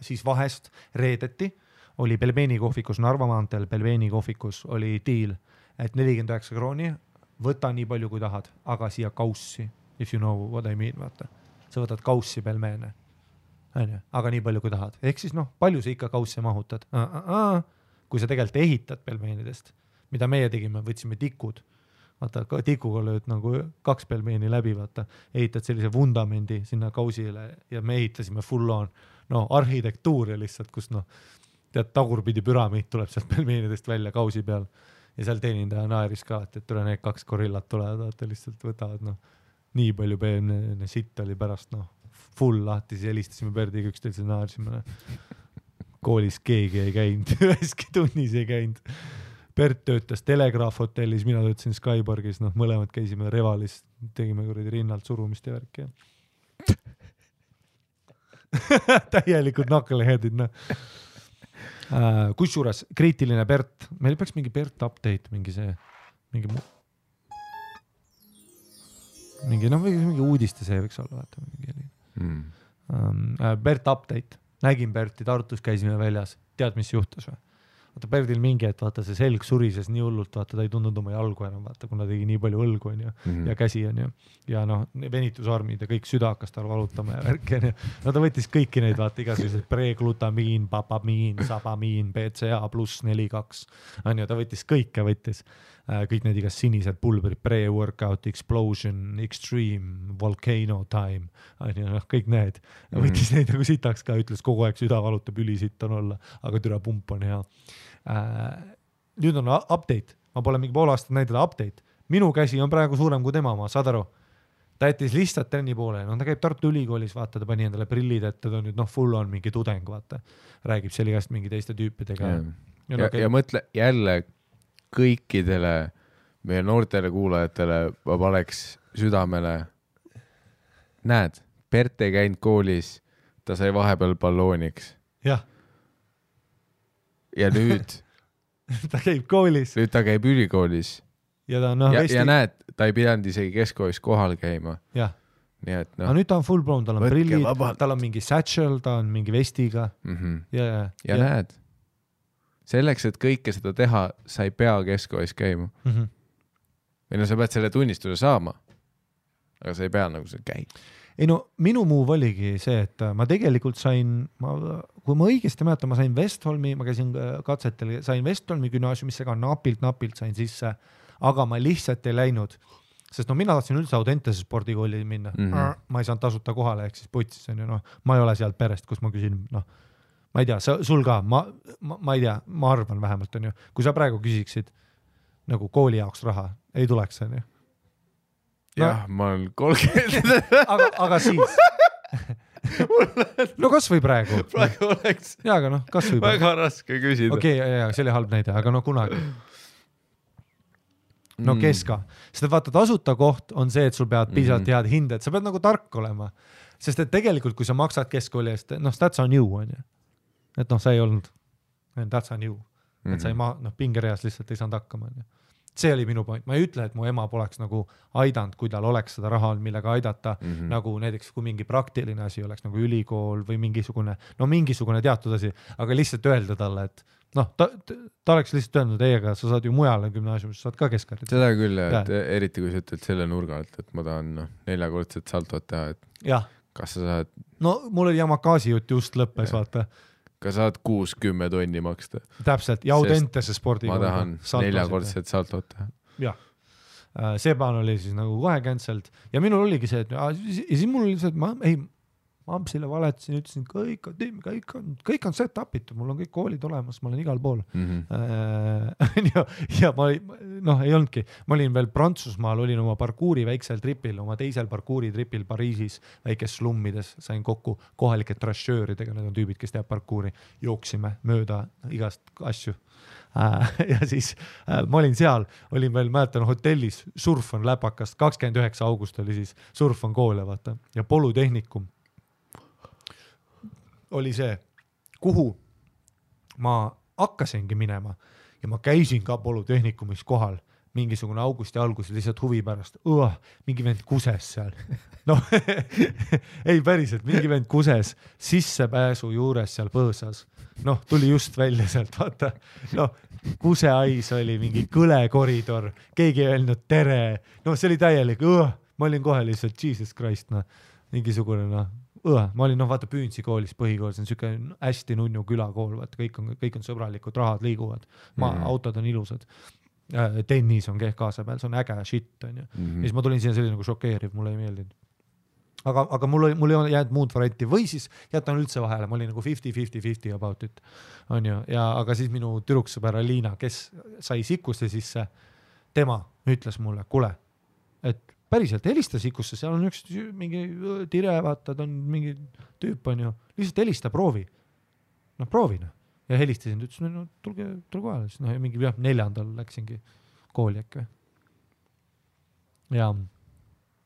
Siis vahest reedeti oli Belbeni kohvikus Narva maanteel, Belbeni kohvikus oli diil, et 49 krooni, võta nii palju kui tahad, aga siia kaussi, if you know what I mean, vaata. Sa võtad kaussi pelmeene, aga nii palju kui tahad. Ehk siis noh, palju sa ikka kaussi mahutad? Kui sa tegelikult ehitad pelmeenidest, mida meie tegime, võtsime tikud, vaata, tikuga lööd nagu 2 pelmeeni läbi, vaata, ehitad sellise vundamendi sinna kausile ja me ehitasime full on, no arhitektuuri lihtsalt, kus noh, tead, tagurpidi püramiid tuleb sealt pelmeenidest välja kausi peal ja seal teenindaja naeris ka, et tule need 2 gorillat tulevad, vaata, lihtsalt võtavad, noh, nii palju peemne sitt oli pärast, noh, full lahti, siis helistasime Berdiga üksteise naarsime, koolis keegi ei käinud, üheski tunnis ei käinud. Bert töötas Telegraaf hotellis, mina töötasin Skyborgis, noh, mõlemad käisime Revalis, tegime kuradi rinnalt surumist ja värki. Täielikult knuckleheadid, noh. Kusjuures kriitiline Bert, meil peaks mingi Bert update, mingi mingi uudiste see võiks olla, vaata mingi Bert update, nägin Berti Tartus, käisime väljas, tead mis juhtus või? Vaata Berdil mingi, et vaata see selg surises nii hullult, vaata ta ei tundnud oma jalgu enam, vaata kuna tegi nii palju õlgu on ju ja käsi on ju ja noh, venitusarmid ja kõik süda hakkas tal valutama ja värki on ju. No ta võttis kõiki neid, vaata igasugused preglutamiin, papamiin, sabamiin, BCA pluss 4-2 on ju, ta võttis kõike, kõik need igas sinised pulberid, pre-workout, explosion, extreme, volcano time on ju, kõik need. Võttis neid nagu sitaks ka, ütles kogu aeg süda valutab, ülisitt on olla, aga türa pump on hea. Nüüd on update, ma pole mingi pool aastat näidada update, minu käsi on praegu suurem kui tema, ma saad aru, ta jättis lihtsalt trenni poole, no ta käib Tartu Ülikoolis, vaata, ta pani endale prillid ette, ta on nüüd full on mingi tudeng, vaata, räägib seal igast mingi teiste tüüpidega ja mõtle jälle kõikidele meie noortele kuulajatele ma paneks südamele, näed, Bert ei käinud koolis, ta sai vahepeal ballooniks ja nüüd ta käib koolis. Nüüd ta käib ülikoolis. Ja näed, ta ei pidanud isegi keskkoolis kohal käima. Jah. Nii et no. Nüüd ta on full blown, tal on prillid, tal on mingi satchel, ta on mingi vestiga. Ja näed, selleks, et kõike seda teha, sa ei pea keskkoolis käima. Või no sa pead selle tunnistuse saama, aga sa ei pea nagu see käib. Ei no, minu move oligi see, et ma tegelikult sain, kui ma õigesti mäletan, ma sain Westholmi, ma käisin katsetel, sain Westholmi gümnaasiumisse ka napilt sain sisse, aga ma lihtsalt ei läinud, sest no mina tahtsin üldse Audentese spordikooli minna. Ma ei saanud tasuta kohale, ehk siis putsis on ju, noh, ma ei ole sealt perest, kus ma küsin, noh, ma ei tea, sul ka, ma ei tea, ma arvan vähemalt on ju, kui sa praegu küsiksid nagu kooli jaoks raha, ei tuleks on ju. Jah, ma olen 30. aga siis. No kas või praegu? Praegu oleks aga noh, kas või väga raske küsida. Okei, see oli halb näide, aga no kunagi. No keska. Sest vaata, tasuta koht on see, et sul peavad piisavalt head hinded, sa pead nagu tark olema. Sest et tegelikult, kui sa maksad keskkooli eest, noh, that's on you, on ju. Et noh, sa ei olnud, that's on you. Et sa ei pingereas lihtsalt ei saanud hakkama, on ju. See oli minu point. Ma ei ütle, et mu ema poleks nagu aidanud, kui tal oleks seda raha, millega aidata, nagu näiteks kui mingi praktiline asi oleks nagu ülikool või mingisugune teatud asi, aga lihtsalt öelda talle, et noh, ta oleks lihtsalt öelnud, ei, aga sa saad ju mujale gümnaasiumis, saad ka keskharidust. Seda küll, et eriti kui sa ütled selle nurga alt, et ma tahan 4-kordset saltot teha, et kas sa saad... No mul oli Yamakasi jutt just lõppes, vaata. Ka saad 6-10 tonni maksta. Täpselt, ja Audentese spordi. Ma tahan 4-kordset saltot teha. Jah, see plaan oli siis nagu kohe cancelled ja minul oligi see, et ja siis mul oli see, et ma Ampsile valetasin, ütlesin, kõik on set upitud, mul on kõik koolid olemas, ma olen igal pool. Ja ma ei olnudki, ma olin veel Prantsusmaal, olin oma parkuuri väiksel tripil, oma teisel parkuuri tripil Pariisis, väikes slummides, sain kokku kohalike trasjööridega, need on tüübid, kes teab parkuuri, jooksime mööda igast asju. Ja siis ma olin seal, olin veel mäletan hotellis, surf on läpakast, 29. august oli siis surf on koole, vaata, ja polutehnikum oli see, kuhu ma hakkasingi minema ja ma käisin ka polütehnikumis kohal mingisugune augusti algus lihtsalt huvi pärast. Mingi vend kuses seal. No, ei päriselt, mingi vend kuses sissepääsu juures seal põõsas. Noh, tuli just välja sealt, vaata. No, kuseais oli mingi kõle koridor, keegi ei öelnud tere. No, see oli täielik. Ma olin kohe lihtsalt, Jesus Christ, mingisugune, ma olin, vaata Püünsi koolis, põhikool, see on selline hästi nunnu külakool, vaata, kõik on sõbralikud, rahad liiguvad, autod on ilusad, tennis on kaasa peal, see on äge shit, on ju. Ja siis ma tulin siia selline nagu šokeeriv, mulle ei meeldinud. Aga mul ei ole jäänud muud varianti või siis jätan üldse vahele, ma olin nagu 50-50 about it, on ju, aga siis minu tüdruksõber Liina, kes sai sikusse sisse, tema ütles mulle, kuule, et päriselt helista sikusse, seal on üks mingi tire, vaata, ta on mingi tüüp, on ju, lihtsalt helista, proovi. No proovi, ja helistasin, ta ütles, tulge kohale, siis ja mingi 4. läksingi kooli äkki. Ja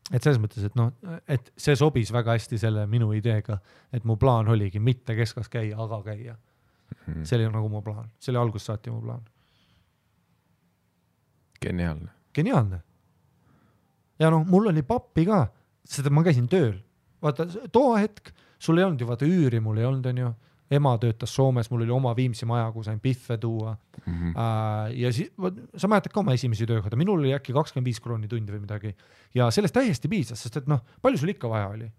et selles mõttes, et see sobis väga hästi selle minu ideega, et mu plaan oligi mitte keskas käia, aga käia. See oli nagu mu plaan, see oli algust saati mu plaan. Geniaalne. Geniaalne. ja noh, mul oli pappi ka, seda ma käisin tööl. Vaata, too hetk, sul ei olnud ju vaata üüri, mul ei olnud, on ju. Ema töötas Soomes, mul oli oma Viimsi maja, kus sain pihve tuua. Ja sa mäletad ka oma esimesi töökohta, minul oli äkki 25 krooni tundi või midagi. Ja sellest täiesti piisas, sest et noh, palju sul ikka vaja oli?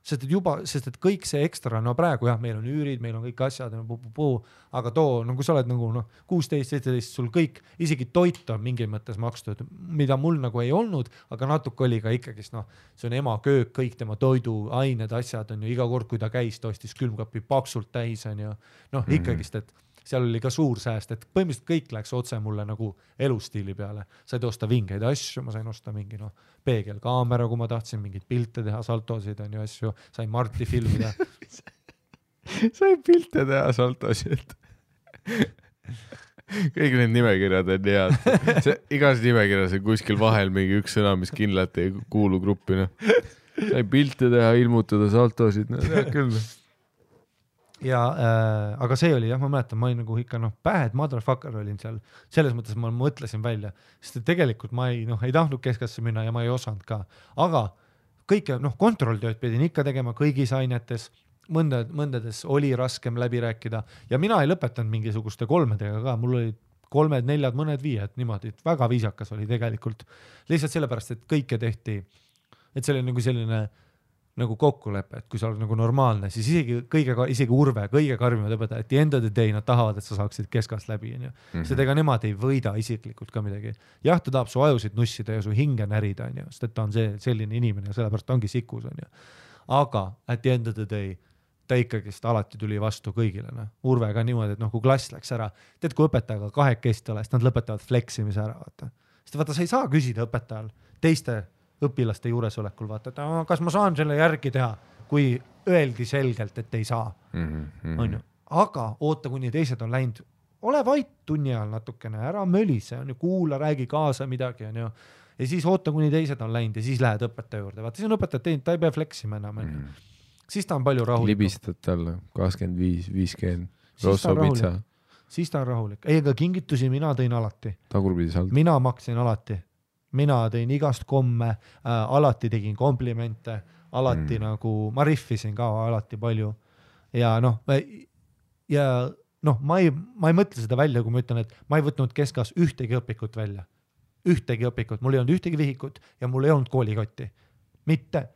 Sest et kõik see ekstra, no praegu jah, meil on üürid, meil on kõik asjad, aga too, no kui sa oled nagu 16-17, sul kõik, isegi toit on mingil mõttes makstud, mida mul nagu ei olnud, aga natuke oli ka ikkagist, noh, see on ema köök, kõik tema toiduained, asjad on ju, iga kord, kui ta käis, ta ostis külmkapi paksult täis, on ju, noh, ikkagist, et seal oli ka suur sääst, et põhimõtteliselt kõik läks otse mulle nagu elustiili peale. Said osta vingeid asju, ma sain osta mingi peegelkaamera, kui ma tahtsin mingid pilte teha, saltosid on ju asju, sain Marti filmida. Sain pilte teha, saltosid. Kõik need nimekirjad on head. Igas nimekirjas on kuskil vahel mingi üks sõna, mis kindlalt ei kuulu gruppina. Sain pilte teha, ilmutada, saltosid, no tead küll. Ja, aga see oli jah, ma mäletan, ma olin nagu ikka bad motherfucker olin seal, selles mõttes ma mõtlesin välja, sest tegelikult ma ei tahtnud keskasse minna ja ma ei osanud ka, aga kõike, kontrolltööd pidin ikka tegema kõigis ainetes, mõndades oli raskem läbi rääkida ja mina ei lõpetanud mingisuguste 3-dega ka, mul olid 3, 4, mõned 5, niimoodi, väga viisakas oli tegelikult, lihtsalt sellepärast, et kõike tehti, et see oli nagu selline nagu kokkulepe, et kui sa oled nagu normaalne, siis isegi Urve, kõige karmimad õpetajad, et end of the day nad tahavad, et sa saaksid keskast läbi. Sest ega nemad ei võida isiklikult ka midagi. Jah, ta tahab su ajusid nussida ja su hinge närida, sest et ta on selline inimene ja sellepärast ta ongi sikus. Aga at the end of the day ta ikkagist alati tuli vastu kõigile. Urve ka niimoodi, et kui klass läks ära, tead, kui õpetajaga 2 kest ole, siis nad lõpetavad fleksimise ära. Sest vaata, sa ei saa küsida õpetajal teiste õpilaste juuresolekul, vaata, et kas ma saan selle järgi teha, kui öeldi selgelt, et ei saa. On ju. Aga oota, kuni teised on läinud, ole vait tunni ajal natukene, ära mölise, on ju, kuula, räägi kaasa midagi, on ju. Ja siis oota, kuni teised on läinud ja siis lähed õpetaja juurde. Vaata, siis on õpetajad teinud, ta ei pea fleksima enam. Siis ta on palju rahulik. Libistad talle 25, 50, rosso pitsa. Siis ta on rahulik. Ei, aga kingitusi mina tõin alati. Tagurpidi saldo. Mina maksin alati. Mina tõin igast komme, alati tegin komplimente, alati nagu, ma riffisin ka alati palju. Ja ma ei mõtle seda välja, kui ma ütlen, et ma ei võtnud keskas ühtegi õpikut välja. Ühtegi õpikut, mul ei olnud ühtegi vihikut ja mul ei olnud koolikotti. Mitte.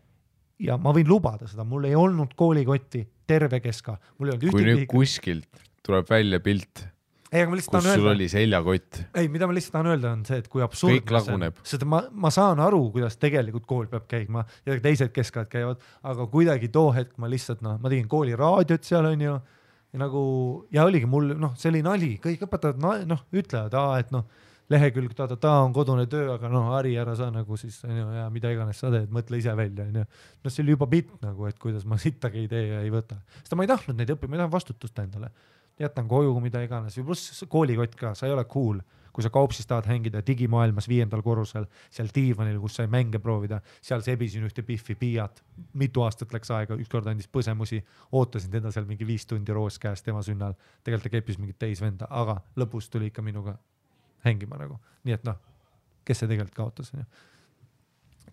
Ja ma võin lubada seda, mul ei olnud koolikotti terve keska. Mul ei olnud kui nüüd kuskilt tuleb välja pilt, ei, kus sul oli seljakott. Ei, mida ma lihtsalt tahan öelda on see, et kui absurdne kõik laguneb. Sest ma saan aru, kuidas tegelikult kool peab käima ja teised keskad käivad, aga kuidagi too hetk ma lihtsalt, ma tegin kooli raadiot seal on ju ja oligi mul, see oli nali, kõik õpetajad ütlevad, et lehekülg on kodune töö, aga Ari ära sa nagu siis, ja mida iganes sa teed, mõtle ise välja. See oli juba bitt nagu, et kuidas ma sittagi ei tee ja ei võta. Sest ma ei tahtnud neid õppima, ma tahan vastutust endale. Jätan koju, mida iganes. Pluss koolikott ka, sa ei ole cool, kui sa kaupsis tahad hängida digimaailmas 5. korrusel, seal diivanil, kus sai mänge proovida, seal sebisin ühte piffi piiat, mitu aastat läks aega, ükskord andis põsemusi, ootasin teda seal mingi 5 tundi roos käes tema sünnal, tegelikult ta keppis mingit teisvenda, aga lõpus tuli ikka minuga hängima nagu. Nii et kes see tegelikult kaotas?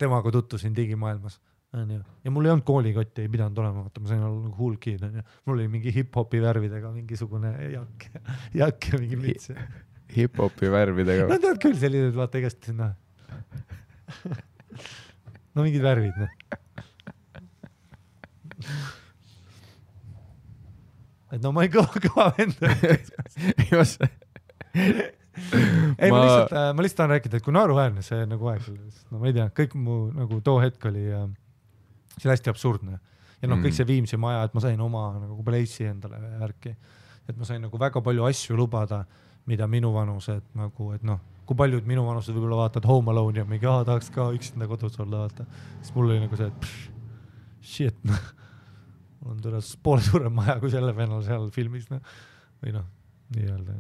Temaga tuttusin digimaailmas. Ja mul ei olnud koolikotti, ei pidanud olema, ma sain olla nagu hull kid. Mul oli mingi hip-hopi värvidega mingisugune jakk ja mingi mits. Hip-hopi värvidega? No tead küll sellised, vaata igast sinna. No mingid värvid. Et ma ei kõva venda. Ei, ma lihtsalt tahan rääkida, et kui naeruväärne see nagu aeg oli. Ma ei tea, kõik mu nagu too hetk oli see hästi absurdne. Ja kõik see Viimsi maja, et ma sain oma nagu pleissi endale värki. Et ma sain nagu väga palju asju lubada, mida minu vanused nagu, et kui paljud minu vanused võib-olla vaatad Home Alone ja mingi, tahaks ka üksinda kodus olla, vaata. Siis mul oli nagu see, et shit, mul on tõenäoliselt poole suurem maja kui selle vennal seal filmis. Või nii öelda.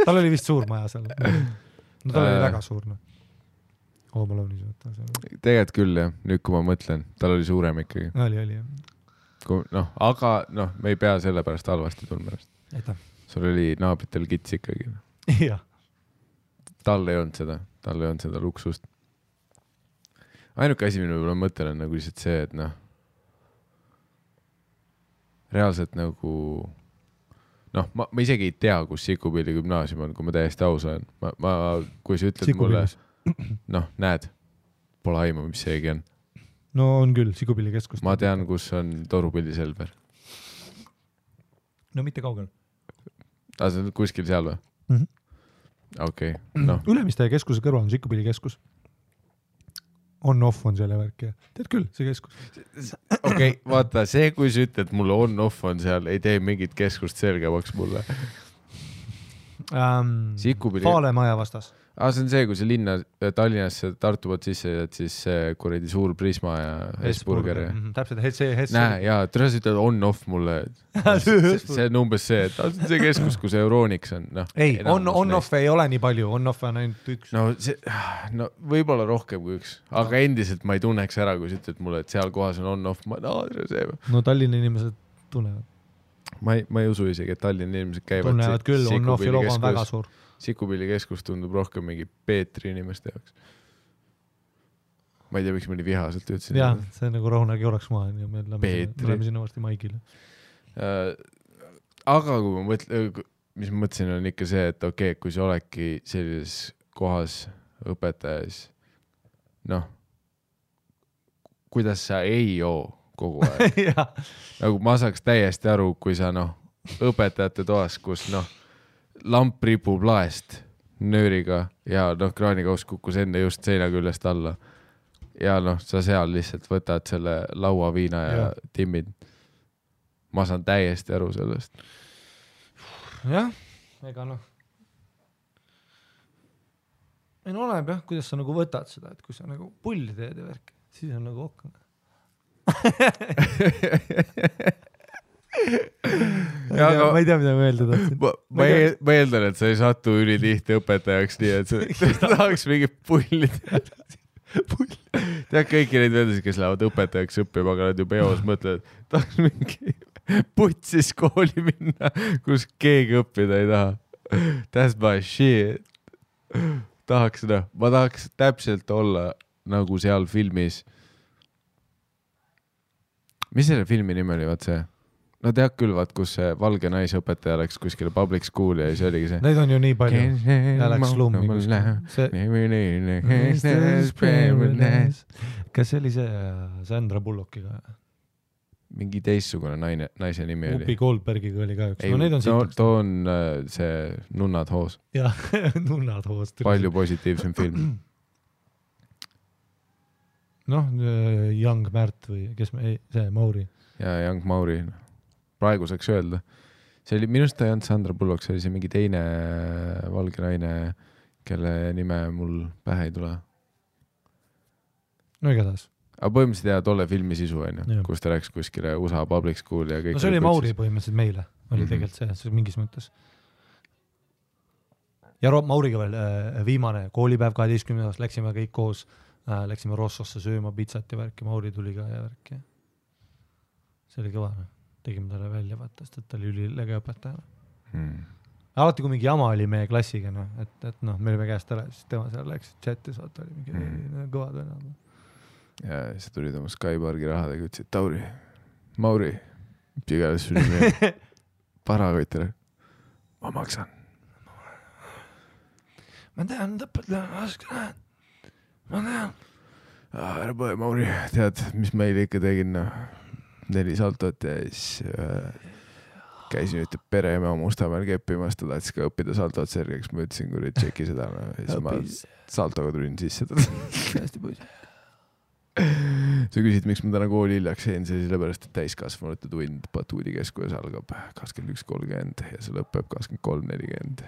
Tal oli vist suur maja seal. Tal oli väga suur. Home Alone'is võtta. Tegelikult küll, jah. Nüüd, kui ma mõtlen, tal oli suurem ikkagi. Oli, jah. Aga me ei pea selle pärast halvasti tundma. Aitäh. Sul oli naabritel kits ikkagi. Jah. tal ei olnud seda luksust. Ainuke asi, mille ma mõtlen on nagu lihtsalt see, et noh, reaalselt nagu ma isegi ei tea, kus Sikupilli gümnaasium on, kui ma täiesti aus olen. Kui sa ütled mulle, näed, pole aimu, mis seegi on. No on küll, Sikupilli keskus. Ma tean, kus on Torupilli Selver. No mitte kaugel. See on kuskil seal või? Okei. Ülemiste keskuse kõrval on Sikupilli keskus. On-off on selle värk ja tead küll, see keskus. Okei, vaata, see, kui sa ütled, mulle on-off on seal, ei tee mingit keskust selgemaks mulle. Faale maja vastas. See on see, kui see linna Tallinnasse Tartu poolt sisse jääd, siis kuradi suur Prisma ja Hesburger. Täpselt, see Näe, jaa, tõres ütled on-off mulle. See on umbes see, et see keskus, kus Euroniks on. Ei, on-off ei ole nii palju, on-off on ainult üks. No võib-olla rohkem kui üks, aga endiselt ma ei tunneks ära, kui sa ütled mulle, et seal kohas on on-off. No Tallinna inimesed tunnevad. Ma ei usu isegi, et Tallinna inimesed käivad. Tunnevad küll, on-offi logo on väga suur. Sikupilli keskus tundub rohkem mingi Peetri inimeste jaoks. Ma ei tea, miks ma nii vihaselt ütlesin. Jah, see on nagu rahunagi oraks maa ja me läheme sinna varsti Maigile. Aga kui ma mis ma mõtlesin, on ikka see, et okei, kui sa oledki sellises kohas õpetajas, kuidas sa ei joo kogu aeg. Nagu ma saaks täiesti aru, kui sa õpetajate toas, kus lamp ripub laest nööriga ja kraanikaus kukkus enne just seina küljest alla. Ja sa seal lihtsalt võtad selle lauaviina ja timmid. Ma saan täiesti aru sellest. Jah, ega ei oleneb jah, kuidas sa nagu võtad seda, et kui sa nagu pulli teed ja värk, siis on nagu okk. Ma ei tea, mida ma öelda tahtsin. Ma eeldan, et sa ei satu ülitihti õpetajaks nii, et sa tahaks mingit pulli teha. Tead kõiki neid vedasid, kes lähevad õpetajaks õppima, aga nad ju peos mõtlevad, tahaks mingi putsis kooli minna, kus keegi õppida ei taha. That's my shit. Ma tahaks täpselt olla nagu seal filmis. Mis selle filmi nimi oli, vaat see? No tead küll, vaat, kus see valge naisõpetaja läks kuskile public school ja see oligi see. Neid on ju nii palju. Ja läks slummi Kas see oli see Sandra Bullockiga? Mingi teissugune naise nimi oli. Upi Goldbergiga oli ka üks. No neid on siit. Too on see Nunnad hoos. Jah, Nunnad hoos. Palju positiivsem film. Young Märt või kes see Mauri. Ja Young Mauri. Praegu saaks öelda. See oli, minust ta ei olnud Sandra Bullock, see oli see mingi teine valge naine, kelle nime mul pähe ei tule. No igatahes. Aga põhimõtteliselt jää tolle filmi sisu, kus ta läks kuskile USA public school ja kõik. No see oli Mauri põhimõtteliselt meile, oli tegelikult see mingis mõttes. Ja Mauriga veel viimane koolipäev 12. Läksime kõik koos, läksime Rossosse sööma pizzat ja värki, Mauri tuli ka ja värki. See oli kõva. Tegime talle välja, vaata, sest ta oli ülilege õpetaja. Alati, kui mingi jama oli meie klassiga, et me olime käest ära, siis tema seal läks chatis, vaata oli mingi kõvad venad. Ja siis tulid oma Skypargi rahadega, ütlesid, Tauri, Mauri, pigalis sul nime, parakoitele, ma maksan. Ma tean, õpetaja, ma tean. Ära põe, Mauri, tead, mis meile ikka tegin, 4 saltot ja siis käisin ütleb pereema Mustamäel keppimas, ta tahtis ka õppida saltot sergeks, ma ütlesin, kui tšeki seda, ja siis ma saltoga tulin sisse. Hästi pois. Sa küsid, miks ma täna kooli hiljaks jäin, see sellepärast, et täiskasvanute tund Batuudi keskuses algab 21.30 ja see lõpeb 23.40.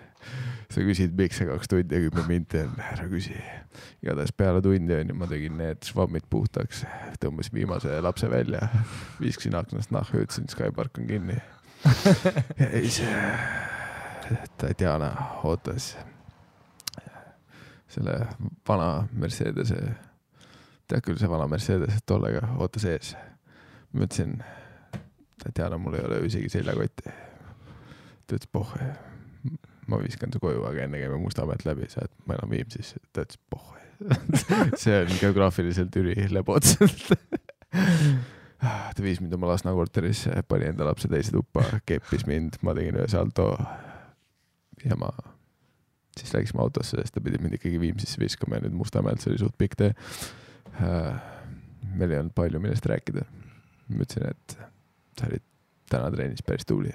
Sa küsid, miks see 2 tundi ja 10 minti on, ära küsi. Igatahes peale tundi on ja ma tegin need švammid puhtaks, tõmbasin viimase lapse välja, viiskasin aknast nahku, ütlesin, Skypark on kinni. Ja siis Tatjana ootas selle vana Mercedese, tead küll see vana Mercedes, tollega ootas ees. Ma ütlesin, Tatjana, mul ei ole isegi seljakotti. Ta ütles, ma viskan su koju, aga enne käime Mustamäelt läbi, sa et ma enam Viimsis, ta ütles, poh, see on geograafiliselt ülilebotselt. Ta viis mind oma Lasna korteris, pani enda lapse teise tuppa, keppis mind, ma tegin ühe salto ja ma siis läksime autosse, sest ta pidi mind ikkagi Viimsisse viskama ja nüüd Mustamäelt, see oli suht pikk tee. Meil ei olnud palju millest rääkida. Ma ütlesin, et sa olid täna treenis päris tuuli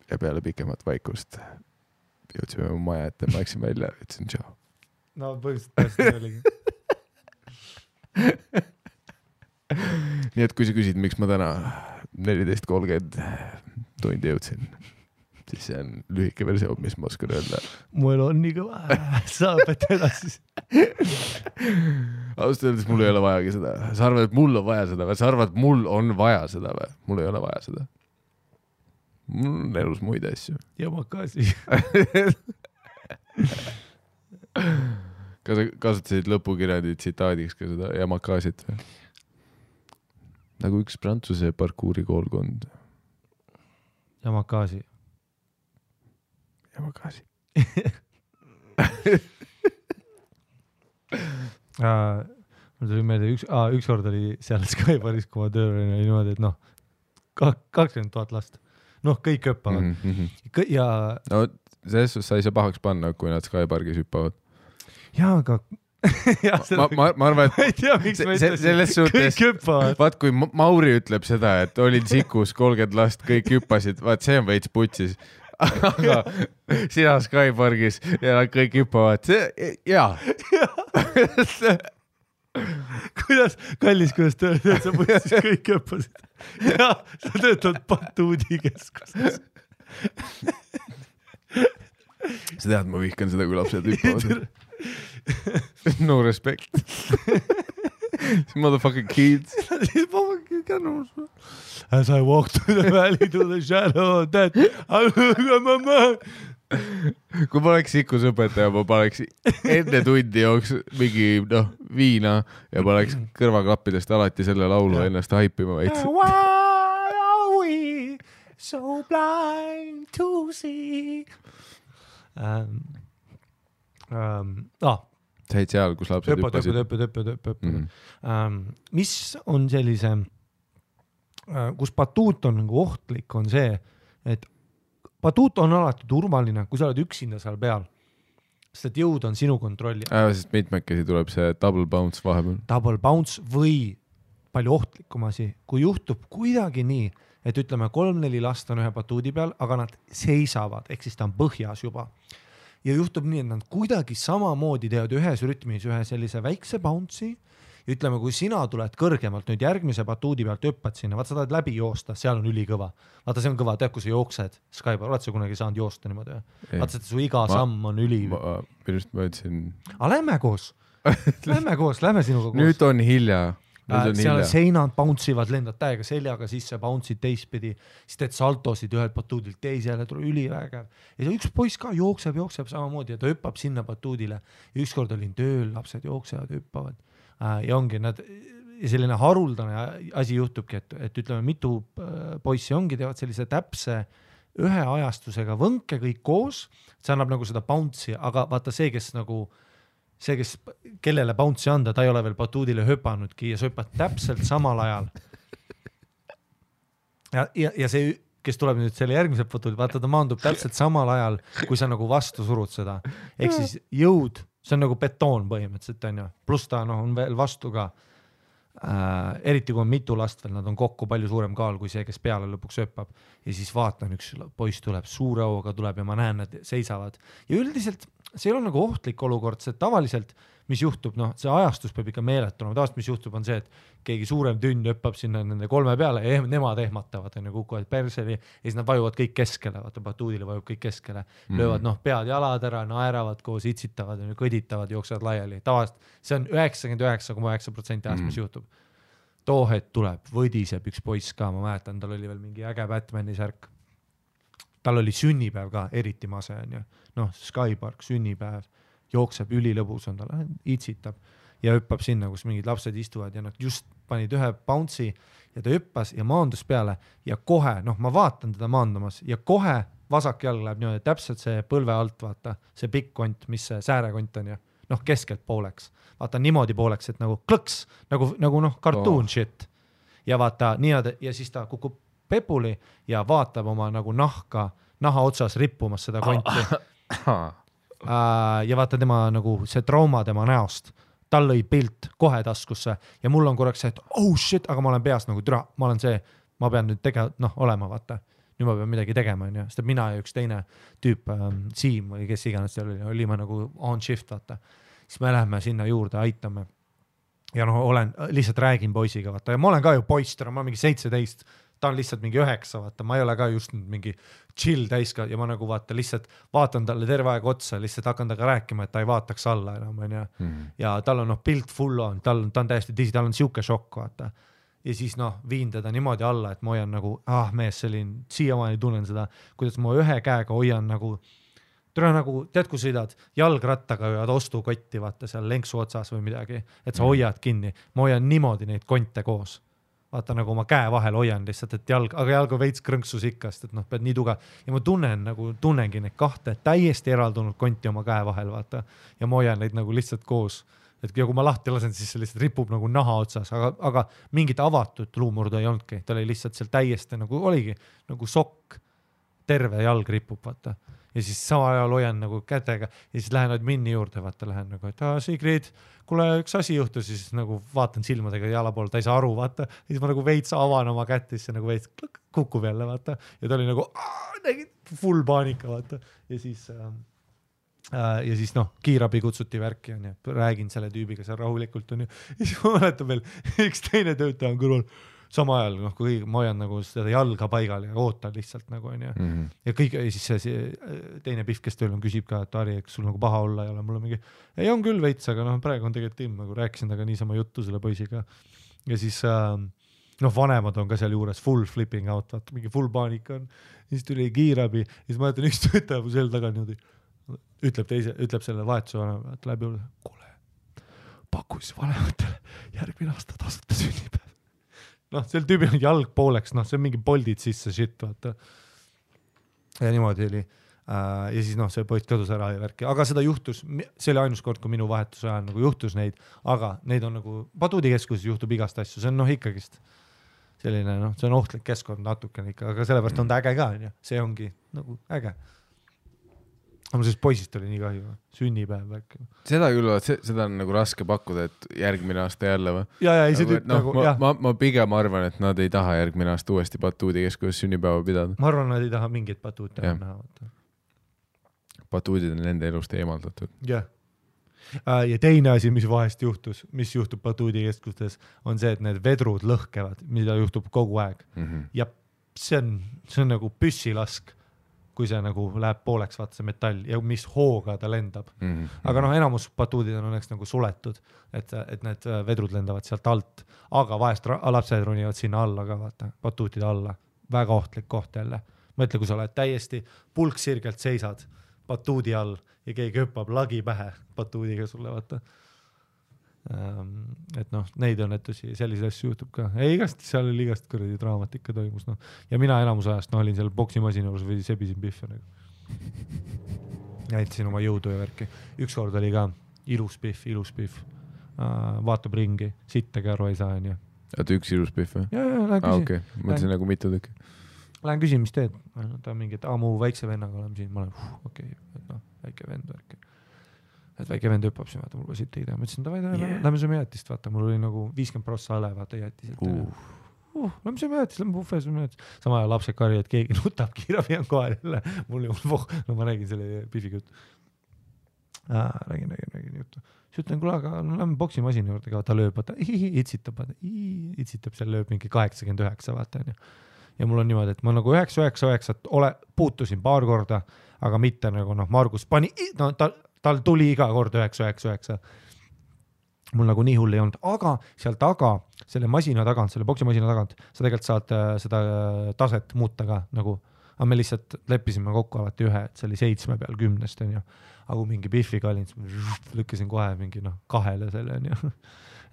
ja peale pikemat vaikust jõudsime mu maja ette, ma läksin välja ja ütlesin tšau. No põhimõtteliselt oligi. Nii et kui sa küsid, miks ma täna 14.30 tundi jõudsin, siis see on lühike versioon, mis ma oskan öelda. Mu elu on nii kõva, saab, et edasi. Ausalt öeldes mul ei ole vajagi seda. Sa arvad, et mul on vaja seda või? Sa arvad, et mul on vaja seda või? Mul ei ole vaja seda. Mul on elus muid asju. Yamakasi. Kas sa kasutasid lõpukirjandi tsitaadiks ka seda Yamakasit või? Nagu üks Prantsuse parkuuri koolkond. Yamakasi. Yamakasi. Mul tuli meelde üks kord oli seal Skybaris, kui ma tööl oli niimoodi, et noh, 20 000 last. Noh, kõik hüppavad. Ja... No, selles suhtes sa ei saa pahaks panna, kui nad Skypargis hüppavad. Jaa, aga... ma arvan, et ma ei tea, miks ma ütlesin, kõik hüppavad. Vaat, kui Mauri ütleb seda, et olin Sikus 30 last, kõik hüppasid, vaat see on veits putsis. Aga sina Skypargis ja kõik hüppavad. Jaa. Kuidas tööd, et sa putsis kõik hüppasid? Ja sa töötad Batuudi keskuses. Sa tead, ma vihkan seda, kui lapsed hüppavad. No respect. Motherfucking kids. As I walk through the valley to the shadow of death, I look at my mom. Kui ma oleks Sikus õpetaja, ma paneks enne tundi jooks mingi viina ja ma oleks kõrvaklappidest alati selle laulu ennast haipima veits. Why are we so blind to see? Sa olid seal, kus lapsed hüppasid. Mis on sellise, kus batuut on nagu ohtlik, on see, et batuut on alati turvaline, kui sa oled üksinda seal peal, sest et jõud on sinu kontrolli. Sest mitmekesi tuleb see double bounce vahepeal. Double bounce või palju ohtlikum asi, kui juhtub kuidagi nii, et ütleme 3-4 last on ühe batuudi peal, aga nad seisavad, ehk siis ta on põhjas juba. Ja juhtub nii, et nad kuidagi samamoodi teevad ühes rütmis ühe sellise väikse bounce'i. Ja ütleme, kui sina tuled kõrgemalt nüüd järgmise batuudi pealt hüppad sinna, vaat sa tahad läbi joosta, seal on ülikõva. Vaata, see on kõva, tead, kui sa jooksed Skybar, oled sa kunagi saanud joosta niimoodi? Vaata, et su iga samm on üli. Minust ma ütlesin... Lähme koos. Lähme sinuga koos. Nüüd on hilja. Seal seinad bounce'ivad, lendad täiega seljaga sisse, bounce'id teistpidi, siis teed saltosid ühelt batuudilt teisele, tuleb ülivägev. Ja üks poiss ka jookseb samamoodi ja ta hüppab sinna batuudile. Ja ükskord olin tööl, lapsed jooksevad, hüppavad. Ja ongi nad, selline haruldane asi juhtubki, et ütleme, mitu poissi ongi, teevad sellise täpse ühe ajastusega võnke kõik koos, see annab nagu seda bounce'i, aga vaata see, kes kellele bounce'i anda, ta ei ole veel batuudile hüpanudki ja sa hüppad täpselt samal ajal. Ja see, kes tuleb nüüd selle järgmise batuudi, vaata ta maandub täpselt samal ajal, kui sa nagu vastu surud seda. Ehk siis jõud, see on nagu betoon põhimõtteliselt, on ju. Plus ta on veel vastu ka. Eriti kui on mitu last veel, nad on kokku palju suurem kaal kui see, kes peale lõpuks hüppab. Ja siis vaatan, üks poiss tuleb, suure hooga tuleb ja ma näen, nad seisavad. Ja üldiselt see ei ole nagu ohtlik olukord, see tavaliselt, mis juhtub, see ajastus peab ikka meeletuna. Tavaliselt, mis juhtub, on see, et keegi suurem tünd hüppab sinna nende 3 peale ja nemad ehmatavad, kukuvad perseli ja siis nad vajuvad kõik keskele, vaata batuudile vajub kõik keskele, löövad pead jalad ära, naeravad koos, itsitavad, kõditavad, jooksevad laiali. Tavaliselt see on 99,9% ajast, mis juhtub. Too hetk tuleb, võdiseb üks poiss ka, ma mäletan, tal oli veel mingi äge Batmani särk. Tal oli sünnipäev ka, eriti mase on ju. Skypark, sünnipäev, jookseb ülilõbus on tal, itsitab ja hüppab sinna, kus mingid lapsed istuvad ja nad just panid ühe bounce'i ja ta hüppas ja maandus peale ja kohe, ma vaatan teda maandumas ja kohe vasak jalg läheb niimoodi, täpselt see põlve alt, vaata, see pikk kont, mis see säärekont on ju, noh, keskelt pooleks, vaata niimoodi pooleks, et nagu klõks, nagu noh, cartoon shit. Ja vaata niimoodi, ja siis ta kukub pepuli ja vaatab oma nagu naha otsas rippumas seda konti. Ja vaata tema nagu see trauma tema näost, tal lõi pilt kohe taskusse ja mul on korraks see, et oh shit, aga ma olen peas nagu türa, ma pean nüüd olema, vaata. Nüüd ma pean midagi tegema, on ju, sest mina ja üks teine tüüp, Siim või kes iganes seal olime nagu on shift, vaata. Siis me läheme sinna juurde, aitame. Ja lihtsalt räägin poisiga, vaata. Ja ma olen ka ju poister, ma olen mingi 17, ta on lihtsalt mingi 9, vaata. Ma ei ole ka just mingi chill täiska ja ma nagu vaata lihtsalt vaatan talle terve aeg otsa, lihtsalt hakkan taga rääkima, et ta ei vaataks alla enam, on ju. Ja tal on pilt full on, ta on täiesti disi, tal on siuke šokk, vaata. Ja siis viin teda niimoodi alla, et ma hoian nagu, mees, siiamaani tunnen seda, kuidas ma ühe käega hoian nagu, tead, kui sõidad jalgrattaga ja ostukotti, vaata seal lenksu otsas või midagi, et sa hoiad kinni. Ma hoian niimoodi neid konte koos. Vaata nagu oma käe vahel hoian lihtsalt, et aga jalg on veits krõnksus ikkast, et pead nii tugev. Ja ma tunnengi neid kahte täiesti eraldunud konti oma käe vahel, vaata. Ja ma hoian neid nagu lihtsalt koos. Et kui ma lahti lasen, siis see lihtsalt ripub nagu naha otsas, aga mingit avatud luumurdu ei olnudki. Ta oli lihtsalt seal täiesti nagu oligi nagu sokk, terve jalg ripub, vaata. Ja siis sama ajal hoian nagu kätega ja siis lähen minni juurde, vaata, lähen nagu, et Sigrid, kuule üks asi juhtus, siis nagu vaatan silmadega jala poole, ta ei saa aru, vaata. Ja siis ma nagu veits avan oma kätt, siis nagu veits kukub jälle, vaata. Ja ta oli nagu full paanika, vaata. Ja siis kiirabi kutsuti värki on ja räägin selle tüübiga seal rahulikult on ja siis ma mäletan veel üks teine töötaja on kõrval sama ajal, kui ma hoian nagu seda jalga paigal ja ootan lihtsalt nagu on ja ja siis see teine pihv, kes tööl on, küsib ka, et Ari, kas sul nagu paha olla ei ole, mul on mingi, ei on küll veits, aga praegu on tegelikult ilm, nagu rääkisin taga niisama juttu selle poisiga ja siis vanemad on ka seal juures full flipping out, vaata, mingi full paanika on, siis tuli kiirabi ja siis ma mäletan üks töötaja mu sel taga niimoodi ütleb selle vahetuse vanemale, et läbi juurde, kuule, paku siis vanematele järgmine aasta tasuta sünnipäev. Sel tüübil on jalg pooleks, see on mingi poldid sisse shit, vaata. Ja niimoodi oli. Ja siis see poiss kadus ära ja värki. Aga seda juhtus, see oli ainus kord, kui minu vahetuse ajal nagu juhtus neid, aga neid on nagu Paduudikeskuses juhtub igast asju, see on ikkagist selline, see on ohtlik keskkond natukene ikka, aga sellepärast on ta äge ka, see ongi nagu äge. Aga sellest poisist oli nii kahju, sünnipäev värk. Seda küll, seda on nagu raske pakkuda, et järgmine aasta jälle või? Ja, ei see tüüp nagu, jah. Ma pigem arvan, et nad ei taha järgmine aasta uuesti Paduudikeskuses sünnipäeva pidada. Ma arvan, nad ei taha mingit Paduud näha. Paduudid on nende elust eemaldatud. Jah. Ja teine asi, mis vahest juhtus, mis juhtub Paduudikeskustes, on see, et need vedrud lõhkevad, mida juhtub kogu aeg. Ja see on nagu püssilask, kui see nagu läheb pooleks, vaata see metall ja mis hooga ta lendab. Aga enamus Paduudid on õnneks nagu suletud, et need vedrud lendavad sealt alt, aga vahest lapsed ronivad sinna alla ka, vaata, Paduudide alla. Väga ohtlik koht jälle. Mõtle, kui sa oled täiesti pulksirgelt seisad Paduudi all ja keegi hüppab lagi pähe Paduudiga sulle, vaata. Et neid õnnetusi, selliseid asju juhtub ka. Igast seal oli igast kõrdi draamat ikka toimus. Ja mina enamus ajast olin seal boksimasina juures või sebisin pihve. Näitasin oma jõudu ja värki. Üks kord oli ka ilus pihv. Vaatab ringi, sittagi aru ei saa. Oota, üks ilus pihv või? Ja, lähen küsin. Okay. Mõtlesin nagu mitu tükki. Lähen küsin, mis teed? Ta on mingi, et mu väikse vennaga oleme siin. Ma olen, okei, väike vend värki. Et väike vend hüppab siin, vaata, mul va siit ei tea. Ma ütlesin, lähme sööme jäätist, vaata, mul oli nagu 50% ale, vaata, jäätiselt. Lähme sööme jäätist, lähme buffet sööme jäätist. Sama ajal lapsed karju, et keegi nutab, kiirabi on kohal jälle. Mul ma räägin selle pifiga juttu. Räägin juttu. Siis ütlen, kuule, aga lähme boksimasina juurde ka, ta lööb, vaata, itsitab seal lööb mingi 89, vaata. Ja mul on niimoodi, et ma nagu 999 puutusin paar korda, aga mitte nagu Margus pani, tal tuli iga kord 999. Mul nagu nii hull ei olnud, aga seal taga, selle masina tagant, selle boksimasina tagant, sa tegelikult saad seda taset muuta ka nagu, aga me lihtsalt leppisime kokku alati ühe, et see oli 7 peal 10, on ju. Aga kui mingi pihviga olin, lükkasin kohe mingi 2 selle, on ju.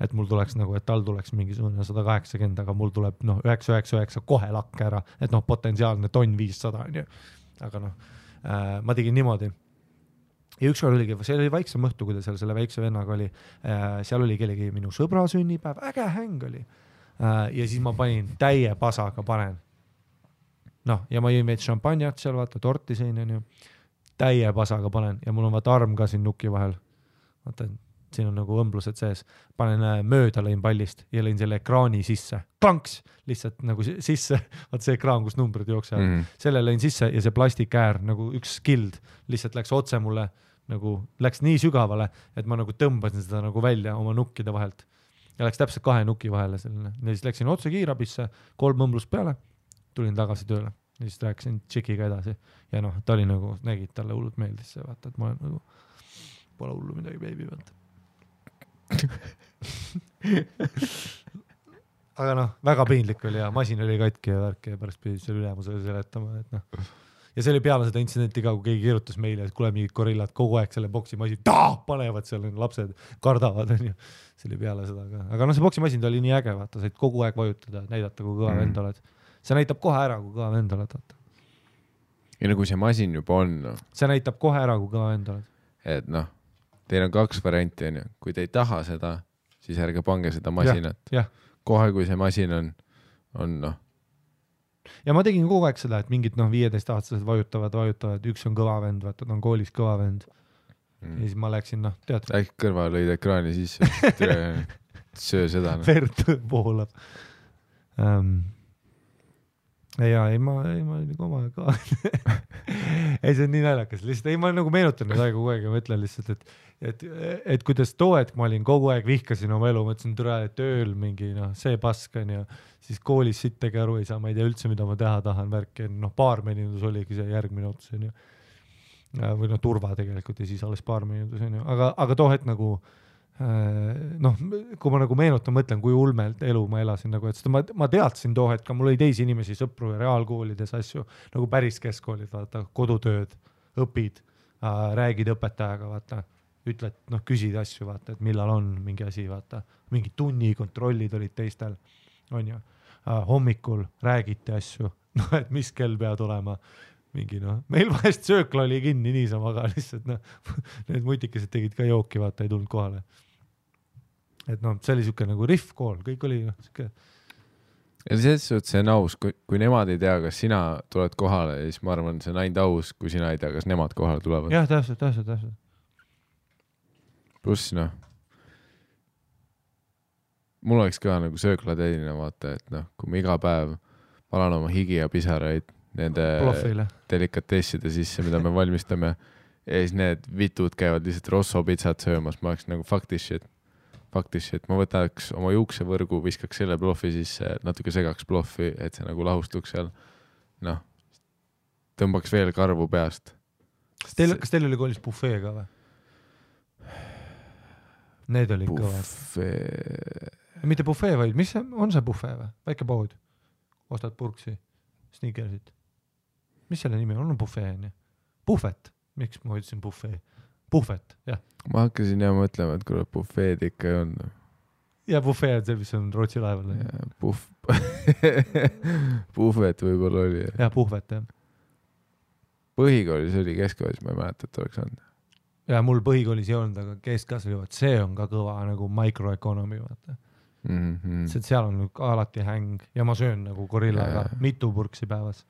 Et mul tuleks nagu, et tal tuleks mingisugune 180, aga mul tuleb 999 kohe lakke ära, et potentsiaalne tonn 500, on ju. aga noh, ma tegin niimoodi. Ja ükskord oligi, see oli vaiksem õhtu, kui ta seal selle väikse vennaga oli, seal oli kellegi minu sõbra sünnipäev, äge häng oli. Ja siis ma panin täie pasaga panen. Noh, ja ma jõin veits šampanjat seal, vaata, torti sõin, on ju. Täie pasaga panen ja mul on vaata arm ka siin nuki vahel. Vaata, siin on nagu õmblused sees. Panen mööda lõin pallist ja lõin selle ekraani sisse. Klanks! Lihtsalt nagu sisse. Vaata see ekraan, kus numbrid jooksevad. Selle lõin sisse ja see plastikäär, nagu üks skild, lihtsalt läks otse mulle, nagu läks nii sügavale, et ma nagu tõmbasin seda nagu välja oma nukkide vahelt. Ja läks täpselt 2 nuki vahele selline. Ja siis läksin otse kiirabisse, 3 õmblust peale, tulin tagasi tööle. Ja siis rääkisin tšikiga edasi. Ja noh, ta oli nagu, nägid, talle hullult meeldis see, vaata, et ma olen nagu, pole hullu midagi, baby, vaata. Aga noh, väga piinlik oli ja masin oli katki ja värk ja pärast pidi selle ülemusele seletama, et noh. Ja see oli peale seda intsidenti ka, kui keegi kirjutas meile, et kuule mingid gorillad kogu aeg selle boksimasin panevad seal, lapsed kardavad, on ju. See oli peale seda ka. Aga noh, see boksimasin oli nii äge, vaata, said kogu aeg vajutada, näidata, kui kõva vend oled. See näitab kohe ära, kui kõva vend oled, vaata. Ja nagu see masin juba on, no. See näitab kohe ära, kui kõva vend oled. Et noh, teil on 2 varianti, on ju. Kui te ei taha seda, siis ärge pange seda masinat. Ja. Kohe, kui see masin on noh. Ja ma tegin kogu aeg seda, et mingid 15-aastased vajutavad, üks on kõva vend, vaata, ta on koolis kõva vend. Ja siis ma läksin, tead. Äkki kõrva lõid ekraani sisse, söö seda. Verd poolab. Ja ei, ma olin oma ka. Ei, see on nii naljakas. Lihtsalt, ma nagu meenutan nüüd aega kogu aeg ja mõtlen lihtsalt, et kuidas too hetk ma olin kogu aeg vihkasin oma elu, mõtlesin türa, et tööl mingi, see pask on ja siis koolis sittagi aru ei saa, ma ei tea üldse, mida ma teha tahan, värki, baarmenindus oligi see järgmine ots, on ju. Või turva tegelikult ja siis alles baarmenindus, on ju. Aga too hetk nagu, kui ma nagu meenutan, mõtlen, kui ulmelt elu ma elasin, nagu, et seda ma teadsin too hetk, mul oli teisi inimesi, sõpru ja reaalkoolides asju, nagu päris keskkoolid, vaata, kodutööd, õpid, räägid õpetajaga, vaata, ütled, küsid asju, vaata, et millal on mingi asi, vaata, mingi tunnikontrollid olid teistel, on ju, hommikul räägite asju, et mis kell pead olema, mingi meil vahest söökla oli kinni niisama, aga lihtsalt need mutikesed tegid ka jooki, vaata, ei tulnud kohale. Et see oli siuke nagu riff kool, kõik oli siuke. Ja see on aus, kui nemad ei tea, kas sina tuled kohale, siis ma arvan, see on ainult aus, kui sina ei tea, kas nemad kohale tulevad. Jah, täpselt. Pluss mul oleks ka nagu sööklateedina vaata, et kui ma iga päev palan oma higi ja pisaraid nende Plofile. Delikatesside sisse, mida me valmistame ja siis need vitud käivad lihtsalt Rosso pitsat söömas, ma oleks nagu fuck this shit, ma võtaks oma juuksevõrgu, viskaks selle plofi sisse, natuke segaks plofi, et see nagu lahustuks seal, tõmbaks veel karvu peast. Kas teil oli koolis buffee ka või? Need olid kõvad. Mitte buffee, vaid mis on see buffee või? Väike pood. Ostad purksi, sneakersit. Mis selle nimi on? On buffee, on ju? Buffet. Miks ma ütlesin buffee? Buffet, jah. Ma hakkasin jah mõtlema, et kuule buffeed ikka ei on. Ja buffee on see, mis on Rootsi laeval. Buffet võib-olla oli. Ja buffet, jah. Põhikoolis oli keskkoolis, ma ei mäleta, et oleks olnud. Ja mul põhikoolis ei olnud, aga keskkas oli, see on ka kõva nagu microeconomy, vaata. Seal on alati häng ja ma söön nagu gorillaga mitu purksi päevas.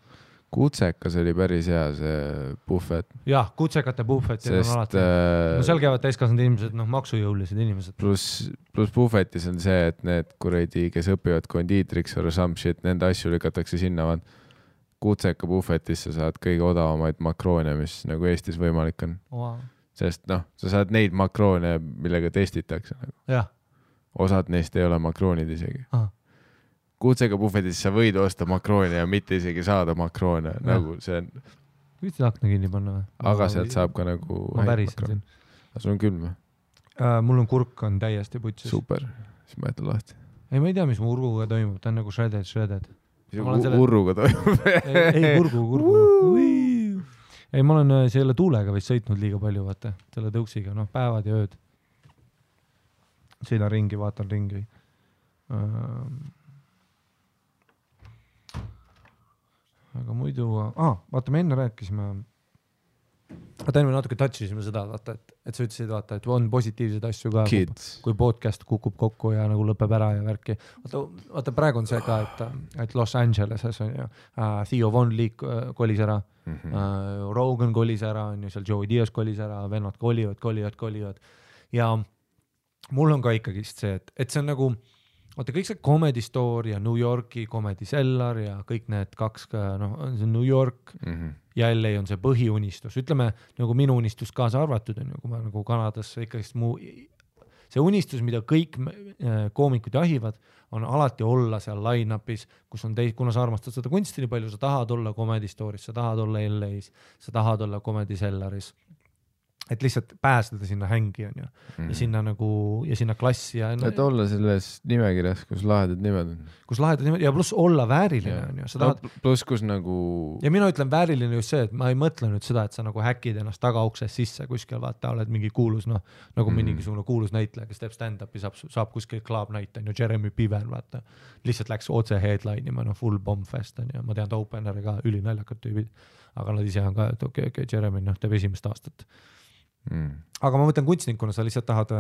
Kutsekas oli päris hea see buffet. Jah, kutsekate buffet on alati. Seal käivad täiskasvanud inimesed, maksujõulised inimesed. Plus buffetis on see, et need kuradi, kes õpivad kondiitriks or some shit, nende asju lükatakse sinna. Kutseka buffetis sa saad kõige odavamaid makroone, mis nagu Eestis võimalik on. Wow. Sest sa saad neid makroone, millega testitakse. Jah. Osad neist ei ole makroonid isegi. Kutsega buffetis sa võid osta makroone ja mitte isegi saada makroone. Nagu see on... Võid akna kinni panna või? Aga sealt saab ka nagu... Ma pärisin siin. Aga sul on külm või? Mul on kurk on täiesti putsis. Super. Siis ma jätan lahti. Ei, ma ei tea, mis mu urguga toimub. Ta on nagu shredded. Urruga toimub. Ei, kurgu. Ei, ma olen selle tuulega vist sõitnud liiga palju, vaata. Selle tõuksiga, päevad ja ööd. Sõidan ringi, vaatan ringi. aga muidu, vaata, me enne rääkisime, enne me natuke touchisime seda, vaata, et sa ütlesid, vaata, et on positiivseid asju ka, kui podcast kukub kokku ja nagu lõpeb ära ja värki. Vaata, praegu on see ka, et Los Angeleses on ju, Theo Von Leek kolis ära, Rogan kolis ära, on ju, seal Joey Diaz kolis ära, vennad kolivad ja mul on ka ikkagist see, et see on nagu, vaata kõik see Comedy Store ja New Yorki Comedy Cellar ja kõik need kaks, on see New York ja LA on see põhiunistus, ütleme nagu minu unistus kaasa arvatud on ju, kui ma nagu Kanadas ikkagist see unistus, mida kõik koomikud jahivad, on alati olla seal line-upis, kus on kuna sa armastad seda kunsti nii palju, sa tahad olla Comedy Store'is, sa tahad olla LA-s, sa tahad olla Comedy Cellaris. Et lihtsalt pääseda sinna hängi on ju ja sinna nagu ja sinna klassi ja et olla selles nimekirjas, kus lahedad nimed on. Kus lahedad nimed ja pluss olla vääriline on ju. Pluss kus nagu ja mina ütlen vääriline just see, et ma ei mõtle nüüd seda, et sa nagu häkid ennast tagauksest sisse kuskil, vaata, oled mingi kuulus, nagu mingisugune kuulus näitleja, kes teeb stand-upi, saab kuskil Club Night on ju, Jeremy Piven, vaata. Lihtsalt läks otse headline'ima, full bomb fest on ju, ma tean openeri ka, ülinaljakad tüübid, aga nad ise on ka, et okei, Jeremy teeb esimest aastat. Aga ma mõtlen kunstnikuna, sa lihtsalt tahad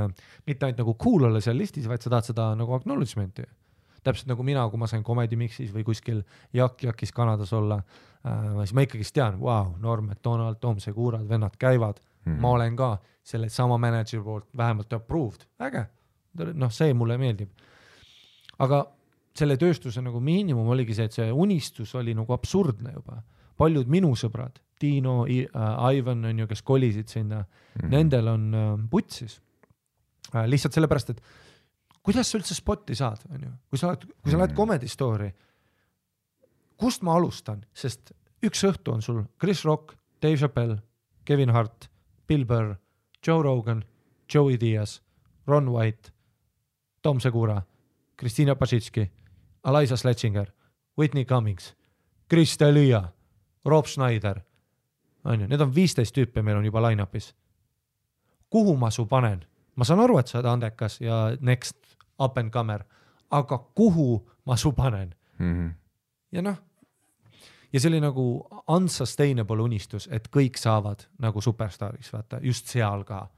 mitte ainult nagu cool olla seal listis, vaid sa tahad seda nagu acknowledgement'i. Täpselt nagu mina, kui ma sain Comedy Mixis või kuskil Jakis Kanadas olla, siis ma ikkagist tean, wow, Norm, Donald, Tom Segurad, vennad käivad, ma olen ka selle sama manager poolt vähemalt approved, äge, see mulle meeldib. Aga selle tööstuse nagu miinimum oligi see, et see unistus oli nagu absurdne juba. Paljud minu sõbrad, Tino, Ivan on ju, kes kolisid sinna, nendel on putsis. Lihtsalt sellepärast, et kuidas sa üldse spotti saad, on ju? Kui sa lähed Comedy Store'i, kust ma alustan? Sest üks õhtu on sul Chris Rock, Dave Chappelle, Kevin Hart, Bill Burr, Joe Rogan, Joey Diaz, Ron White, Tom Segura, Kristina Pasitski, Eliza Sledginger, Whitney Cummings, Chris D'Elia, Rob Schneider, need on 15 tüüpi, meil on juba line-upis. Kuhu ma su panen? Ma saan aru, et sa oled andekas ja next up and comer, aga kuhu ma su panen? Ja ja see oli nagu unsustainable unistus, et kõik saavad nagu superstariks, vaata, just seal ka,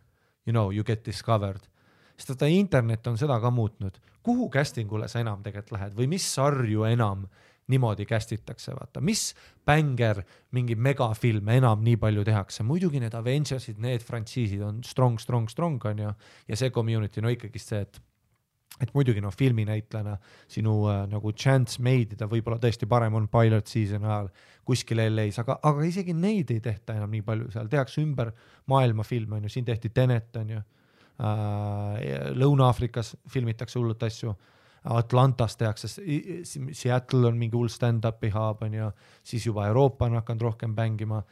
you get discovered. Sest internet on seda ka muutnud. Kuhu castingule sa enam tegelikult lähed või mis sarju enam niimoodi kästitakse, vaata, mis bänger, mingi megafilm enam nii palju tehakse, muidugi need Avengersid, need frantsiisid on strong on ju, ja see community ikkagist see, et muidugi filminäitlejana sinu nagu chance meidida võib-olla tõesti parem on pilot season ajal kuskil LA-s, aga isegi neid ei tehta enam nii palju, seal tehakse ümber maailma film, on ju, siin tehti Tenet, on ju, Lõuna-Aafrikas filmitakse hullut asju, Atlantas tehakse, Seattle on mingi hull stand-upi hub on ja siis juba Euroopa on hakanud rohkem bängima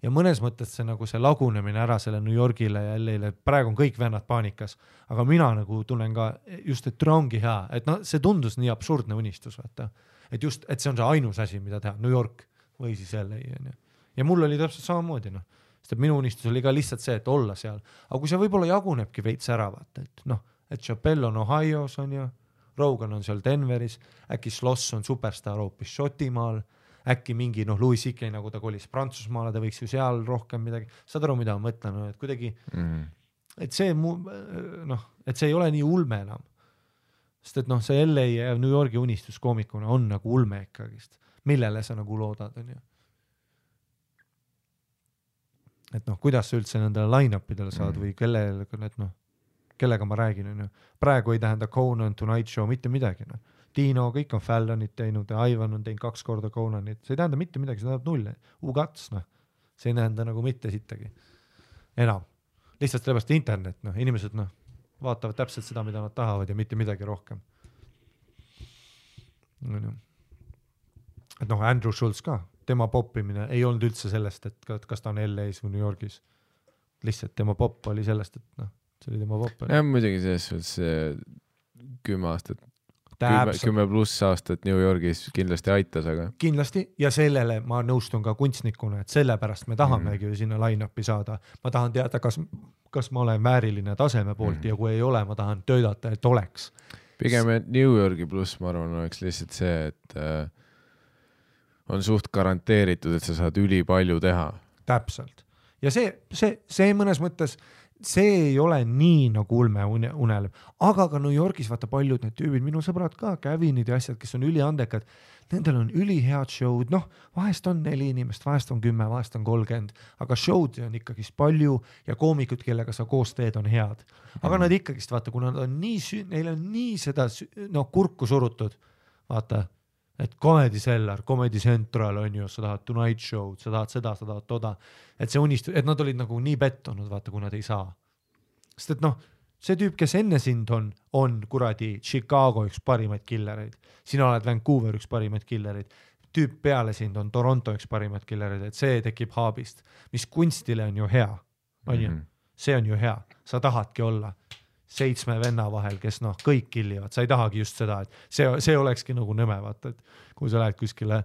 ja mõnes mõttes see nagu see lagunemine ära selle New Yorgile ja LA-le, praegu on kõik vennad paanikas, aga mina nagu tunnen ka just, et ongi hea, et see tundus nii absurdne unistus, vaata, et just, et see on see ainus asi, mida teha, New York või siis LA on ju. Ja mul oli täpselt samamoodi, sest et minu unistus oli ka lihtsalt see, et olla seal, aga kui see võib-olla jagunebki veits ära, vaata, et Chappelle on Ohio's on ju, Rogan on seal Denveris, äkki Sloss on superstar hoopis Šotimaal, äkki mingi Louis C.K. nagu ta kolis Prantsusmaale, ta võiks ju seal rohkem midagi, saad aru, mida ma mõtlen, et kuidagi, et see et see ei ole nii ulme enam, sest et see LA ja New Yorgi unistus koomikuna on nagu ulme ikkagist, millele sa nagu loodad, on ju. Et kuidas sa üldse nendele line-upidele saad või kellega ma räägin, on ju. Praegu ei tähenda Conan, Tonight Show, mitte midagi, Tino, kõik on Fallonit teinud ja Ivan on teinud 2 korda Conanit, see ei tähenda mitte midagi, see tähendab 0, ugats, see ei tähenda nagu mitte sittagi enam, lihtsalt sellepärast internet, inimesed vaatavad täpselt seda, mida nad tahavad ja mitte midagi rohkem. Et Andrew Schultz ka, tema poppimine ei olnud üldse sellest, et kas ta on LA-s või New Yorgis, lihtsalt tema popp oli sellest, et see oli tema popp. Ja muidugi selles 10 aastat, 10+ aastat New Yorgis kindlasti aitas, aga kindlasti ja sellele ma nõustun ka kunstnikuna, et sellepärast me tahamegi sinna line-upi saada. Ma tahan teada, kas ma olen vääriline taseme poolt ja kui ei ole, ma tahan töötada, et oleks. Pigem New Yorgi pluss, ma arvan, oleks lihtsalt see, et on suht garanteeritud, et sa saad ülipalju teha. Täpselt. Ja see mõnes mõttes, see ei ole nii nagu ulme unelm, aga ka New Yorgis vaata paljud need tüübid, minu sõbrad ka, Kevinid ja asjad, kes on üliandekad, nendel on ülihead show'd, vahest on 4 inimest, vahest on 10, vahest on 30, aga show'd on ikkagist palju ja koomikud, kellega sa koos teed, on head. Aga nad ikkagist, vaata, kuna nad on neil on nii seda kurku surutud, vaata, et Comedy Cellar, Comedy Central on ju, sa tahad Tonight Show'd, sa tahad seda, sa tahad toda, et see unistus, et nad olid nagu nii pettunud, vaata, kui nad ei saa. Sest et see tüüp, kes enne sind on kuradi Chicago üks parimaid killereid, sina oled Vancouver üks parimaid killereid, tüüp peale sind on Toronto üks parimaid killereid, et see tekib haabist, mis kunstile on ju hea, on ju, see on ju hea, sa tahadki olla 7 venna vahel, kes kõik killivad, sa ei tahagi just seda, et see olekski nagu nõme, vaata, et kui sa lähed kuskile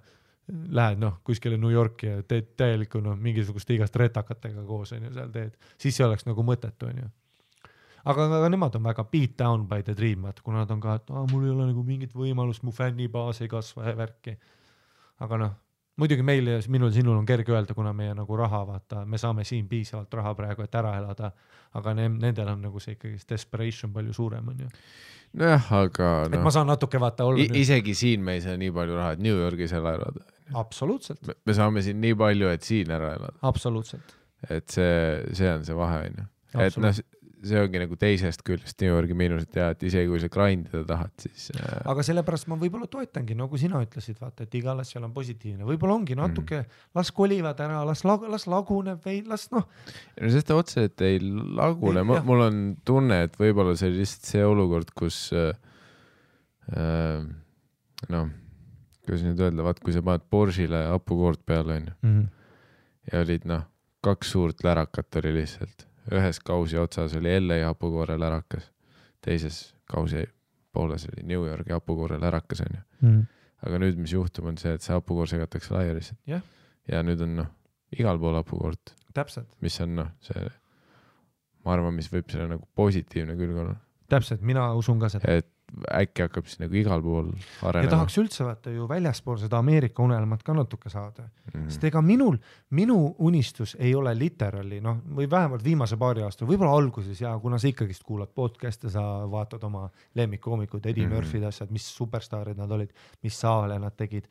New Yorki ja teed täielikku mingisuguste igast retakatega koos, on ju, seal teed, siis see oleks nagu mõttetu, on ju. Aga nemad on väga beat down by the dream, vaata, kuna nad on ka, et mul ei ole nagu mingit võimalust, mu fännibaas ei kasva ja värki. Aga muidugi meil ja sinul on kerge öelda, kuna meie nagu raha, vaata, me saame siin piisavalt raha praegu, et ära elada, aga nendel on nagu see ikkagi desperation palju suurem, on ju. Nojah, aga et ma saan natuke vaata olla. Isegi siin me ei saa nii palju raha, et New Yorgis ära elada. Absoluutselt. Me saame siin nii palju, et siin ära elada. Absoluutselt. Et see on see vahe, on ju. Et see ongi nagu teisest küljest New Yorgi miinused ja et isegi kui sa grindida tahad, siis... Aga sellepärast ma võib-olla toetangi, nagu sina ütlesid, vaata, et igal asjal on positiivne. Võib-olla ongi natuke, las kolivad ära, las laguneb või las Sest otse, et ei lagune. Mul on tunne, et võib-olla see lihtsalt see olukord, kus kuidas nüüd öelda, vaat kui sa paned Porsche'le hapukoort peale, on ja olid 2 suurt lärakat oli lihtsalt. Ühes kausi otsas oli LA hapukoore lärakas, teises kausi pooles oli New Yorgi hapukoore lärakas, on ju. Aga nüüd, mis juhtub, on see, et see hapukoor segatakse laia lihtsalt. Ja nüüd on igal pool hapukoort. Täpselt. Mis on see, ma arvan, mis võib selle nagu positiivne külg olla. Täpselt, mina usun ka seda. Et äkki hakkab siis nagu igal pool arenema. Ja tahaks üldse vaata ju väljaspool seda Ameerika unelmat ka natuke saada. Sest ega minu unistus ei ole literally, või vähemalt viimase paari aasta, võib-olla alguses ja kuna sa ikkagist kuulad podcast'e, sa vaatad oma lemmikkoomikud, Eddie Murphy'd asjad, mis superstaarid nad olid, mis saale nad tegid.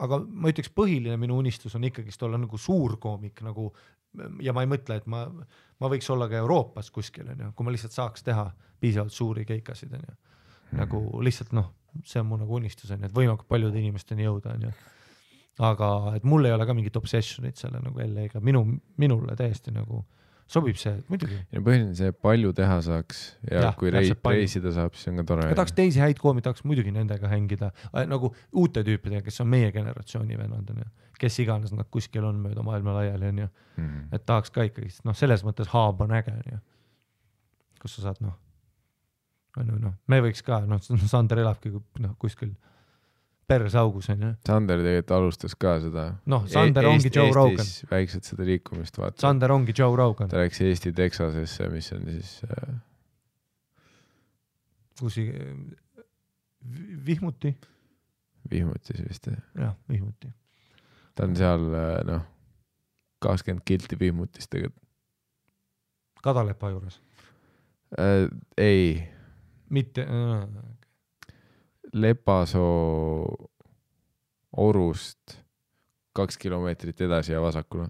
Aga ma ütleks, põhiline minu unistus on ikkagist olla nagu suur koomik, nagu, ja ma ei mõtle, et ma võiks olla ka Euroopas kuskil, kui ma lihtsalt saaks teha piisavalt suuri keikasid, nagu lihtsalt see on mu nagu unistus, et võimalikult paljude inimesteni jõuda, aga et mul ei ole ka mingit obsessionit selle nagu LA-ga, minule täiesti nagu sobib see, muidugi. Ja põhiline see palju teha saaks ja kui reisida saab, siis on ka tore. Ja tahaks teisi häid koomi, tahaks muidugi nendega hängida, nagu uute tüüpidega, kes on meie generatsiooni vennad, kes iganes nad kuskil on mööda maailma laiali, et tahaks ka ikkagi, selles mõttes haab on äge, kus sa saad, me võiks ka, Sander elabki kuskil persaugus, on ju. Sander tegelikult alustas ka seda. Sander ongi Joe Rogan. Eestis väikselt seda liikumist vaata. Sander ongi Joe Rogan. Ta läks Eesti Texasesse, mis on siis... Kusi... Vihmuti? Vihmutis vist. Jah, Vihmuti. Ta on seal, 20 kilti Vihmutis tegelikult. Kadalepa juures? Ei. Mitte... Lepasoo Orust 2 kilomeetrit edasi ja vasakule.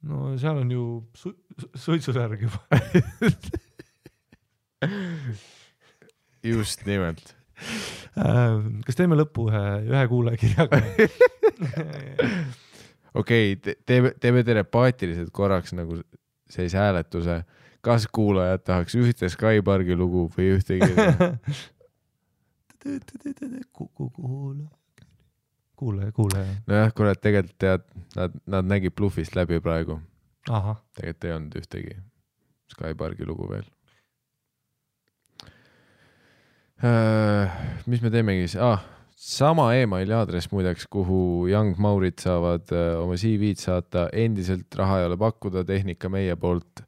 No seal on ju suitsusärg juba. Just nimelt. Kas teeme lõppu ühe kuulajakirjaga? Okei, teeme telepaatiliselt korraks nagu sellise hääletuse. Kas kuulajad tahaks ühte Sky Parki lugu või ühtegi? Kuule. Nojah, kurat, tegelikult tead, nad nägid Bluffist läbi praegu. Aha. Tegelikult ei olnud ühtegi Sky Parki lugu veel. Mis me teemegi? Sama emaili aadress muideks, kuhu Young Maurid saavad oma CV-d saata. Endiselt raha ei ole pakkuda, tehnika meie poolt.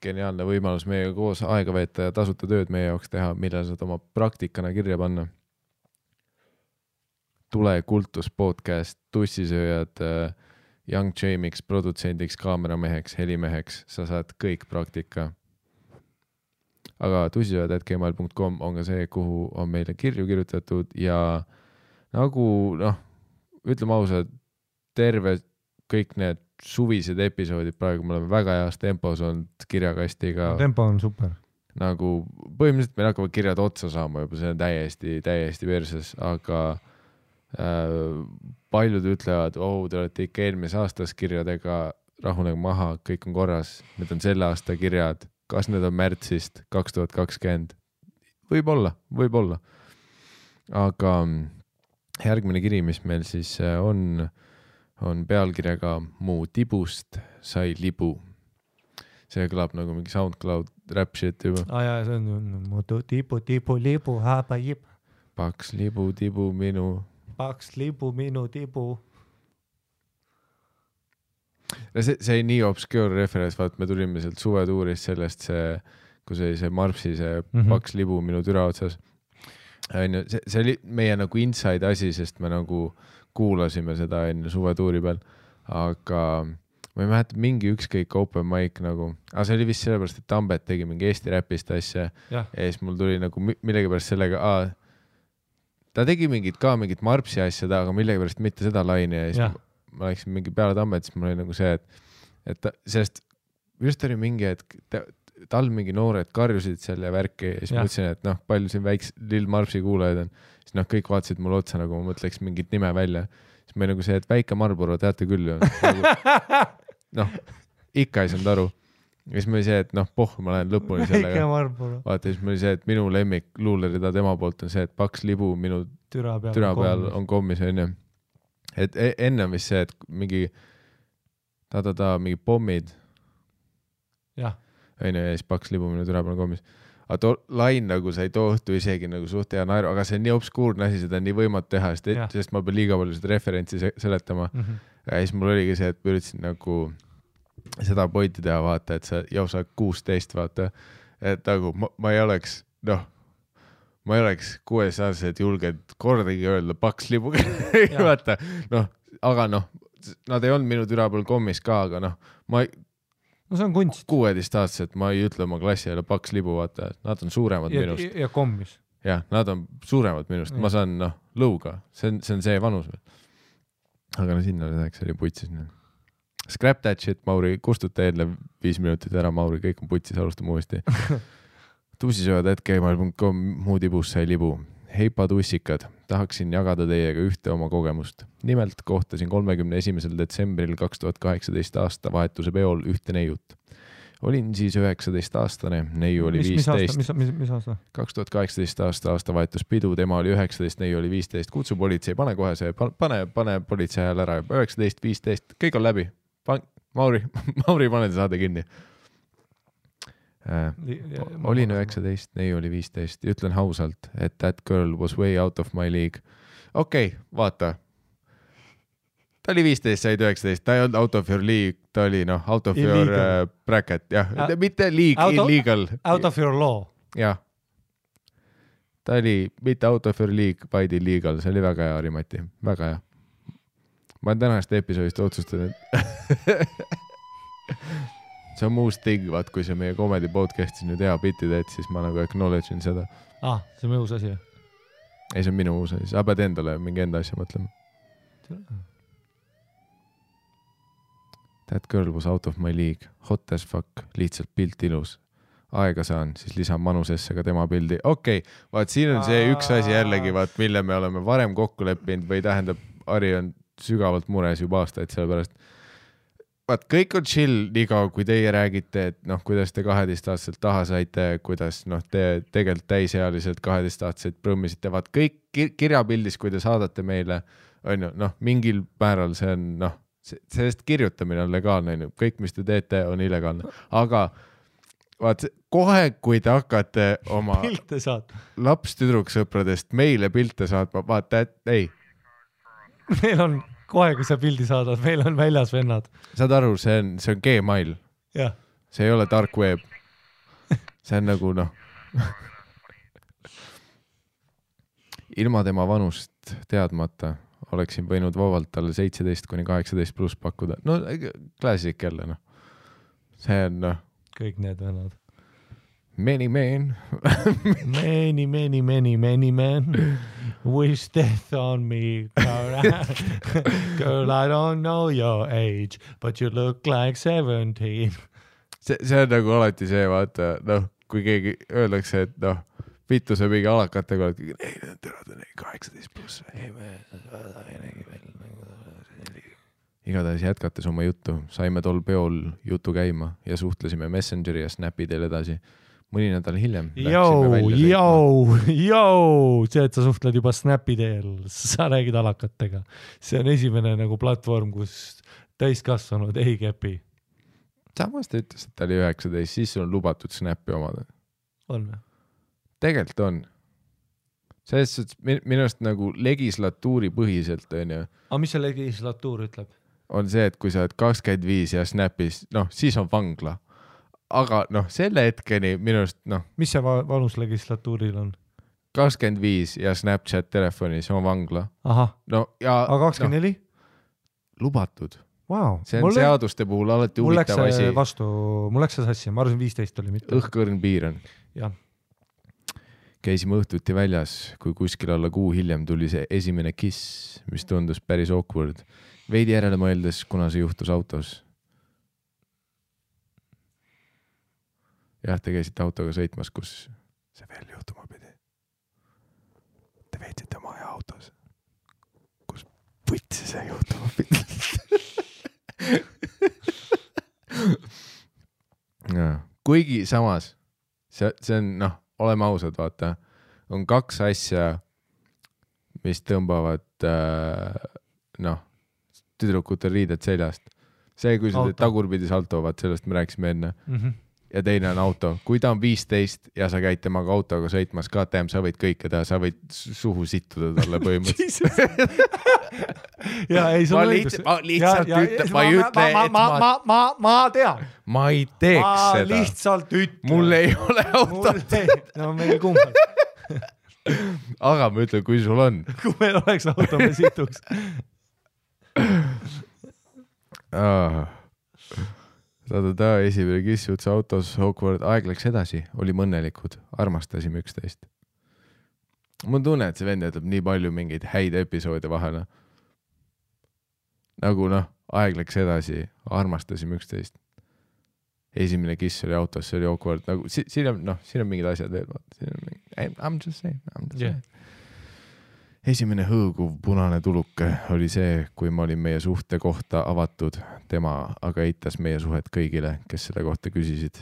Geniaalne võimalus meiega koos aega veeta ja tasuta tööd meie jaoks teha, millal saad oma praktikana kirja panna. Tule Kultus podcast, tussisööjad, Young Jamiks, produtsendiks, kaamerameheks, helimeheks, sa saad kõik praktika. Aga tussisööjad@gmail.com on ka see, kuhu on meile kirju kirjutatud ja nagu ütleme ausalt, terve kõik need suvised episoodid praegu me oleme väga heas tempos olnud kirjakastiga. Tempo on super. Nagu põhimõtteliselt meil hakkavad kirjad otsa saama juba, see on täiesti verses, aga paljud ütlevad, te olete ikka eelmise aastas kirjadega, rahunege maha, kõik on korras, need on selle aasta kirjad, kas need on märtsist 2020? Võib-olla. Aga järgmine kiri, mis meil siis on pealkirjaga Mu tibust sai libu. See kõlab nagu mingi SoundCloud rap shit juba. Jaa, see on mu tibu, libu, haba jib. Paks libu, tibu minu. Paks libu, minu tibu. See nii obscure reference, vaat me tulime sealt suvetuurist sellest kui see Marpsi, see paks libu minu türa otsas. See oli meie nagu inside asi, sest me nagu kuulasime seda enne suvetuuri peal, aga ma ei mäleta mingi ükskõik open mic nagu, aga see oli vist sellepärast, et Tambet tegi mingi Eesti räpist asja ja siis mul tuli nagu millegipärast sellega, ta tegi mingit Marpsi asja aga millegipärast mitte seda laine ja siis ma läksin mingi peale Tambet, siis mul oli nagu see, et sellest just oli mingi, et tal mingi noored karjusid selle värki ja siis mõtlesin, et palju siin väiks Lill Marpsi kuulajaid on, siis kõik vaatasid mulle otsa, nagu ma mõtleks mingit nime välja, siis ma nagu see, et Väike Marlboro teate küll ju. Ikka ei saanud aru. Ja siis ma oli see, et ma lähen lõpuni sellega. Väike Marlboro. Vaata, siis ma oli see, et minu lemmik luulerida tema poolt on see, et paks libu minu türa peal on kommis, on ju. Et enne on vist see, et mingi mingi pommid. Jah. Ja siis paks libu minu türa peal on kommis. Aga too lain nagu sa ei toohtu isegi nagu suht hea naeru, aga see on nii obskuurne asi, seda on nii võimatu teha, sest ma pean liiga palju seda referentsi seletama. Ja siis mul oligi see, et ma üritasin nagu seda pointi teha, vaata, et sa 16, vaata, et nagu ma ei oleks 6-aastased julged kordagi öelda paks libuga. Vaata, aga nad ei olnud minu türa peal kommis ka, aga see on kunst. 16-aastased, ma ei ütle oma klassi jälle paks libu, vaata, nad on suuremad minust. Ja kommis. Jah, nad on suuremad minust, ma saan lõuga, see on see vanus. Aga sinna läheks, oli putsis. Scrap that shit, Mauri, kustuta eelnev 5 minutit ära, Mauri, kõik on putsis, alustame uuesti. Tussisööjad@gmail.com, Mu tibust sai libu. Heipa tussikad, tahaksin jagada teiega ühte oma kogemust. Nimelt kohtasin 31. detsembril 2018 aasta vahetuse peol ühte neiut. Olin siis 19-aastane, neiu oli 15. Mis aasta? 2018 aasta vahetuspidu, tema oli 19, neiu oli 15. Kutsu politsei, pane kohe see, pane politsei hääl ära. 19, 15, kõik on läbi. Mauri, pane saade kinni. Olin 19, neiu oli 15. Ütlen hausalt, et that girl was way out of my league. Okei, vaata. Ta oli 15, said 19, ta ei olnud out of your league, ta oli out of illegal. Your bracket, jah, mitte league, illegal. Out of your law. Jah. Ta oli mitte out of your league, vaid illegal, see oli väga hea, Rimati, väga hea. Ma olen tänast episoodist otsustanud. See on muust ting, vaat kui see meie comedy podcastis nüüd hea bitti teed, siis ma nagu acknowledge'in seda. See on minu uus asi. Ei, see on minu uus asi, sa pead endale mingi enda asja mõtlema. That girl was out of my league, hot as fuck, lihtsalt pilt ilus. Aega saan, siis lisan manusesse ka tema pildi. Okei, vaat siin on see üks asi jällegi, vaat mille me oleme varem kokku leppinud või tähendab, Ari on sügavalt mures juba aastaid sellepärast. Vaat kõik on chill nii kaua, kui teie räägite, et kuidas te 12-aastaselt taha saite, kuidas te tegelikult täisealiselt 12-aastaselt prõmmisite, vaat kõik kirjapildis, kui te saadate meile, on ju, mingil määral see on, sellest kirjutamine on legaalne, kõik, mis te teete, on illegaalne, aga vaat kohe, kui te hakkate oma laps-tüdruksõpradest meile pilte saatma, vaata, et ei. Meil on kohe, kui sa pildi saadad, meil on väljas vennad. Saad aru, see on Gmail. Ja. See ei ole dark web. See on nagu ilma tema vanust teadmata oleksin võinud vabalt talle 17-18+ pakkuda. No klassik jälle, noh. See on, noh. Kõik need vennad. Many man. many man. Wish death on me. Girl, I don't know your age, but you look like 17. See on nagu alati see, vaata, noh, kui keegi öeldakse, et noh, vittu see mingi alakatega, ei, terad on 18+. Igatahes jätkates oma juttu, saime tol peol jutu käima ja suhtlesime Messengeri ja Snapi teel edasi. Mõni nädal hiljem see, et sa suhtled juba Snapi teel, sa räägid alakatega. See on esimene nagu platvorm, kus täiskasvanud ei kepi. Samas ta ütles, et ta oli 19, siis on lubatud Snapi omada. On või? Tegelikult on. Sellest minust nagu legislatuuri põhiselt on ju. Aga mis see legislatuur ütleb? On see, et kui sa oled 25 ja Snapis, noh, siis on vangla. Aga noh, selle hetkeni minust, noh. Mis see vanus legislatuuril on? 25 ja Snapchat telefonis on vangla. Aha. No, ja, aga 24? No, lubatud. Wow. See on seaduste puhul alati huvitav asi. Mul läks see sassi, ma arvasin 15 oli mitte. Õhkõrn piir on. Jah. Käisime õhtuti väljas, kui kuskil alla kuu hiljem tuli see esimene kiss, mis tundus päris awkward. Veidi järele mõeldes, kuna see juhtus autos. Jah, te käisite autoga sõitmas, kus see veel juhtuma pidi. Te veetsite oma aja autos, kus võtsi see juhtuma pidi. Ja, kuigi samas, see on, noh, oleme ausad, vaata, on 2 asja, mis tõmbavad, noh, tüdrukute riided seljast. See, kui sa teed tagurpidi salto, vaat sellest me rääkisime enne. Ja teine on auto. Kui ta on 15 ja sa käid temaga autoga sõitmas, KTM, sa võid kõike teha, sa võid suhu sittuda talle põhimõtteliselt. Ja ei, ma lihtsalt ütlen, ma ei ütle, et ma tean. Ma ei teeks seda. Ma lihtsalt ütlen. Mul ei ole autot. No meil kumbad. Aga ma ütlen, kui sul on. Kui meil oleks auto, me situks. Esimene kiss jutsa autos, awkward, aeg läks edasi, olime õnnelikud, armastasime üksteist. Mul tunne, et see vend jätab nii palju mingeid häid episoode vahele. Nagu noh, aeg läks edasi, armastasime üksteist. Esimene kiss oli autos, see oli awkward. Nagu, siin on mingid asjad veel. I'm just saying. Esimene hõõguv punane tuluke oli see, kui ma olin meie suhte kohta avatud, tema aga eitas meie suhet kõigile, kes selle kohta küsisid.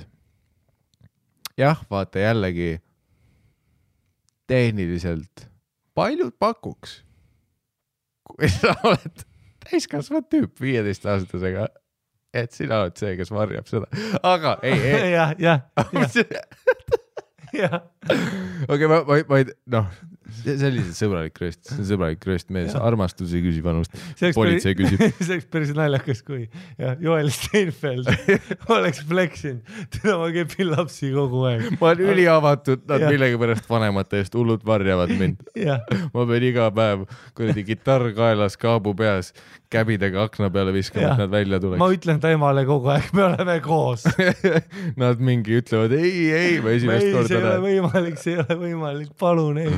Jah, vaata jällegi tehniliselt paljud pakuks, kui sa oled täiskasvanud tüüp 15-aastasega, et sina oled see, kes varjab seda. Aga ei. Jah. Okei, ma ei, noh, see oli sõbralik rööst mees, armastus ei küsi vanust, politsei küsib. See oleks päris naljakas, kui Joel Steinfeld oleks fleksinud, teda ma kepin lapsi kogu aeg. Ma olen üliavatud, nad millegi pärast vanemate eest hullud varjavad mind. Ma pean iga päev kuradi kitarr kaelas, kaabu peas, käbidega akna peale viskama, et nad välja tuleks. Ma ütlen ta emale kogu aeg, me oleme koos. Nad mingi ütlevad, ei, ma esimest korda see ei ole võimalik, palun ei.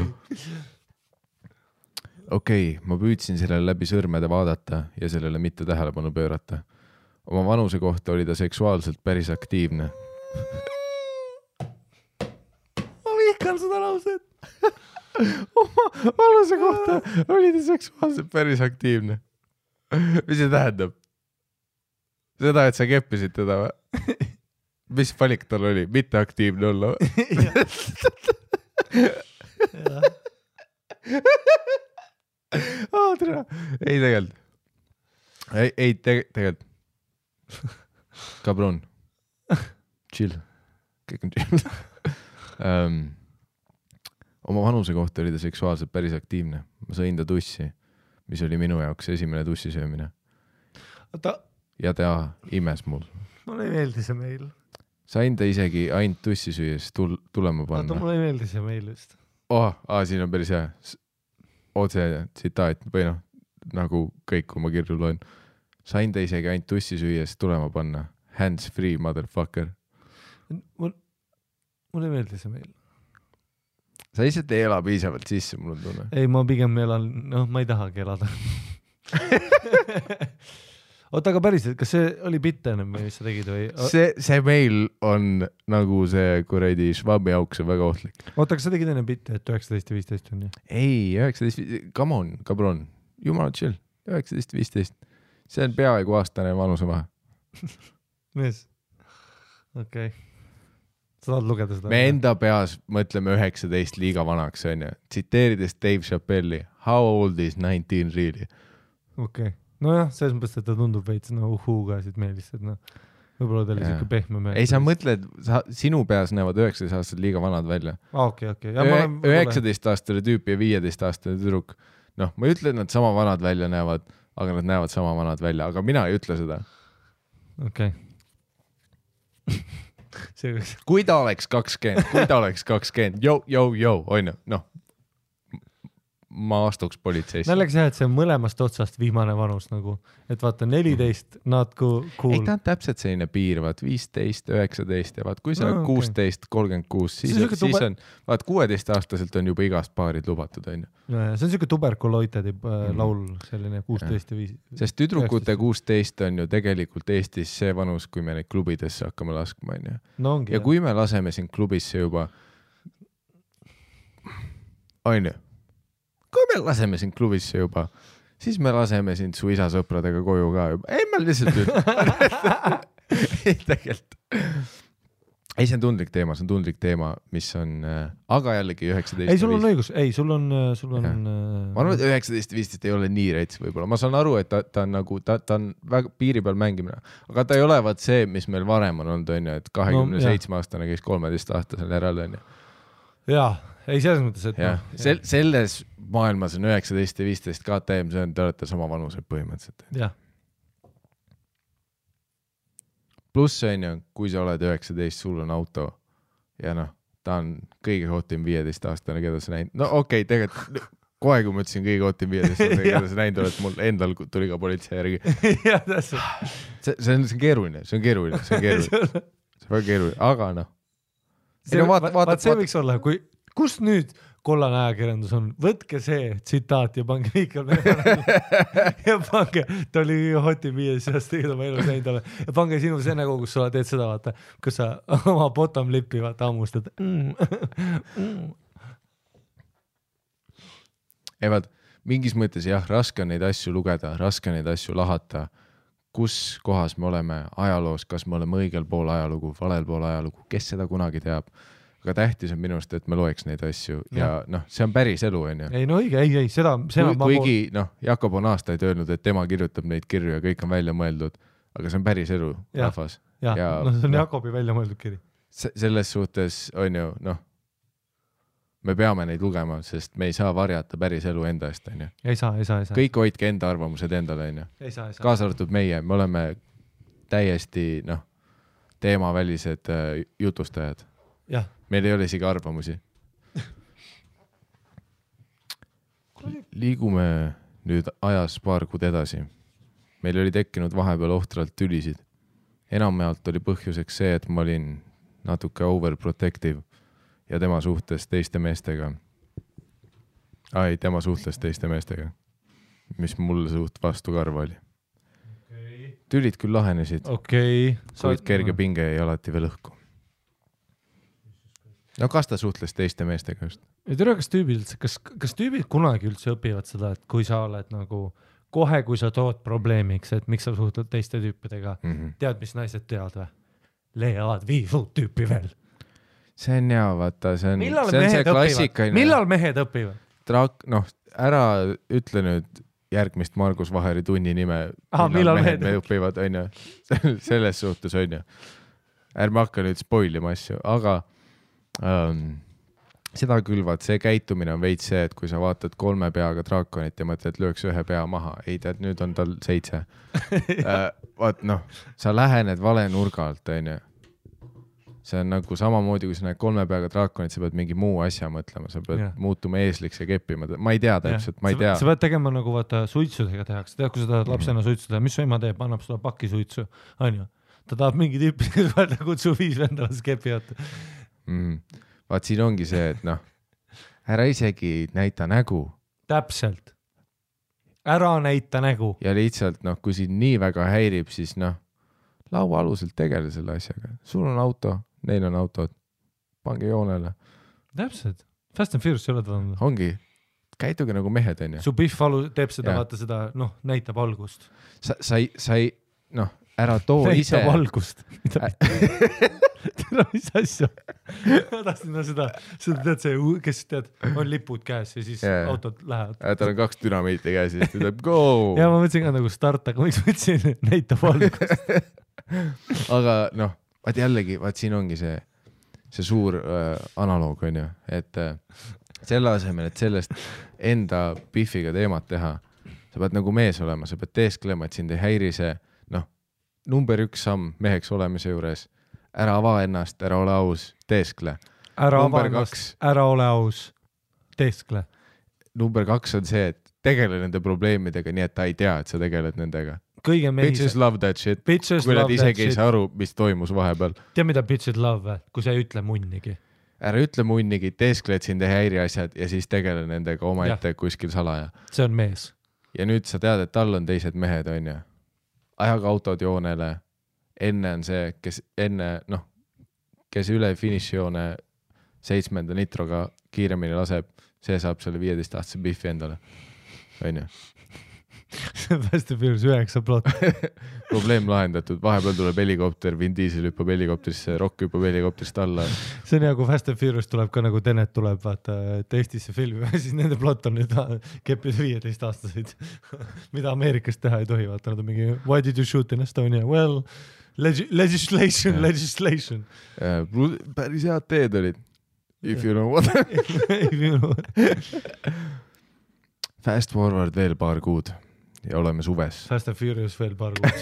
Okei, ma püüdsin sellele läbi sõrmede vaadata ja sellele mitte tähelepanu pöörata. Oma vanuse kohta oli ta seksuaalselt päris aktiivne. Ma vihkan seda lauset. Oma vanuse kohta oli ta seksuaalselt päris aktiivne. Mis see tähendab? Seda, et sa keppisid teda või? Mis valik tal oli? Mitte aktiivne olla või? Ei tegelikult. Ei tegelikult. Kabron. Chill. Kõik on chill. Oma vanuse kohta oli ta seksuaalselt päris aktiivne. Ma sõin ta tussi, mis oli minu jaoks esimene tussisöömine. Ja ta imes mul. Mulle ei meeldi see meil. Sain ta isegi ainult tussi süües tulema panna. Mulle ei meeldi see meil just. Siin on päris hea. Otse tsitaat või noh, nagu kõik, kui ma kirju loen. Sain ta isegi ainult tussi süües tulema panna. Hands free, motherfucker. Mulle meeldis see meil. Sa lihtsalt ei ela piisavalt sisse, mul on tunne. Ei, ma pigem elan, ma ei tahagi elada. Oota, aga päriselt, kas see oli bitt ennem või mis sa tegid või? See meil on nagu see kuradi švabi auks on väga ohtlik. Oota, kas sa tegid enne bitti, et 19 ja 15 on ju? Ei, 19, come on, cabron. Jumala chill. 19-15. See on peaaegu aastane vanuse vahe. Mees. Okei. Sa tahad lugeda seda? Me enda peas mõtleme 19 liiga vanaks, on ju. Tsiteerides Dave Chappelli. How old is 19 really? Okei. Nojah, selles mõttes, et ta tundub veits uhuga siit meelist, et võib-olla ta oli siuke pehme mees. Ei, sa mõtled, sinu peas näevad 19 aastased liiga vanad välja. Okei. 19-aastane tüüp ja 15-aastane tüdruk. Noh, ma ei ütle, et nad sama vanad välja näevad, aga nad näevad sama vanad välja, aga mina ei ütle seda. Okei. Kui ta oleks 20, on ju, noh. Ma astuks politseisse. Naljaga see, et see on mõlemast otsast viimane vanus nagu, et vaata 14, not cool. Ei, ta on täpselt selline piir, vaat 15, 19 ja vaat kui sa 16, 36, siis on, vaat 16-aastaselt on juba igast paarid lubatud, on ju. See on siuke tuberkuloitedi laul, selline 16 ja 5. Sest tüdrukute 16 on ju tegelikult Eestis see vanus, kui me neid klubidesse hakkame laskma, on ju. No ongi, ja kui me laseme sind klubisse juba, on ju. Kui me laseme sind klubisse juba, siis me laseme sind su isa sõpradega koju ka juba. Ei, ma lihtsalt ei, tegelikult. Ei, see on tundlik teema, mis on, aga jällegi 19. Ei, sul on õigus, sul on. Ma arvan, et 19-15 ei ole nii rets võib-olla. Ma saan aru, et ta on nagu, ta on väga piiri peal mängimine, aga ta ei ole vaat see, mis meil varem on olnud, on ju, et 27-aastane käis 13-aastasel järel, on ju. Jaa. Ei, selles mõttes, et selles maailmas on 19 ja 15 KTM, see on, te olete sama vanused põhimõtteliselt. Jah. Pluss on ju, kui sa oled 19, sul on auto ja noh, ta on kõige hotim 15-aastane, keda sa näinud. No okei, tegelikult kohe, kui ma ütlesin kõige hotim 15-aastane, keda sa näinud oled, mul endal tuli ka politsei järgi. Jah, täpselt. See on keeruline. See on väga keeruline, aga noh. Vaat see võiks olla, kus nüüd kollane ajakirjandus on? Võtke see tsitaat ja pange Miikal ja pange, ta oli hoti 5 seast, tegid oma elus näinud ole. Ja pange sinu see nägu, kus sa teed seda, vaata, kus sa oma bottom lipi vaata ammustad. Ei vaat, mingis mõttes jah, raske on neid asju lugeda, raske neid asju lahata. Kus kohas me oleme ajaloos, kas me oleme õigel pool ajalugu, valel pool ajalugu, kes seda kunagi teab. Aga tähtis on minust, et me loeks neid asju ja noh, see on päris elu, on ju. Ei, no õige, ei, seda kuigi, noh, Jakob on aastaid öelnud, et tema kirjutab neid kirju ja kõik on välja mõeldud, aga see on päris elu, rahvas. Ja, see on Jakobi välja mõeldud kiri. Selles suhtes on ju, noh, me peame neid lugema, sest me ei saa varjata päris elu enda eest, on ju. Ei saa. Kõik hoidke enda arvamused endale, on ju. Kaasa arvatud meie, me oleme täiesti, noh, teemavälised jutustajad. Jah. Meil ei ole isegi arvamusi. Liigume nüüd ajas paar kuud edasi. Meil oli tekkinud vahepeal ohtralt tülisid. Enamjaolt oli põhjuseks see, et ma olin natuke overprotective ja tema suhtles teiste meestega. Tema suhtles teiste meestega, mis mulle suht vastu karva oli. Tülid küll lahenesid, kuid kerge pinge jäi alati veel õhku. No kas ta suhtles teiste meestega just? Ei tere, kas tüübid kunagi üldse õpivad seda, et kui sa oled nagu kohe, kui sa tood probleemiks, et miks sa suhtled teiste tüüpidega, tead, mis naised teavad või? Leiavad 5 uut tüüpi veel. See on hea, vaata, see on see klassikaline. Millal mehed õpivad? Noh, ära ütle nüüd järgmist Margus Vaheri tunni nime. Millal mehed õpivad, on ju. Selles suhtes on ju. Ärme hakka nüüd spoilima asju, aga seda külvad, see käitumine on veits see, et kui sa vaatad 3 peaga draakonit ja mõtled, lööks 1 pea maha. Ei tead, nüüd on tal 7. Vaat noh, sa lähened vale nurga alt, on ju. see on nagu samamoodi, kui sa näed 3 peaga draakonit, sa pead mingi muu asja mõtlema, sa pead muutuma eesliks ja keppima. Ma ei tea täpselt, ma ei tea. Sa pead tegema nagu vaata suitsudega tehakse. Tead, kui sa tahad lapsena suitsu teha, mis su ema teeb, annab sulle paki suitsu, on ju. Ta tahab mingi tüüpi, kes vaata kutsu 5 vendalas kepivad. Vaat siin ongi see, et noh, ära isegi näita nägu. Täpselt. Ära näita nägu. Ja lihtsalt, noh, kui siin nii väga häirib, siis noh, laua aluselt tegele selle asjaga. Sul on auto, neil on autod. Pange joonele. Täpselt. Fast and Furious ei ole ta. Ongi. Käituge nagu mehed, on ju. Su Biff teeb seda, vaata seda, noh, näitab algust. Sa ei, noh, ära too näitab ise. Näitab algust. Tere, mis asja? Ma tahtsin seda tead see, kes tead, on lipud käes ja siis autod lähevad. Tal on 2 dünamiiti käes ja siis tuleb go! Ja ma mõtlesin ka nagu start, aga miks mõtlesin, näitab algust. Aga noh, vaat jällegi, vaat siin ongi see suur analoog, on ju, et selle asemel, et sellest enda Biffiga teemat teha, sa pead nagu mees olema, sa pead teesklema, et sind ei häiri see, noh, number 1 samm meheks olemise juures, ära ava ennast, ära ole aus, teeskle. Ära ava ennast, ära ole aus, teeskle. Number 2 on see, et tegele nende probleemidega nii, et ta ei tea, et sa tegeled nendega. Kõige bitches love that shit. Kui nad isegi ei saa aru, mis toimus vahepeal. Tea, mida bitches love, kui sa ei ütle munnigi. Ära ütle munnigi, teeskle, et sind ei häiri asjad ja siis tegele nendega oma ette kuskil salaja. See on mees. Ja nüüd sa tead, et tal on teised mehed, on ju. Ajaga autod joonele. Enne on see, kes üle finišijoone 7. nitroga kiiremini laseb, see saab selle 15-aastase Biffi endale. On ju. Fast and Furious 9 plot. Probleem lahendatud, vahepeal tuleb helikopter, Vin Diesel hüppab helikopterisse, Rock hüppab helikopterist alla. See on hea, kui Fast and Furious tuleb ka nagu Tenet tuleb, vaata, et Eestisse filmi, siis nende plot on nüüd keppida 15-aastaseid, mida Ameerikas teha ei tohi, vaata, nad on mingi why did you shoot in Estonia? Well, legislation. Päris head teed olid. If you know what. Fast forward veel paar kuud. Ja oleme suves. Fast and Furious veel paar kuud.